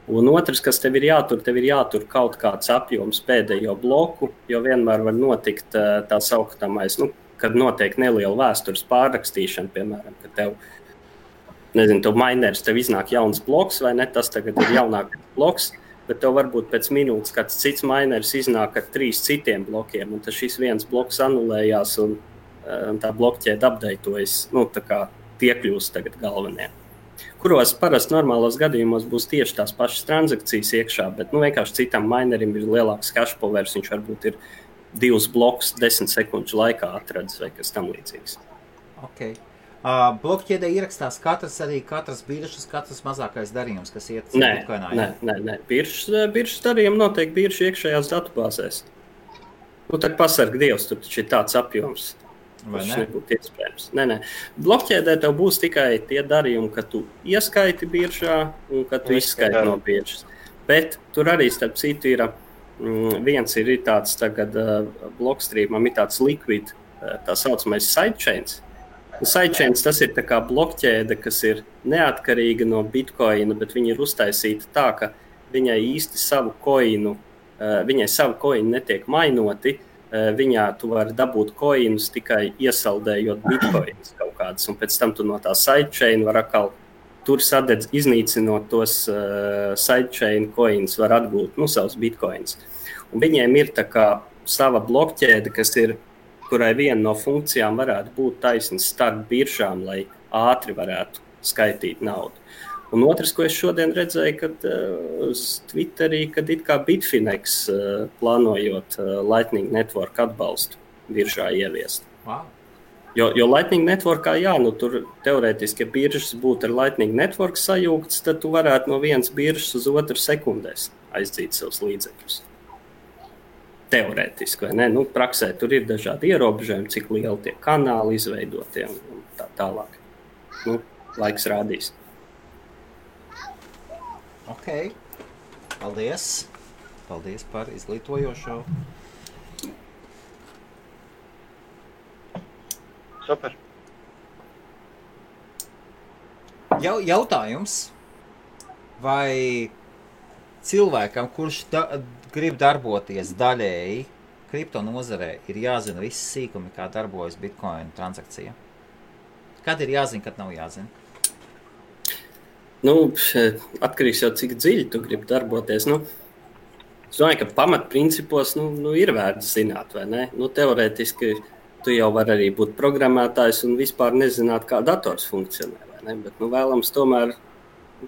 Un otrs, kas tev ir jātur kaut kāds apjoms pēdējo bloku, jo vienmēr var notikt tā sauktamais, kad notiek neliela vēstures pārrakstīšana, piemēram, ka tev, nezinu, tev mineris, tev iznāk jauns bloks, vai ne, tas tagad ir jaunākais bloks, bet tev varbūt pēc minūtes kāds cits mineris iznāk ar 3 citiem blokiem, un tad šis viens bloks anulējās, un tā blokķēde updatetojas, tā kā tie kļūst tagad galvenie. Kuros parasti normālos gadījumos būs tieši tās pašas transakcijas iekšā, bet vienkārši citam minerim ir lielāks cache powers, viņš varbūt ir 2 blokus 10 sekundžu laikā atradzis vai kas tam līdzīgs. Okay. Blokķēdē ierakstās katras biržas, katrs mazākais darījums, kas iet Bitcoinā? Nē. Biržas darījumi notiek biržu iekšējās datubāzēs. Tad pasarg Dievs, tur taču ir tāds apjoms. Tas nebūtu iespējams. Nē. Blokķēdē tev būs tikai tie darījumi, ka tu ieskaiti biržā un ka tu izskaiti no biržas. Bet tur arī starp citu ir viens ir tāds tagad Blockstreamam ir tāds liquid, tā saucamais sidechains. Sidechains tas ir tā kā blokķēde, kas ir neatkarīga no Bitcoina, bet viņa ir uztaisīta tā, ka viņai īsti savu coinu netiek mainoti. Viņā tu vari dabūt coinus tikai iesaldējot bitcoins kaut kādas, un pēc tam tu no tā sidechain var atkal tur iznīcinot tos sidechain coins, var atgūt savus bitcoins. Un viņiem ir tā kā sava blokķēde, kurai viena no funkcijām varētu būt taisns starp biržām, lai ātri varētu skaitīt naudu. Un otrs, ko es šodien redzēju, kad uz Twitterī, kad it kā Bitfinex plānojot Lightning Network atbalstu biržā ieviest. Wow. Jo Lightning Networkā, tur teorētiski, ja biržas būtu ar Lightning Network sajūgts, tad tu varētu no vienas biržas uz otru sekundēs aizdzīt savus līdzekļus. Teorētiski, vai ne? Praksē tur ir dažādi ierobežojumi, cik lieli tie kanāli izveidotie un tā tālāk. Laiks rādīs. Ok, paldies par izglītojošo. Super. Jautājums, vai cilvēkam, kurš grib darboties daļēji kripto nozarē, ir jāzina visi sīkumi, kā darbojas Bitcoin transakcija? Kad ir jāzina, kad nav jāzina? Atkarīgs jau, cik dziļi tu gribi darboties. Es domāju, ka pamatprincipos ir vērts zināt, vai ne? Teorētiski tu jau vari arī būt programmētājs un vispār nezināt, kā dators funkcionē, vai ne? Bet vēlams tomēr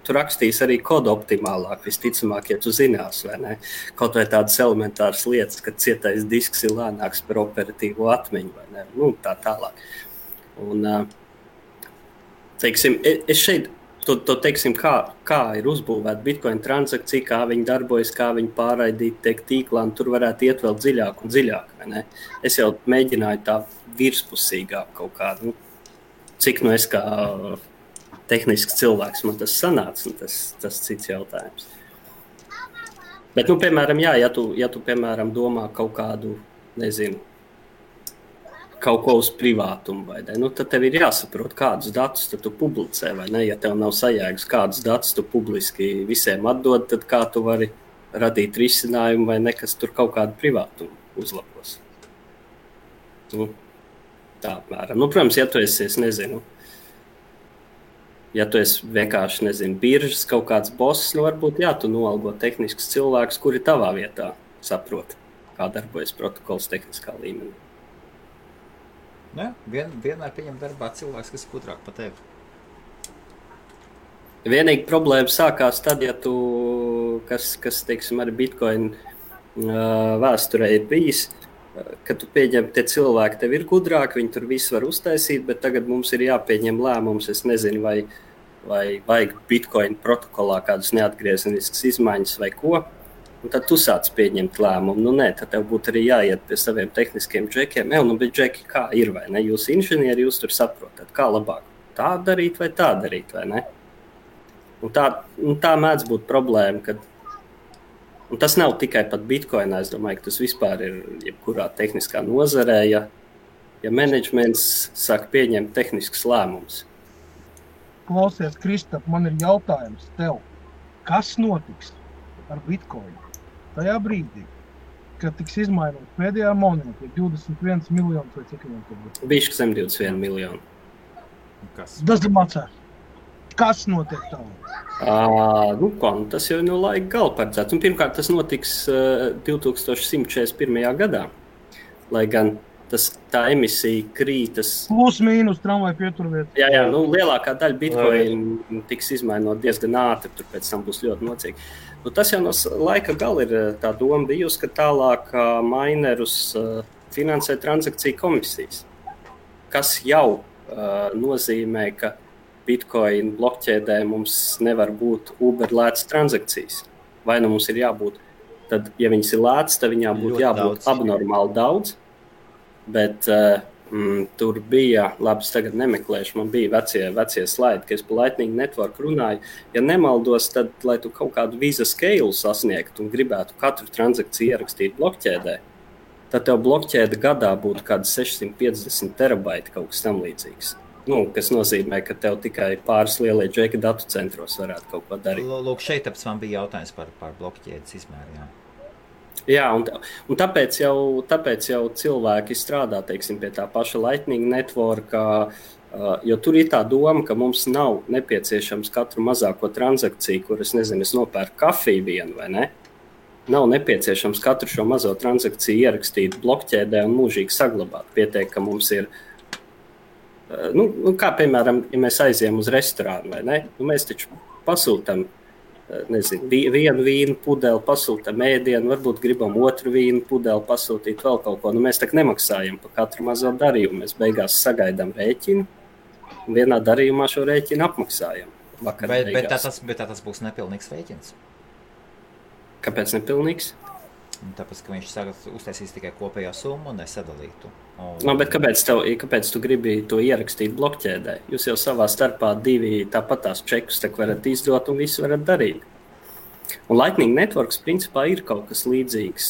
tu rakstīs arī kodu optimālāk, visticamāk, ja tu zinās, vai ne? Kaut vai tādas elementāras lietas, ka cietais disks ir lēnāks par operatīvo atmiņu, vai ne? Tā tālāk. Un, teiksim, es šeit teiksim, kā ir uzbūvēta Bitcoin transakcija, kā viņi darbojas, kā viņi pārraidīt tiek tīklā, un tur varētu iet vēl dziļāk un dziļāk, vai ne? Es jau mēģināju tā virspusīgāk kaut kādu, cik es kā tehnisks cilvēks man tas sanāca, un tas cits jautājums. Bet, piemēram, ja tu piemēram, domā kaut kādu, nezinu, kaut ko uz privātumu, vai ne? Tad tev ir jāsaprot, kādus datus tu publicē, vai ne? Ja tev nav sajēgas, kādus datus tu publiski visiem atdod, tad kā tu vari radīt risinājumu, vai ne, kas tur kaut kādu privātumu uzlabos. Tā apmēram. Protams, ja tu esi, es nezinu, ja tu esi vienkārši, biržas kaut kāds boss, varbūt, tu noalgo tehniskus cilvēkus, kuri tavā vietā saprot, kā darbojas protokols tehniskā līmenī. Vienmēr pieņem darbā cilvēks, kas ir gudrāk par tevi. Vienīgi problēma sākās tad, ja tu, kas teiksim, arī Bitcoin vēsturē ir bijis, ka tu pieņem, tie cilvēki tev ir gudrāki, viņi tur visu var uztaisīt, bet tagad mums ir jāpieņem lēmums, es nezinu, vai vajag Bitcoin protokolā kādus neatgriezeniskas izmaiņas vai ko. Un tad tu sāc pieņemt lēmumu. Tad tev būtu arī jāiet pie saviem tehniskiem džekiem. Bet džeki kā ir, vai ne? Jūs inženieri, jūs tur saprotat, kā labāk tā darīt vai tā darīt, vai ne? Un tā mēdz būt problēma, un tas nav tikai pat Bitcoinā, es domāju, ka tas vispār ir jebkurā tehniskā nozarē, ja menedžments sāk pieņemt tehniskus lēmumus. Klausies, Kristap, man ir jautājums tev. Kas notiks ar Bitcoinu tajā brīdī, ka tiks izmainot pēdējā monēta, 21 miljonus vai cik viņam tur būs. Bišķi zem 21 miljonu. Kas? Tas ir macā. Kas notiek tā? Tas jau no laika gala paredzēts. Un pirmkārt, tas notiks 2141. gadā, lai gan tā emisija krītas. Plus mīnus tramvai pieturvieta. Jā, lielākā daļa bitcoin tiks izmainot diezgan ātri, tur pēc tam būs ļoti nocīgi. Tas jau no laika gala ir tā doma bijusi, ka tālāk minerus finansē transakciju komisijas, kas jau nozīmē, ka Bitcoin blokķēdē mums nevar būt Uber lētas transakcijas. Vai nu mums ir jābūt, tad, ja viņas ir lētas, tad viņām būtu jābūt abnormāli daudz. Bet tur bija, labi, es tagad nemeklēšu, man bija vecie slaidi, ka es pa Lightning Network runāju. Ja nemaldos, tad, lai tu kaut kādu Visa scale sasniegtu un gribētu katru transakciju ierakstīt blokķēdē, tad tev blokķēde gadā būtu kādi 650 terabaiti kaut kas tam līdzīgs. Kas nozīmē, ka tev tikai pāris lielie džeki datu centros varētu kaut ko darīt. Lūk, šeit man bija jautājums par blokķēdes izmēru. Jā, un tāpēc jau cilvēki strādā, teiksim, pie tā paša Lightning Network, jo tur ir tā doma, ka mums nav nepieciešams katru mazāko transakciju, kur es nopērku kafiju vienu vai ne. Nav nepieciešams katru šo mazo transakciju ierakstīt blokķēdē un mūžīgi saglabāt. Pietiek, ka mums ir kā piemēram, ja mēs aizējam uz restorānu, vai ne? Mēs taču pasūtam, vienu vīnu pudeli, pasūtam ēdienu, varbūt gribam otru vīnu pudeli pasūtīt vēl kaut ko. Mēs tak nemaksājam par katru mazo darījumu. Mēs beigās sagaidām rēķinu un vienā darījumā šo rēķinu apmaksājam. Bet tas būs nepilnīgs rēķins. Kāpēc nepilnīgs? Tāpēc, ka viņš uztaisīs tikai kopējā summu un nesadalītu. Bet kāpēc tu gribi to ierakstīt blokķēdē? Jūs jau savā starpā divi tāpatās čekus varat izdot un visu varat darīt. Un Lightning Networks principā ir kaut kas līdzīgs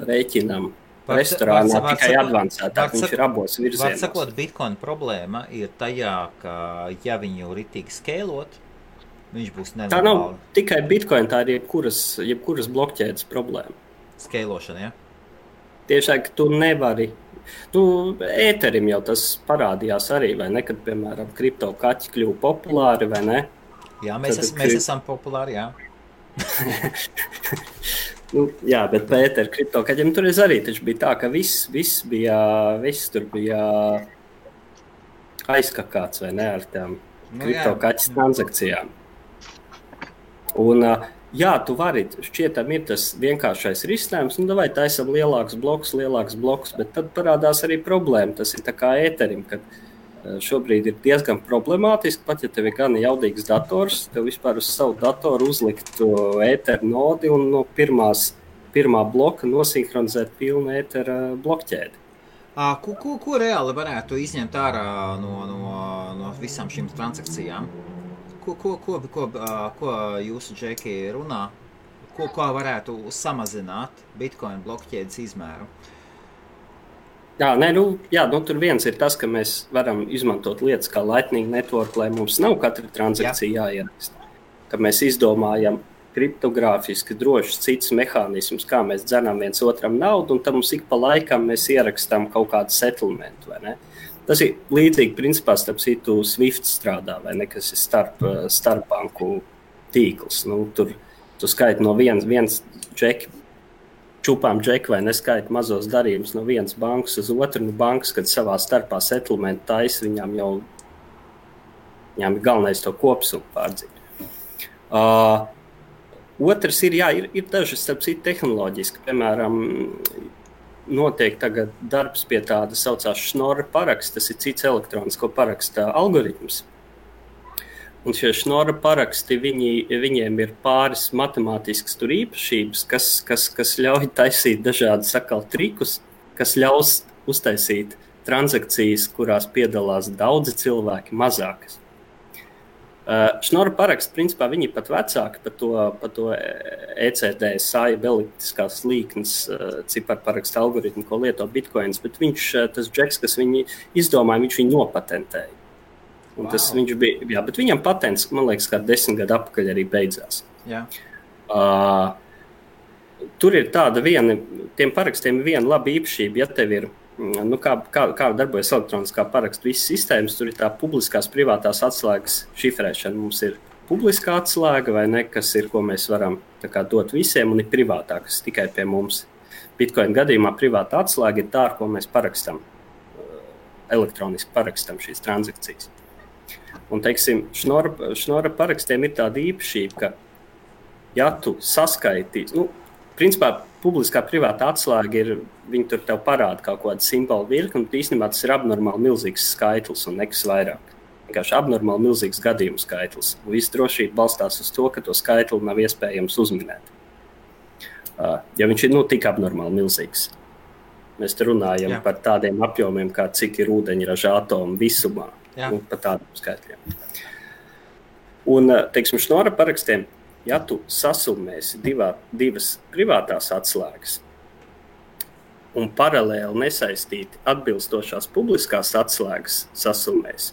rēķinam restorānā, tikai advancētāk, viņš ir abos virzienos. Var sakot, Bitcoin problēma ir tajā, ka ja viņu ritīgi skēlot, viņš būs nenormāli. Tā nav tikai Bitcoin, tā ir jebkuras blokķēdes problēma. Skēlošana, ja? Tiešām, ka tu nevari. Ēterim jau tas parādījās arī, vai ne? Kad, piemēram, kripto kaķi kļuva populāri, vai ne? Jā, mēs esam populāri, jā. Jā, bet par ēteru kripto kaķiem tur arī taču bija tā, ka viss tur bija aizkakāts, vai ne, ar tām kripto kaķis transakcijām. Un jā, tu vari, šķietam ir tas vienkāršais risinājums, vai taisam lielāks bloks, bet tad parādās arī problēma. Tas ir tā kā ēterim, kad šobrīd ir diezgan problemātiski, pat ja tev ir gan jaudīgs dators, tev vispār uz savu datoru uzlikt ēteru nodi un no pirmā bloka nosinhronizēt pilnu ētera blokķēdi. Ko reāli varētu izņemt ārā no visām šīm transakcijām? Ko jūsu džeki runā? Ko varētu samazināt Bitcoin blokķēdes izmēru? Tur viens ir tas, ka mēs varam izmantot lietas kā Lightning Network, lai mums nav katra transakcija jāieraksta. Ka mēs izdomājam kriptogrāfiski drošs cits mehānismus, kā mēs dzenam viens otram naudu, un tad mums ik pa laikam mēs ierakstām kaut kādu settlementu, vai ne? Tas ir līdzīgi, principā, starp citu Swift strādā, vai ne, kas ir starpbanku tīkls. Tur tu skaiti no viens džeki, čupām džeki vai neskaiti mazos darījumus no vienas bankas uz otru. Bankas, kad savā starpā settlement taisa, viņām ir galvenais to kopsumu pārdzīt. Otrs ir dažas, starp citu, tehnoloģiski, piemēram, notiek tagad darbs pie tāda saucās Schnorr paraksts, tas ir cits elektronisko paraksta algoritms. Un šie Schnorr paraksti, viņiem ir pāris matemātiskas tur īpašības, kas ļauj taisīt dažādas trikus, kas ļaus uztaisīt transakcijas, kurās piedalās daudzi cilvēki, mazākas. Schnorr paraksts, principā, viņi pat vecāki par to ECD, elliptiskās līknes ciparparaksta algoritmu, ko lieto Bitcoins, bet tas džeks, kas viņi izdomāja, viņš viņu nopatentēja. Un tas viņš bija, bet viņam patents, man liekas, kā 10 gadu atpakaļ arī beidzās. Jā. tur ir tāda tiem parakstiem viena laba īpašība, ja tev ir, kā darbojas elektroniskā parakstu visas sistēmas, tur ir tā publiskās privātās atslēgas šifrēšana. Mums ir publiskā atslēga, vai ne, kas ir, ko mēs varam tā kā dot visiem, un ir privātā, kas tikai pie mums. Bitcoin gadījumā privātā atslēga ir tā, ar ko mēs parakstam, elektroniski parakstam šīs transakcijas. Un, teiksim, šnora parakstiem ir tāda īpašība, ka, ja tu saskaitīs, principā publiskā privāta atslēga ir, viņi tur tev parāda kaut kādu simbolu virkni, un īstenībā tas ir abnormāli milzīgs skaitlis un nekas vairāk. Vienkārši abnormāli milzīgs gadījumu skaitlis. Un viss drošība balstās uz to, ka to skaitli nav iespējams uzminēt. Ja viņš ir tik abnormāli milzīgs. Mēs te runājam par tādiem apjomiem, kā cik ir ūdeņraža atomu visumā. Par tādiem skaitļiem. Un, teiksim, šnora parakstiem, ja tu sasumēsi divas privātās atslēgas un paralēli nesaistīti atbilstošās publiskās atslēgas sasumēsi,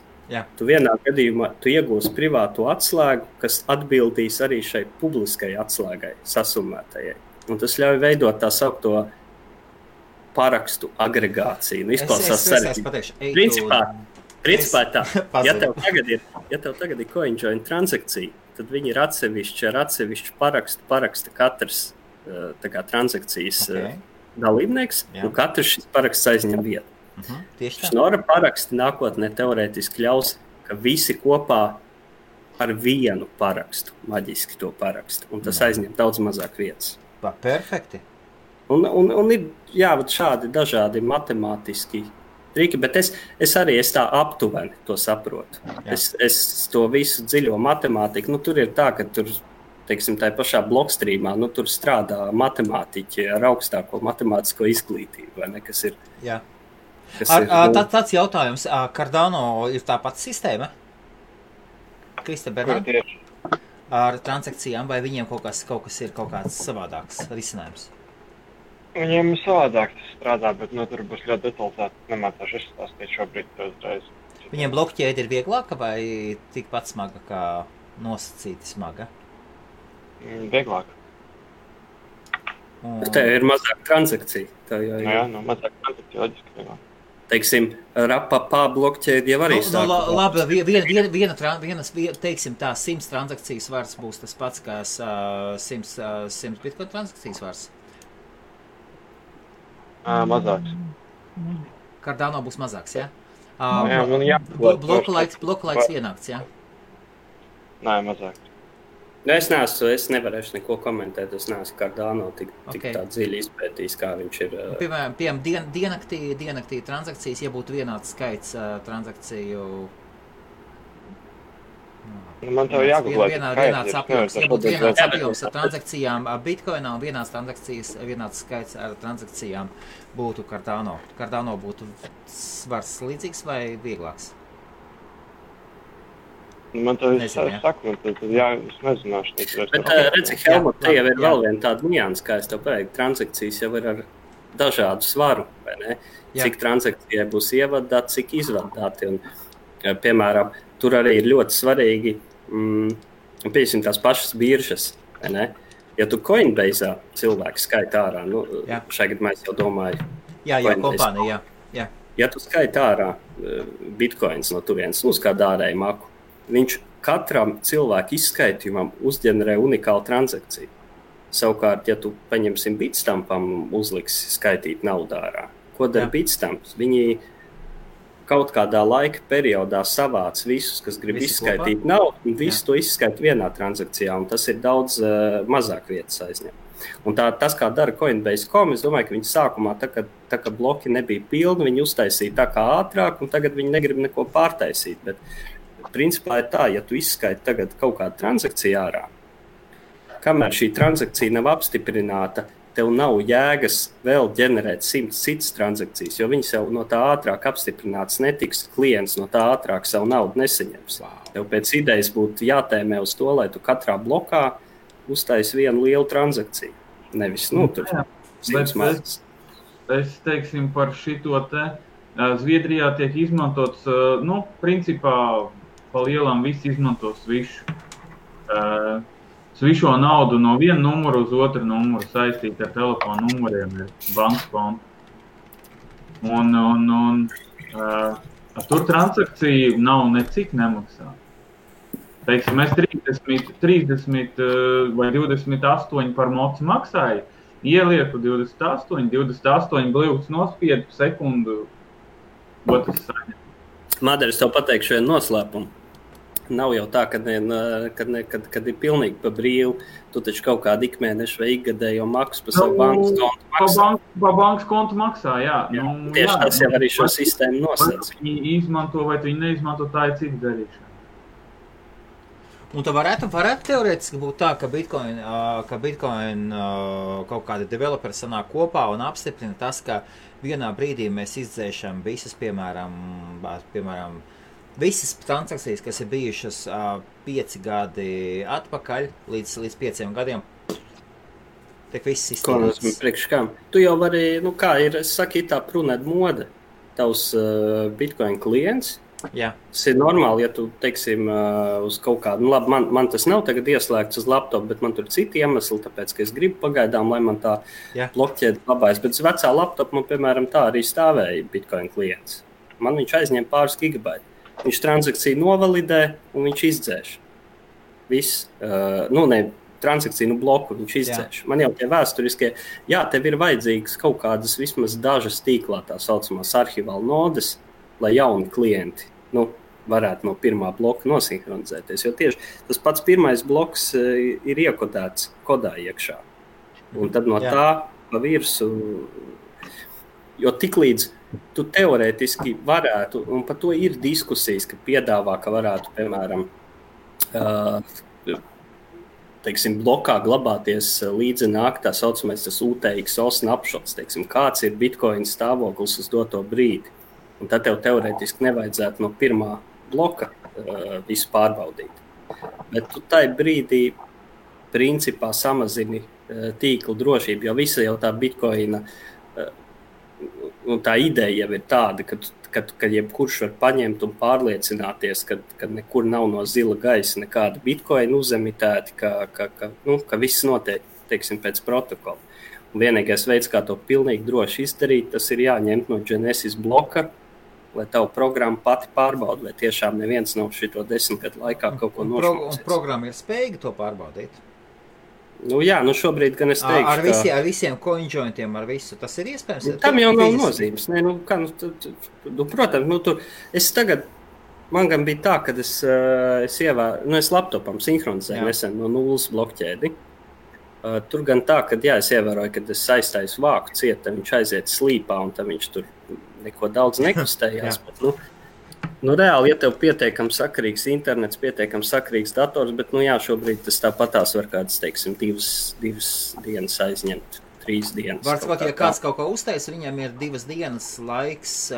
tu vienā gadījumā iegūsi privāto atslēgu, kas atbildīs arī šai publiskai atslēgai sasumētajai. Un tas ļauj veidot tā saukto parakstu agregāciju. Izklausās sarežģīti. Principā tā, ja tev tagad ir CoinJoin transakcija, tad viņi ir atsevišķi ar atsevišķu paraksta katrs transakcijas dalībnieks, un katrs šis paraksts aizņem vietu. Šnora paraksti nākotnē teorētiski ļaus, ka visi kopā ar vienu parakstu, maģiski to parakstu, un tas aizņem daudz mazāk vietas. Perfekti. Un ir šādi dažādi matemātiski triki, bet es arī tā aptuveni to saprotu. Es to visu dziļo matemātiku, tur ir tā, ka tur, teiksim, tā pašā blokstrīmā, tur strādā matemātiķi ar augstāko matemātisko izglītību, vai ne, kas ir... Tāds jautājums, Cardano ir tā pati sistēma? Krista Bernāns? Ar transakcijām, vai viņiem kaut kas ir kaut kāds savādāks risinājums? Viņiem ir savādāk tas strādā, bet tur būs ļoti detalizēti. Nemācāšu izstāstīt šobrīd uzreiz. Viņiem blokķēde ir vieglāka vai tikpat smaga kā nosacīti smaga? Vieglāka. Te ir mazāk transakcija. Mazāk transakcija loģiski vieglāk. Teiksim, Rapapā blokķēde jau arī sāk. Labi, teiksim tā, 100 transakcijas vārds būs tas pats kā 100 Bitcoin transakcijas vārds. Mazāks. Cardano būs mazāks, ja? Bloku laiks vienāks, ja? Nē, mazāks. Es nevarēšu neko komentēt, es neesmu Cardano tik tā dziļi izpētījis, kā viņš ir. Piemēram, diennaktī transakcijas, ja būtu vienāds skaits transakciju... Man tev jāgooglē. Vienāds apjoms, ja būtu vienāds apjoms ar transakcijām Bitcoinā un vienāds skaits ar transakcijām būtu Cardano. Cardano būtu svars līdzīgs vai vieglāks? Man tev saku, es nezināšu. Bet redzi, Helmut, te jau ir vēl viena tāda nianses, kā es tev pateiktu, transakcijas jau ir ar dažādu svaru, vai ne? Cik transakcijai būs ievadāt, cik izvadāti. Un, piemēram, tur arī ir ļoti svarīgi, piesim tās pašas biržas, vai ne? Ja tu Coinbase'ā cilvēku skaita ārā, šajā gadījumā es jau domāju. Jā, kompānija, jā. Ja tu skaita ārā bitcoins no turienes, uz kādu ārēju maku, viņš katram cilvēku izskaitījumam uzģenerē unikālu transakciju. Savukārt, ja tu paņemsim Bitstampam uzliksi skaitīt naudu ārā, ko dara Bitstamps? Viņi kaut kādā laika periodā savāc visus, kas grib izskaitīt naudu, un visu to izskaita vienā transakcijā, un tas ir daudz mazāk vietas aizņem. Un tas, kā dara Coinbase.com, es domāju, ka viņi sākumā, tā kā bloki nebija pilni, viņi uztaisīja tā kā ātrāk, un tagad viņi negrib neko pārtaisīt. Bet principā ir tā, ja tu izskaiti tagad kaut kādu transakciju ārā, kamēr šī transakcija nav apstiprināta, tev nav jēgas vēl ģenerēt 100 citas transakcijas, jo viņas jau no tā ātrāk apstiprināts netiks, klients no tā ātrāk savu naudu nesaņems. Tev pēc idejas būtu jātēmē uz to, lai tu katrā blokā uztaisi vienu lielu transakciju. Nevis, tur 100 mazas. Es teiksim par šito te. Zviedrijā tiek izmantots, principā pa lielām visi izmanto Swish. svišo naudu no viena numura uz otru numuru saistīt ar telefonu numuriem ir bankas konta. Un tur transakcija nav necik nemaksā. Teiksim, es 30 vai 28 par mocu maksāju, ielieku 28 bļūks nospiedu sekundu, otrs saņem. Madara, es tev pateikšu vienu noslēpumu. Nav jau tā, kad ir pilnīgi pa brīvu. Tu taču kaut kādu ikmēnešu vai ikgadējo maksu pa savu bankas kontu maksā. Pa bankas kontu maksā, jā. Tieši tas jau arī šo sistēmu nosacīja. Viņi izmanto vai viņi neizmanto, tā ir cita darīšana. Un tā varētu teorētiski būt tā, ka Bitcoin kaut kādi developeri sanāk kopā un apstiprina tas, ka vienā brīdī mēs izdzēšam visas, piemēram, visas transakcijas, kas ir bijušas 5 gadi atpakaļ, līdz 5 gadiem, tiek viss izstrādāts. Priekš kam? Tu jau vari, kā ir, es saku, tā prunēt mode, tavs Bitcoin klients. Jā. Tas ir normāli, ja tu, teiksim, uz kaut kādu, labi, man tas nav tagad ieslēgts uz laptopu, bet man tur citi iemesli, tāpēc, ka es gribu pagaidām, lai man tā blokķēde labājas. Bet uz vecā laptopu man, piemēram, tā arī stāvēja Bitcoin klients. Man viņš aizņem pāris gigabaiti. Viņš transakciju novalidē un viņš izdzēš. Viss, transakciju bloku viņš izdzēš. Man jau tie vēsturiskie, tev ir vajadzīgas kaut kādas vismaz dažas tīklā tā saucamās arhivāla nodes, lai jauni klienti varētu no pirmā bloka nosinhronizēties. Jo tieši tas pats pirmais bloks ir iekodēts kodā iekšā. Un tad no tā pa virsu, jo tiklīdz tu teorētiski varētu, un par to ir diskusijas, ka piedāvā, ka varētu, piemēram, teiksim, blokā glabāties līdzi nāk tā saucamais tas UTXO snapshots, teiksim, kāds ir Bitcoin stāvoklis uz doto brīdi. Un tad tev teorētiski nevajadzētu no pirmā bloka visu pārbaudīt. Bet tu tai brīdī principā samazini tīkla drošību, jo visa jau tā Bitcoina, un tā ideja jau ir tāda, ka jebkurš var paņemt un pārliecināties, ka nekur nav no zila gaisa nekāda Bitcoina uzemitēti, ka viss notiek, teiksim, pēc protokola. Un vienīgais veids, kā to pilnīgi droši izdarīt, tas ir jāņemt no Genesis bloka, lai tavu programmu pati pārbauda, lai tiešām neviens nav šito 10 gadu laikā kaut ko nošmūcīts. Un programma ir spējīga to pārbaudīt? Šobrīd gan es teikšu, ar visiem coinjointiem, ar visu, tas ir iespējams? Tam jau nav nozīmes. Protams, man gan bija tā, kad es laptopam sinhronizēju nesen no nulles blokķēdi. Tur gan tā, ka es ievēroju, kad es aizstāju vāku ciet, tad viņš aiziet slīpā un tad viņš tur neko daudz nekustējās. Bet, reāli, ja tev pietiekam sakarīgs internets, pietiekam sakarīgs dators, bet, šobrīd tas tāpatās var kādas, teiksim, divas dienas aizņemt, 3 dienas. Var sakot, ja kāds kaut ko uztais, viņam ir 2 dienas laiks.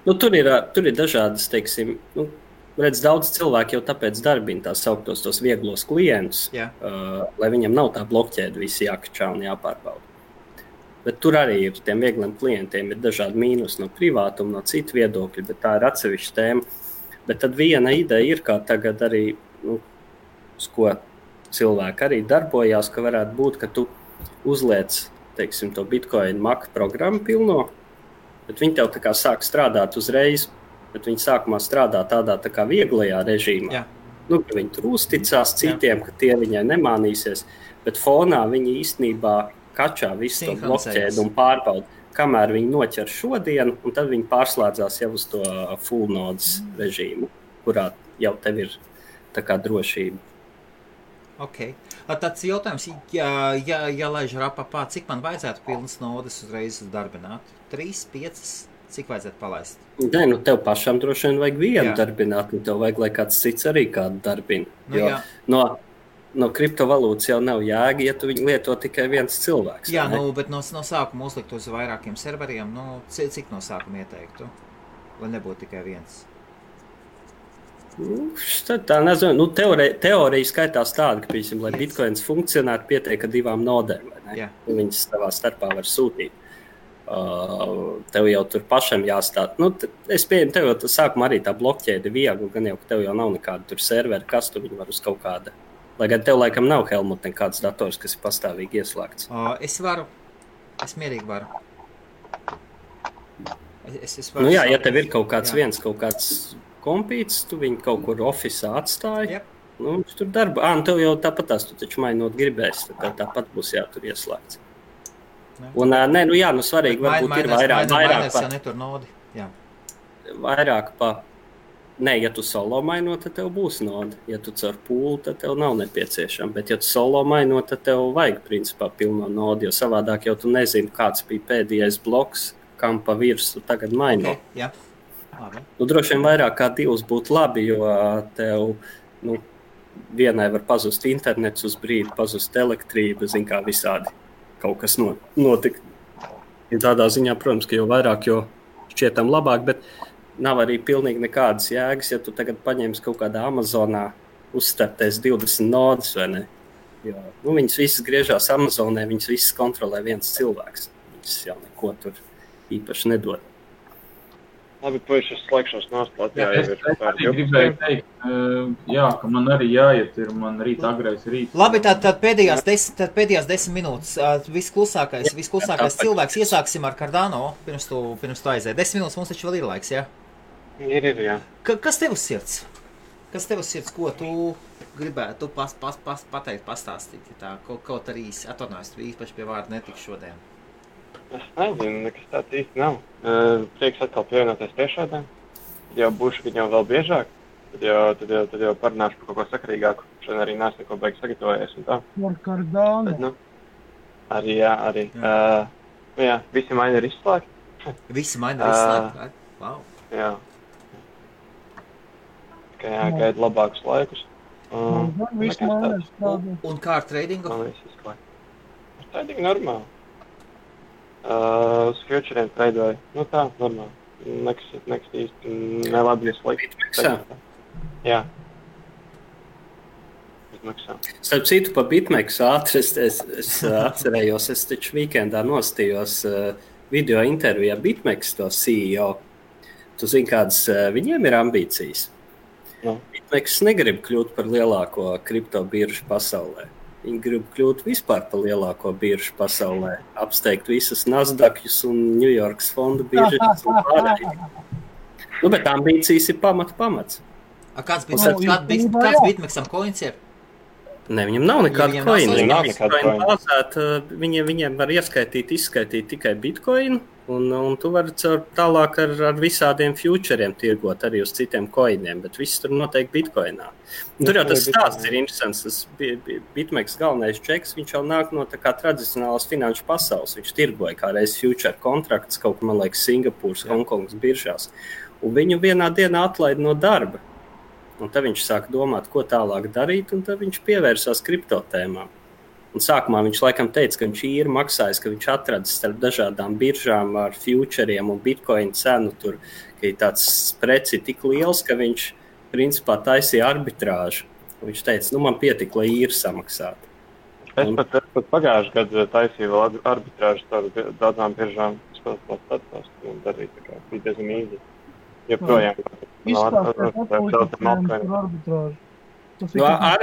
Tur ir dažādas, teiksim, redz, daudz cilvēku jau tāpēc darbina tās sauktos tos vieglos klientus, lai viņam nav tā blokķēde visi jākačā un jāpārbauda. Bet tur arī ir tiem viegliem klientiem ir dažādi mīnus no privātuma, no citu viedokļu, bet tā ir atsevišķa tēma. Bet tad viena ideja ir, kā tagad arī, uz ko cilvēki arī darbojās, ka varētu būt, ka tu uzliec, teiksim, to Bitcoin Mac programmu pilno, bet viņi tev tā kā sāk strādāt uzreiz, bet viņi sākumā strādā tādā tā kā vieglajā režīmā. Ka viņi tur uzticās citiem, ka tie viņai nemānīsies, bet fonā viņi īstenībā kačā visu to blokķēdi un pārbauda, kamēr viņi noķer šodienu, un tad viņi pārslēdzās jau uz to full nodes režīmu, kurā jau tev ir tā kā drošība. Ok. Tāds jautājums, ja laiž rapapā, cik man vajadzētu pilnas nodes uzreiz darbināt? 3, 5, cik vajadzētu palaist? Nē, tev pašam droši vien vajag vienu darbināt, un tev vajag, lai kāds cits arī kādu darbina. No kriptovalūtas jau nav jēga, ja tu viņu lieto tikai viens cilvēks. Jā, bet no sākuma uzlikt uz vairākiem serveriem, cik no sākuma ieteiktu, lai nebūtu tikai viens? Tā nezinu, teorija skaitās tāda, ka, piemēram, lai Bitcoins funkcionētu, pietiek ar 2 nodēm, vai ne? Viņas savā starpā var sūtīt. Tev jau tur pašam jāstāt. Es pieņemu, tev jau sākumā arī tā blokķēde viegli, gan jau, ka tev jau nav nekāda tur servera, kas tu viņu var uz kaut kāda Lai gan tev laikam nav, Helmut, nekāds dators, kas ir pastāvīgi ieslēgts. Es mierīgi varu. Es varu Nu jā, ja tev ir kaut kāds kompīts, tu viņu kaut kur ofisā atstāji. Jep. Nu, viņš tur darba. Nu tev jau tāpatās, tu taču mainot gribēs, tad tāpat būs jātur ieslēgts. Un, svarīgi varbūt ir vairāk jau netur nodi. Jā. Vairāk pa... Nē, ja tu solo mainot, tad tev būs noda. Ja tu caur pūli, tad tev nav nepieciešama. Bet ja tu solo mainot, tad tev vajag principā pilno nodu, jo savādāk jau tu nezini, kāds bija pēdējais bloks, kam pa virsu tagad mainot. Okay, jā. Labi. Nu, droši vien vairāk kā 2 būtu labi, jo tev, vienai var pazust internets uz brīdi, pazust elektrība, zin kā visādi kaut kas notika. Tādā ziņā, protams, ka jo vairāk, jo šķietam labāk, bet nav arī pilnīgi nekādas jēgas, ja tu tagad paņemsi kaut kādā Amazonā, uzstartēs 20 nodas, vai ne? Jo, viņas visas griežās Amazonē, viņas visas kontrolē viens cilvēks. Viņas jau neko tur īpaši nedod. Labi, puiši, es slēgšos nost Latvijā. Es arī gribēju teikt, ka man arī jāiet, man rīt agrais rīt. Labi, tad pēdējās 10 minūtes. Visklusākais cilvēks. Iesāksim ar Cardano, pirms tu aiziet. 10 minūtes mums taču vēl ir laiks, jā? Ir, jā. Kas tev uz sirds? Ko tu gribētu pateikt, pastāstīt? Tā, kaut arī atornājos, tu īpaši pie vārda netik šodien. Es nezinu, nekas tāds īsti nav. Prieks atkal pievienoties tiešādēm. Tad jau būšu viņam vēl biežāk. Tad jau parunāšu par kaut ko sakarīgāku. Šodien arī neesmu neko baigi sagatavojies un tā. Ar Cardano. Arī, jā. Visi maini ir izslēgti. Visi maini ir izslēgti? Wow. Jā. Tikai jāgaida labākus laikus. Visi maini ir strādāt. Un kā ar tradingu? Man viss izslēgt. Ar tradingu normāli. Uz futuriem traidoju. Tā, normāli. Nekas īsti nelabi ieslēgt. Bitmexā? Jā. Bitmexā. Starp citu, pa Bitmexu ātri es atcerējos, es taču weekendā nostījos video intervijā Bitmex to CEO. Tu zini, kādas viņiem ir ambīcijas? No. Bitmex negrib kļūt par lielāko kripto biržu pasaulē. Viņi grib kļūt vispār par lielāko biržu pasaulē, apsteigt visas Nasdaqus un New Yorkas fondu biržas un pārējiem. Bet ambīcijas ir pamats. Kāds Bitmexam coins ir? Ne, viņam nav nekāda coina. Viņiem var izskaitīt tikai bitcoinu, un tu vari tālāk ar visādiem futuriem tirgot arī uz citiem coiniem, bet viss tur noteikti bitcoinā. Tur jau tas stāsts ir interesants. Tas Bitmex galvenais čeks, viņš jau nāk no tā kā tradicionālas finanšu pasaules. Viņš tirgoja kā reiz future kontrakts, kaut kā, man liekas, Singapūras, Hongkongas biržās. Un viņu vienā dienā atlaida no darba. Un tad viņš sāka domāt, ko tālāk darīt, un tad viņš pievērsās kriptotēmām. Un sākumā viņš laikam teica, ka viņš ir maksājis, ka viņš atradis starp dažādām biržām ar futuriem un bitcoin cenu tur, ka ir tāds spreci tik liels, ka viņš principā taisīja arbitrāžu. Un viņš teica, man pietika, lai īri samaksātu. Es pat pagājuši gadu taisīju vēl arbitrāžu tādu daudzām biržām. Es pat darīju, tā kā bija diezgan īzi. Joprojām.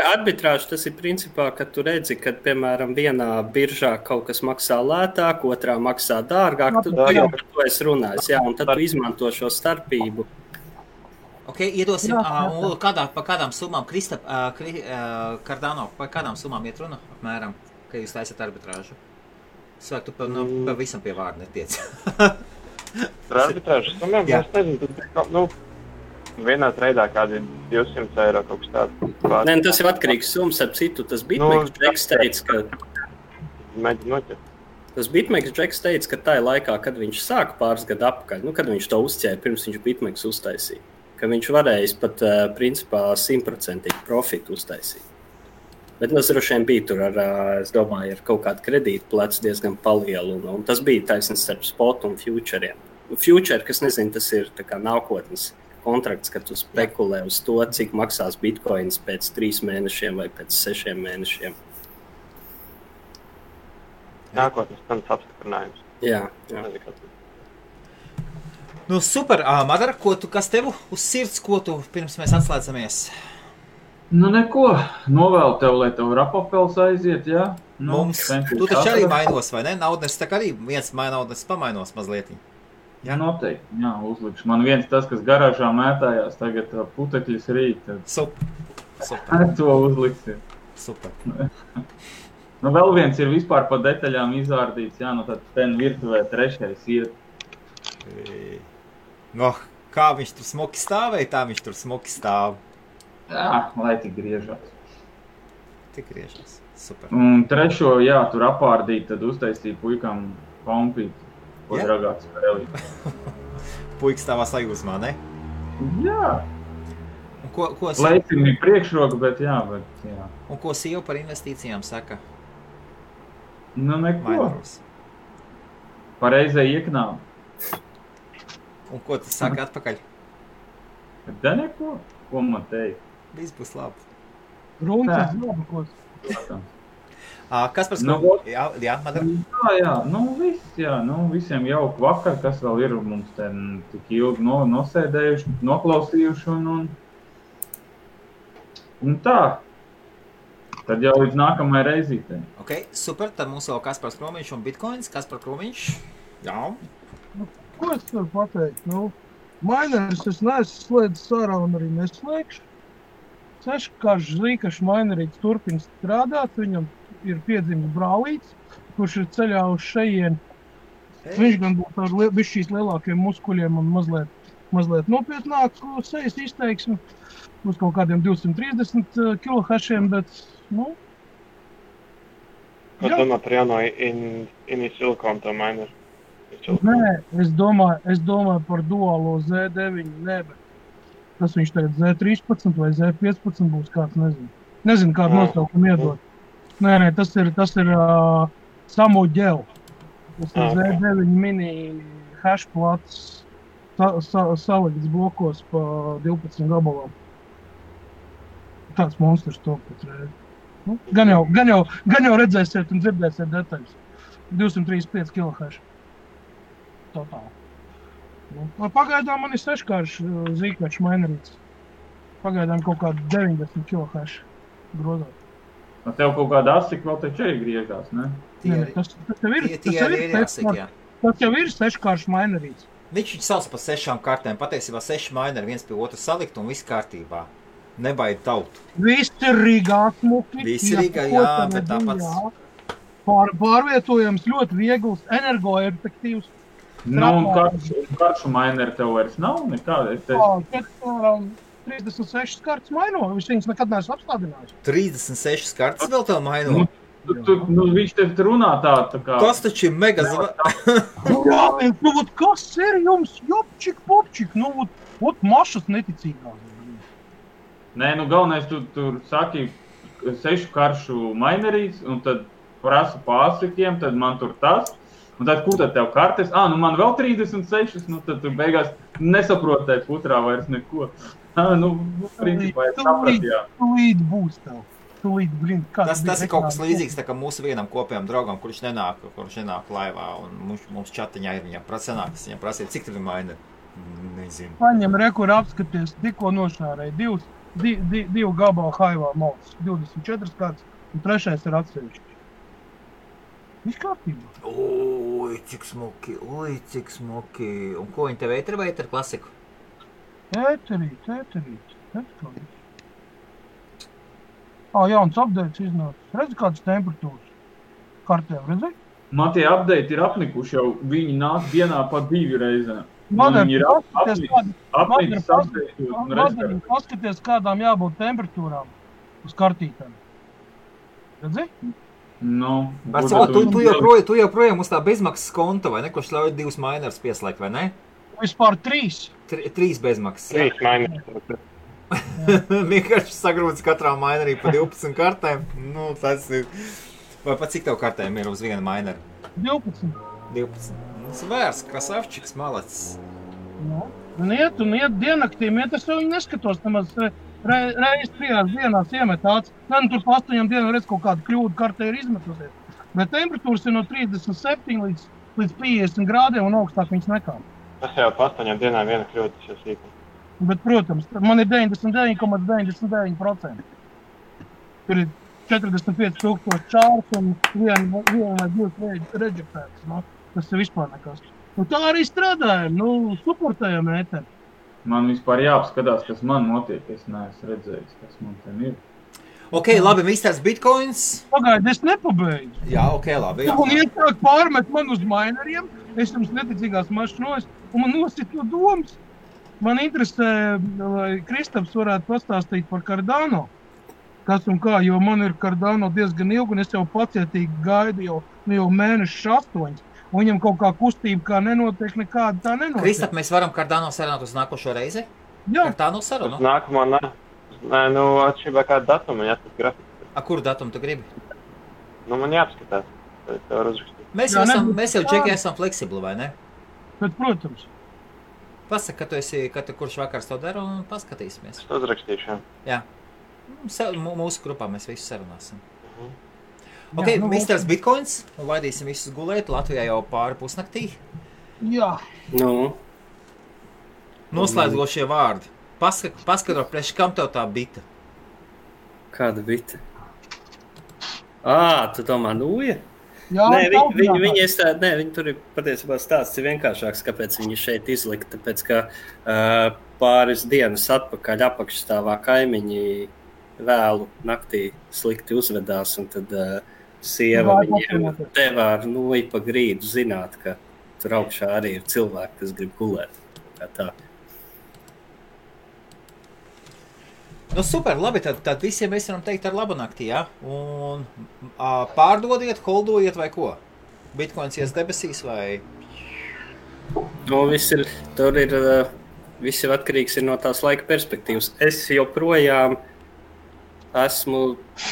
Arbitrāžu tas ir principā, ka tu redzi, ka, piemēram, vienā biržā kaut kas maksā lētāk, otrā maksā dārgāk, tu jau par to esi runājis, jā, un tad tu izmanto šo starpību. Ok, iedosim, pa kādām summām, Cardano, pa kādām summām iet runa, apmēram, ka jūs taisat arbitrāžu? Svāk, tu pa visam pie vārda netiec. Par arbitrāžu summām, es nezinu, vienā treidā kādi 200 eiro kaut kas tāds. Nē, tas ir atkarīgs summas, ap citu, tas Bitmex Džeks teica, ka... Mēģi noķert. Tas Bitmex Džeks teica, ka tajā laikā, kad viņš sāka pāris gadu atpakaļ, kad viņš to uzķēra, pirms viņš Bitmex uztaisīja, ka viņš varējis pat, principā, 100% profitu uztaisīt. Bet tas droši vien bija tur es domāju, ar kaut kādu kredītu plecu diezgan palielu, un tas bija taisnība starp spot un futuriem. Future, kas nezinu, tas ir tā kā nākotnes kontrakts, kad tu spekulē uz to, cik maksās bitcoins pēc 3 mēnešiem vai pēc 6 mēnešiem. Nākotnes cenas apstiprinājums. Jā. Super, Madara, kas tev uz sirds, ko tu pirms mēs atslēdzamies? Nu neko, novēlu tev, lai tev rapapels aiziet, jā? Nu, Mums, tu taču arī mainos, vai ne? Naudnes tā kā arī viens naudnes pamainos mazliet. Jā, noteikti, jā, uzlikšu. Man viens tas, kas garāžā mētājās, tagad putekļus rīt, tad Super. to uzliksim. Super. Nu, vēl viens ir vispār pa detaļām izvārdīts, jā, nu tad ten virtuvē trešais iet. No, kā viņš tur smuki stāvēja, tā viņš tur smuki stāv. Jā, lai tik griežās. Tik griežās. Super. Un trešo, jā, tur apārdīt, tad uztaisīja puikam kompīt, ko Jā? dragāts spēlīt. Puiks stāvā sajūsmā, ne? Jā, Un ko leicim ir priekšroka, bet jā. Un ko sieva par investīcijām saka? Nu, neko. Mainoros. Pareizai ieknām. Un ko tu saka atpakaļ? Da neko, ko man teikt. Viss būs labi. Runcis labākos. Kas par Nu, skolu? Jā, Madara? Jā, nu viss, jā, nu visiem jauku vakar, kas vēl ir mums ten tik ilgi nosēdējuši, noklausījuši un tā. Tad jau līdz nākamajai reizītei. Ok, super, tad mums vēl Kaspars Kromiņš un Bitcoins. Kaspar Kromiņš? Jā. Ko es varu pateikt? Nu, mainers es neesmu slēdzis ārā un arī neslēgšu. Seškāršs Zīkašs mainerīts turpina strādāt, viņam ir piedzimis brālīts, kurš ir ceļā uz šejien. Viņš gan būs ar bišķīs lielākiem muskuļiem un mazliet nopietnāk sejas izteiksmi. Uz kaut kādiem 230 kilohešiem, bet, nu... Ko domā par jauno Ini Silicon to maineru? Nē, es domāju par duālo Z9, nē, bet tas viņš tagad Z13 vai Z15 būs kāds, nezinu. Nezinu, kādu nosaukumu iedot. Nē, tas ir Samo Gel. Tas ir Z9 mini hashplats salikts blokos pa 12 gabalām. Tāds monstrs to pēc reizi. Nu, gan jau redzēsiet un dzirdēsiet detaļas. 235 kHz. Totāli. Nu, pagaidām man ir seškāršs Zīkašs mainerīts. Pagaidām kaut kādi 90 kHz grozāt. Nu, tev kaut kāda asika vēl taču arī griežās, ne? Tas jau ir seškāršs mainerīts. Viņš sauc par 6 kartēm. Patiesībā 6 maineri viens pie otru salikt un viss kārtībā. Nebaid tautu. Viss ir Rīgā smuki. Viss ir Rīgā, jā, bet tāpats. Pārvietojams, ļoti viegls, energoefektīvs. Nu, un karšu maineri tev vairs nav nekāda. 36 kartas maino, viņas nekad neesmu apstādinājis. 36 kartas vēl tev maino? Viņš tev runā tā kā... Tas taču ir mega Jā, nu, kas ir jums? Jopčik, popčik, nu, mašas neticīgās. Nē, nu, galvenais tu tur saki 6 karšu mainerīts, un tad prasu pārsikiem, tad man tur tas. Un tad, kur tad tev kartes? Nu man vēl 36, nu tad tu beigās nesaprotai putrā vairs neko. Nu, principā es sapratu, jā. Tūlīt būs tev. Tas ir kaut kas līdzīgs tā kā mūsu vienam kopējam draugam, kurš nenāk laivā, un mums čatiņā ir viņam prasīt, cik tev ir maineri? Nezinu. Paņem rekur apskaties, tikko nošārēja divu gabalu haivā malts, 24 kārtas, un trešais ir atsevišķi. Viss kārtībā. Oi, cik smuki. Un ko viņi tev ēteri vai ēteri klasiku? Ēterīt. Jauns updates iznācis. Redzi, kādas temperatūras kartēm, redzi? Man tie update ir apnikuši jau, viņi nāk dienā pa 2 reizēm. Madara, Viņi paskaties, kādām jābūt temperatūrām uz kartītēm. Redzi? Nu, tu joprojām uz tā bezmaksas konta, vai ne, kurš ļauj 2 mainers pieslēgt, vai ne? Vispār 3. 3 bezmaksas. 3 maineri. Vienkārši sagrūdis katrā mainerī pa 12 kartēm. Nu, tas ir... Vai pat cik tev kartēm ir uz viena maineri? 12. Svērs, krasavčiks, malacis. Un iet diennaktīm, es jau viņu neskatos, nemaz reiz 3 dienās iemet tāds. Tur pa 8 dienām redz kaut kādu kļūdu kartē ir izmetusies. Bet temperatūras ir no 37 līdz 50 grādiem un augstāk viņas nekā. Tas jau pa 8 dienām viena kļūda, tas jau sīkums. Bet, protams, man ir 99,99%. tur ir 45,000 čārs un viena vai divas reģistrētas. No? Tas ir vispār nekas. Tā arī strādājam, suportējam ēteri. Man vispār jāapskatās, kas man notiek. Es neesmu redzējis, kas man ten ir. Ok, labi, Misters Bitcoins. Pagaidi, es nepabeidzu. Jā, ok, labi. Jā. Un iesāk pārmet man uz maineriem, es jums neticīgās mašinos, un man nosit no domas. Man interesē, lai Kristaps varētu pastāstīt par Cardano. Kas un kā, jo man ir Cardano diezgan ilgi, un es jau pacietīgi gaidu jau mēnešus 8. Un viņam kaut kā kustība kā nenotiek, nekāda tā nenotiek. Kristap, mēs varam Cardano sarunāt uz nākošo reizi? Jā. Cardano sarunu? Nākamā, nē, atšķirībā kādu datumu, jāskat grafiku. Kuru datumu tu gribi? Man jāapskatās, tad tev var uzrakstīt. Mēs jau Džeki esam fleksibli, vai ne? Bet, protams. Pasaka, kurš vakars to dara un paskatīsimies. Es uzrakstīšu, jā. Mūsu grupā mēs visus sarunāsim. Ok, Misters Bitcoins, un laidīsim visus gulēt. Latvijā jau pāri pusnaktī. Jā. Noslēdzošie vārdi. Paskatro, priekš kam tev tā bita? Kāda bita? Tu domā Nūja? Jā, viņi tur ir patiesībā stāsts ir vienkāršāks, kāpēc viņi šeit izlika. Tāpēc, ka pāris dienas atpakaļ apakšstāvā kaimiņi vēlu naktī slikti uzvedās, un tad sieva viņiem devā ar Nūju pa grīdu zināt, ka tur augšā arī ir cilvēki, kas grib gulēt. Kā tā. Super, labi, tad visiem mēs varam teikt ar labu nakti, jā? Un pārdodiet, holdojiet vai ko? Bitcoins ies debesīs vai? Viss ir atkarīgs no tās laika perspektīvas. Es joprojām esmu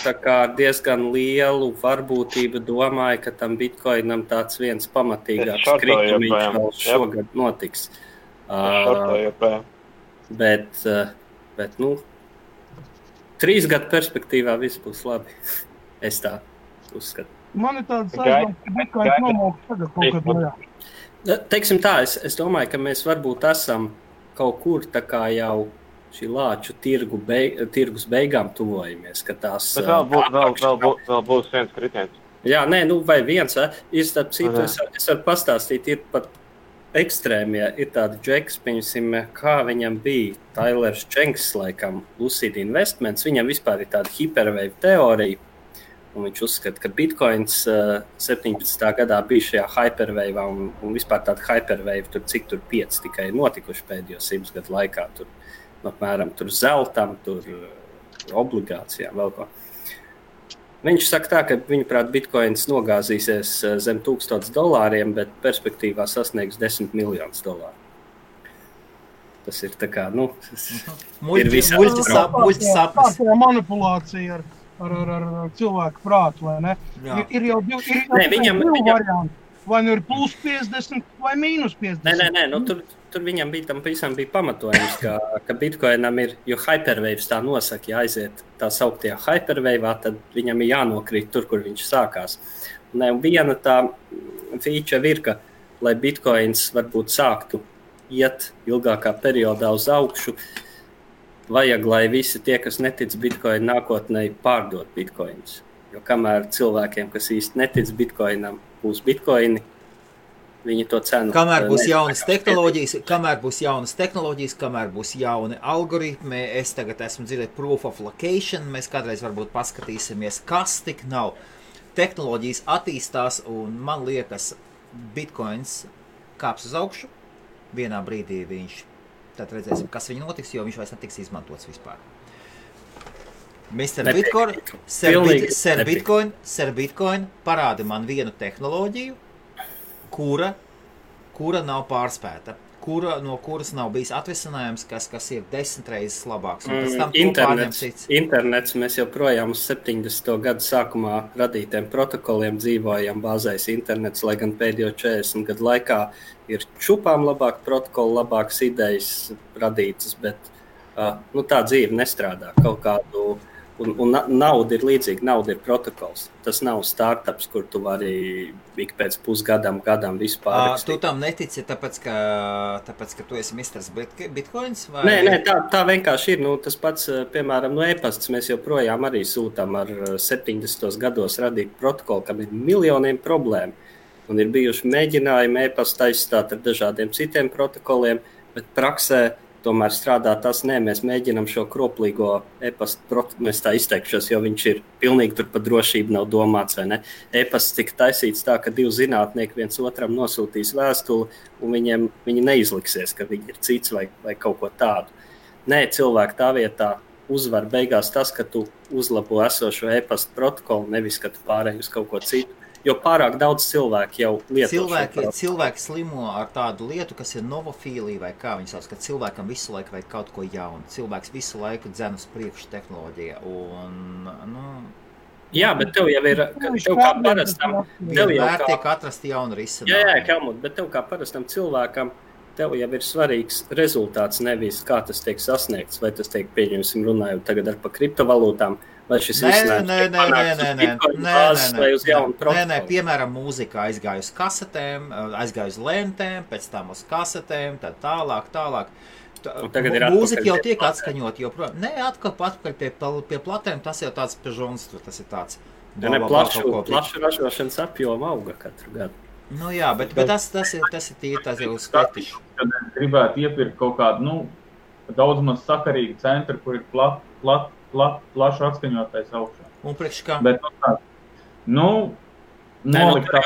tā kā diezgan lielu varbūtību domāju, ka tam Bitcoinam tāds viens pamatīgāks kritumiņš vēl šogad notiks. Bet 3 gadu perspektīvā viss būs labi. Es tā uzskatu. Man ir tāds aizdoms, ka Bitcoins nomauks tagad kaut kad lejā. Teiksim tā, es domāju, ka mēs varbūt esam kaut kur tā kā jau šī lāču tirgus beigām tuvojamies, ka tās... Bet vēl būs viens kritiens. Jā, vai viens. Ir starp citu, es varu pastāstīt, ir pat ekstrēmie, ir tādi džeks, piemēram, kā viņam bija Tailers Čenks, laikam, Lucid Investments, viņam vispār ir tāda hiperwave teorija, un viņš uzskata, ka Bitcoins 17. gadā bija šajā hyperwave, un vispār tāda hyperwave, cik tur 5 tikai notikuši pēdējo 100 gadu laikā, apmēram zeltam, obligācijām, vēl ko. Viņš saka tā, ka viņuprāt Bitcoins nogāzīsies zem $1000, bet perspektīvā sasniegs $10 miljonus. Tas ir tā kā, ir muļķis sapnis. Tā manipulācija ar cilvēku prātu, vai ne? Ir jau divi varianti. Vai nu ir plus 50 vai mīnus 50? Nē, tur viņam bija pamatojums, ka Bitcoinam ir, jo hyperwaves tā nosaka, ja aiziet tā sauktajā hyperwave'ā, tad viņam ir jānokrīt tur, kur viņš sākās. Un viena tā feature ir, ka, lai Bitcoins varbūt sāktu iet ilgākā periodā uz augšu, vajag, lai visi tie, kas netic Bitcoin nākotnē, pārdot Bitcoins. Jo kamēr cilvēkiem, kas īsti netic Bitcoinam, būs Bitcoini, viņi to cenu. Kamēr būs jaunas tehnoloģijas, kamēr būs jauni algoritmi, es tagad esmu dzirdēt proof of location, mēs kādreiz varbūt paskatīsimies, kas tik nav. Tehnoloģijas attīstās, un man liekas, Bitcoins kāps uz augšu, vienā brīdī viņš, tad redzēsim, kas viņu notiks, jo viņš vairs netiks izmantots vispār. Mr. Bitcoin, Sir Bitcoin parāda man vienu tehnoloģiju, kura nav pārspēta, no kuras nav bijis atvesinājums, kas ir 10 reizes labāks. Internets, mēs joprojām uz 70. gadu sākumā radītiem protokoliem dzīvojam, bāzēs internets, lai gan pēdējo 40 gadu laikā ir čupām labāk protokoli, labākas idejas radītas, bet tā dzīve nestrādā. Kaut kādu Un nauda ir līdzīga, nauda ir protokols. Tas nav startups, kur tu vari ik pēc pusgadam visu pārrakstīt. Tu tam netici, tāpēc, ka tu esi Misters Bitcoins? Vai? Nē, tā vienkārši ir. Tas pats, piemēram, e-pasts mēs joprojām arī sūtām ar 70. gados radīt protokolu, kam ir miljoniem problēmu. Un ir bijuši mēģinājumi e-pastu aizstāt ar dažādiem citiem protokoliem, bet praksē tomēr strādā tas, mēs mēģinām šo kroplīgo e-pastu protokolu, es tā izteikšos, jo viņš ir pilnīgi tur par drošību nav domāts, vai ne? E-pasts tika taisīts tā, ka 2 zinātnieki viens otram nosūtīs vēstuli, un viņi neizliksies, ka viņi ir cits vai kaut ko tādu. Nē, cilvēki tā vietā uzvar beigās tas, ka tu uzlabo esošo e-pastu protokolu, nevis, ka tu pārēj uz kaut ko citu. Jo pārāk daudz cilvēku jau lieto cilvēki slimo ar tādu lietu, kas ir novofīlija vai kā viņi sauc, ka cilvēkam visu laiku vajag kaut ko jaunu. Cilvēks visu laiku dzen uz priekšu tehnoloģiju. Jā, bet tev jau ir, tev kā parastam, vienmēr tiek atrast jaunu risinājumu. Jā, Helmut, bet tev kā parastam cilvēkam, tev jau ir svarīgs rezultāts, nevis kā tas tiek sasniegts, vai tas tiek pieņemsim runājot tagad ar pa kriptovalūtām, vai šis Nē, piemēram, mūzika aizgāja uz kasetēm, aizgāja uz lentēm, pēc tam uz kasetēm, tad tālāk. Mūzika jau tiek atskaņot, joprojām. Nē, atpakaļ pie platēm, tas jau tāds pežons, tas ir tāds. Plašu ražošanas apjoma auga katru gadu. Nu jā, bet tas ir tīri, tas ir uz sketišu. Kad gribētu iepirkt kaut kādu, daudz maz sakarīgu centru, kur ir plašu atskaņotais augšā. Un priekš kā? Bet nolikt tā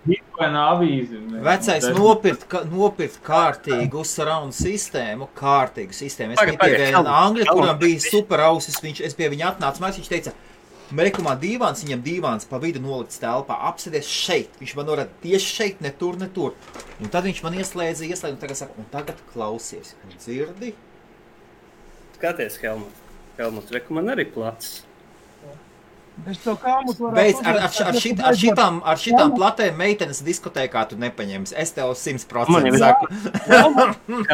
Bitcoina avīzi. Vecais nopirkt kārtīgu surround sistēmu, Es pie viena Angļa, kuram bija super ausis, es pie viņa atnācu, viņš teica, Mekumā dīvāns, viņam dīvāns pa vidu nolikts telpā, apsēdies šeit. Viņš man norāda tieši šeit, ne tur. Un tad viņš man ieslēdza, un tagad saka, un tagad klausies. Un dzirdi? Skaties, Helmut, reku man arī plats. Es to Helmut varētu Beidz, ar šitām platēm meitenes diskotēkā tu nepaņemsi. Es tev 100% saku. Un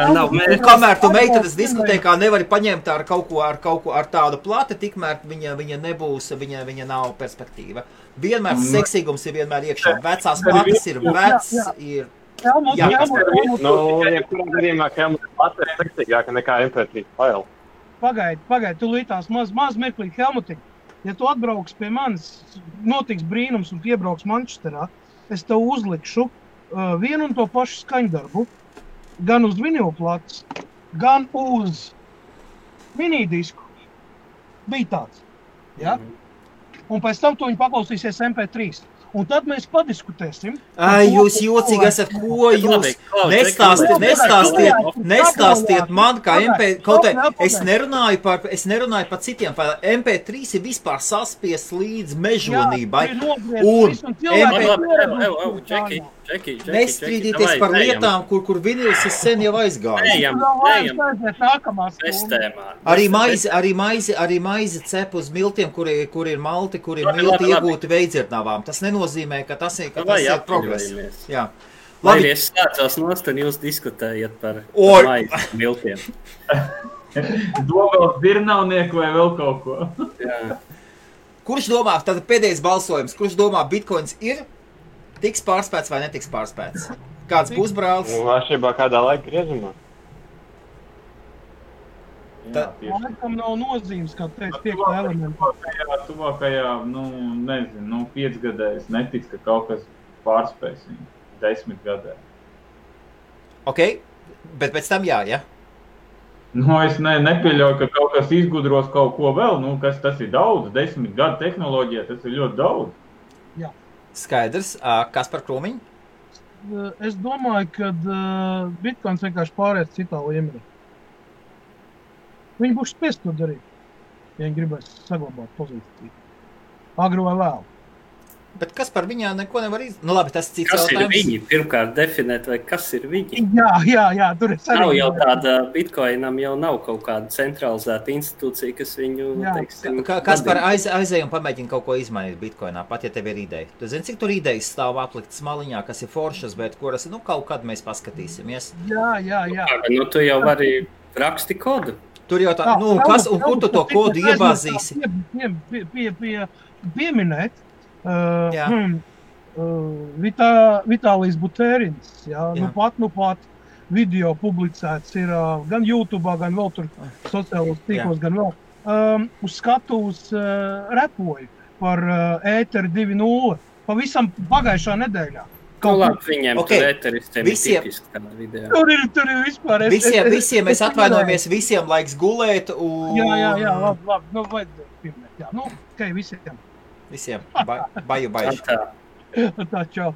kamēr tu meitenes diskotēkā nevari paņemt ar kaut ko ar tādu plati, tikmēr viņa nebūs, viņa nav perspektīva. Vienmēr seksīgums ir vienmēr iekšā. Vecās plates ir ir... Jebkurā gadījumā Helmut plate ir seksīgāka nekā MP3 faili. Pagaid, tu lītās maz mirklīt, Helmuti. Ja tu atbrauks pie manis, notiks brīnums un piebrauks Manchesterā, es tev uzlikšu vienu un to pašu skaņdarbu, gan uz vinilplates, gan uz minidisku. Bija tāds. Ja? Un pēc tam tu viņu paklausīsies MP3. Un tad mēs padiskutēsim. Jūs jocīgi esat, ko jūs nestāstiet man, kā es nerunāju par citiem, MP3 ir vispār saspies līdz mežonībai. Nestrīdīties par lietām, kur vinils ir sen jau aizgājis. Arī maizi cep uz miltiem, kur ir malti, kur ir milti iegūti veidzirdnavām. Tas nenozīmē, ka tas ir progress. Jā. Labi, es slēdzos nost un jūs diskutējat par maizi miltiem. Domās dirnavnieku vai vēl kaut ko. Jā. Kurš domā, tad pēdējais balsojums, kurš domā Bitcoins ir tiks pārspēts vai netiks pārspēts? Kāds būs brālis? Atšķirībā kādā laika griezumā. Laikam nav nozīmes, kā teikt, 5. elementu. Tuvākajā, 5 gadēs netiks, ka kaut kas pārspēs viņu 10 gadē. Ok, bet pēc tam jā? Es nepieļauju, ka kaut kas izgudros kaut ko vēl, kas tas ir daudz, 10 gadu tehnoloģija, tas ir ļoti daudz. Jā. Skaidrs, kas par krūmiņu? Es domāju, ka Bitcoins vienkārši pārēc citā līmenī. Viņi būs spiest to darīt, ja viņi gribēs saglabāt pozīciju. Agru vai vēl. Bet kas par viņā neko nevar izdarīt? Labi, tas cits kas jautājums. Kas ir viņi? Pirmkārt definēt, vai kas ir viņi? Jā, tur ir sarīdāt. Nav jau tāda, Bitcoinam jau nav kaut kāda centralizēta institūcija, kas viņu, teiksim... Kas par aizēju un pamēģina kaut ko izmainīt Bitcoinā, pat ja tev ir ideja? Tu zini, cik tur idejas stāv apliktas maliņā, kas ir foršas, bet kuras, kaut kad mēs paskatīsimies? Jā. Tu jau vari raksti kodu. Tur jau tā, nu, kas, un kur tu to kodu iebāzīsi? Pieminēt. Jā. Vitālijs Butērins, jā, Jā. Nu pat video publicēts ir gan YouTube, gan vēl tur sociālos tīklos, gan vēl. Uz skatuves repoju par ēteru 2.0 pavisam pagājušā nedēļā. Nu, labi, viņiem Okay. tur ēteristiem Visiem- ir tipiski tādā video. Tur ir vispār. Visiem mēs atvainojamies, visiem laiks gulēt, un... Jā, labi, nu vajadzēja pieminēt, jā, nu, visiem. Visiem, baju. Tā. Tā, čau.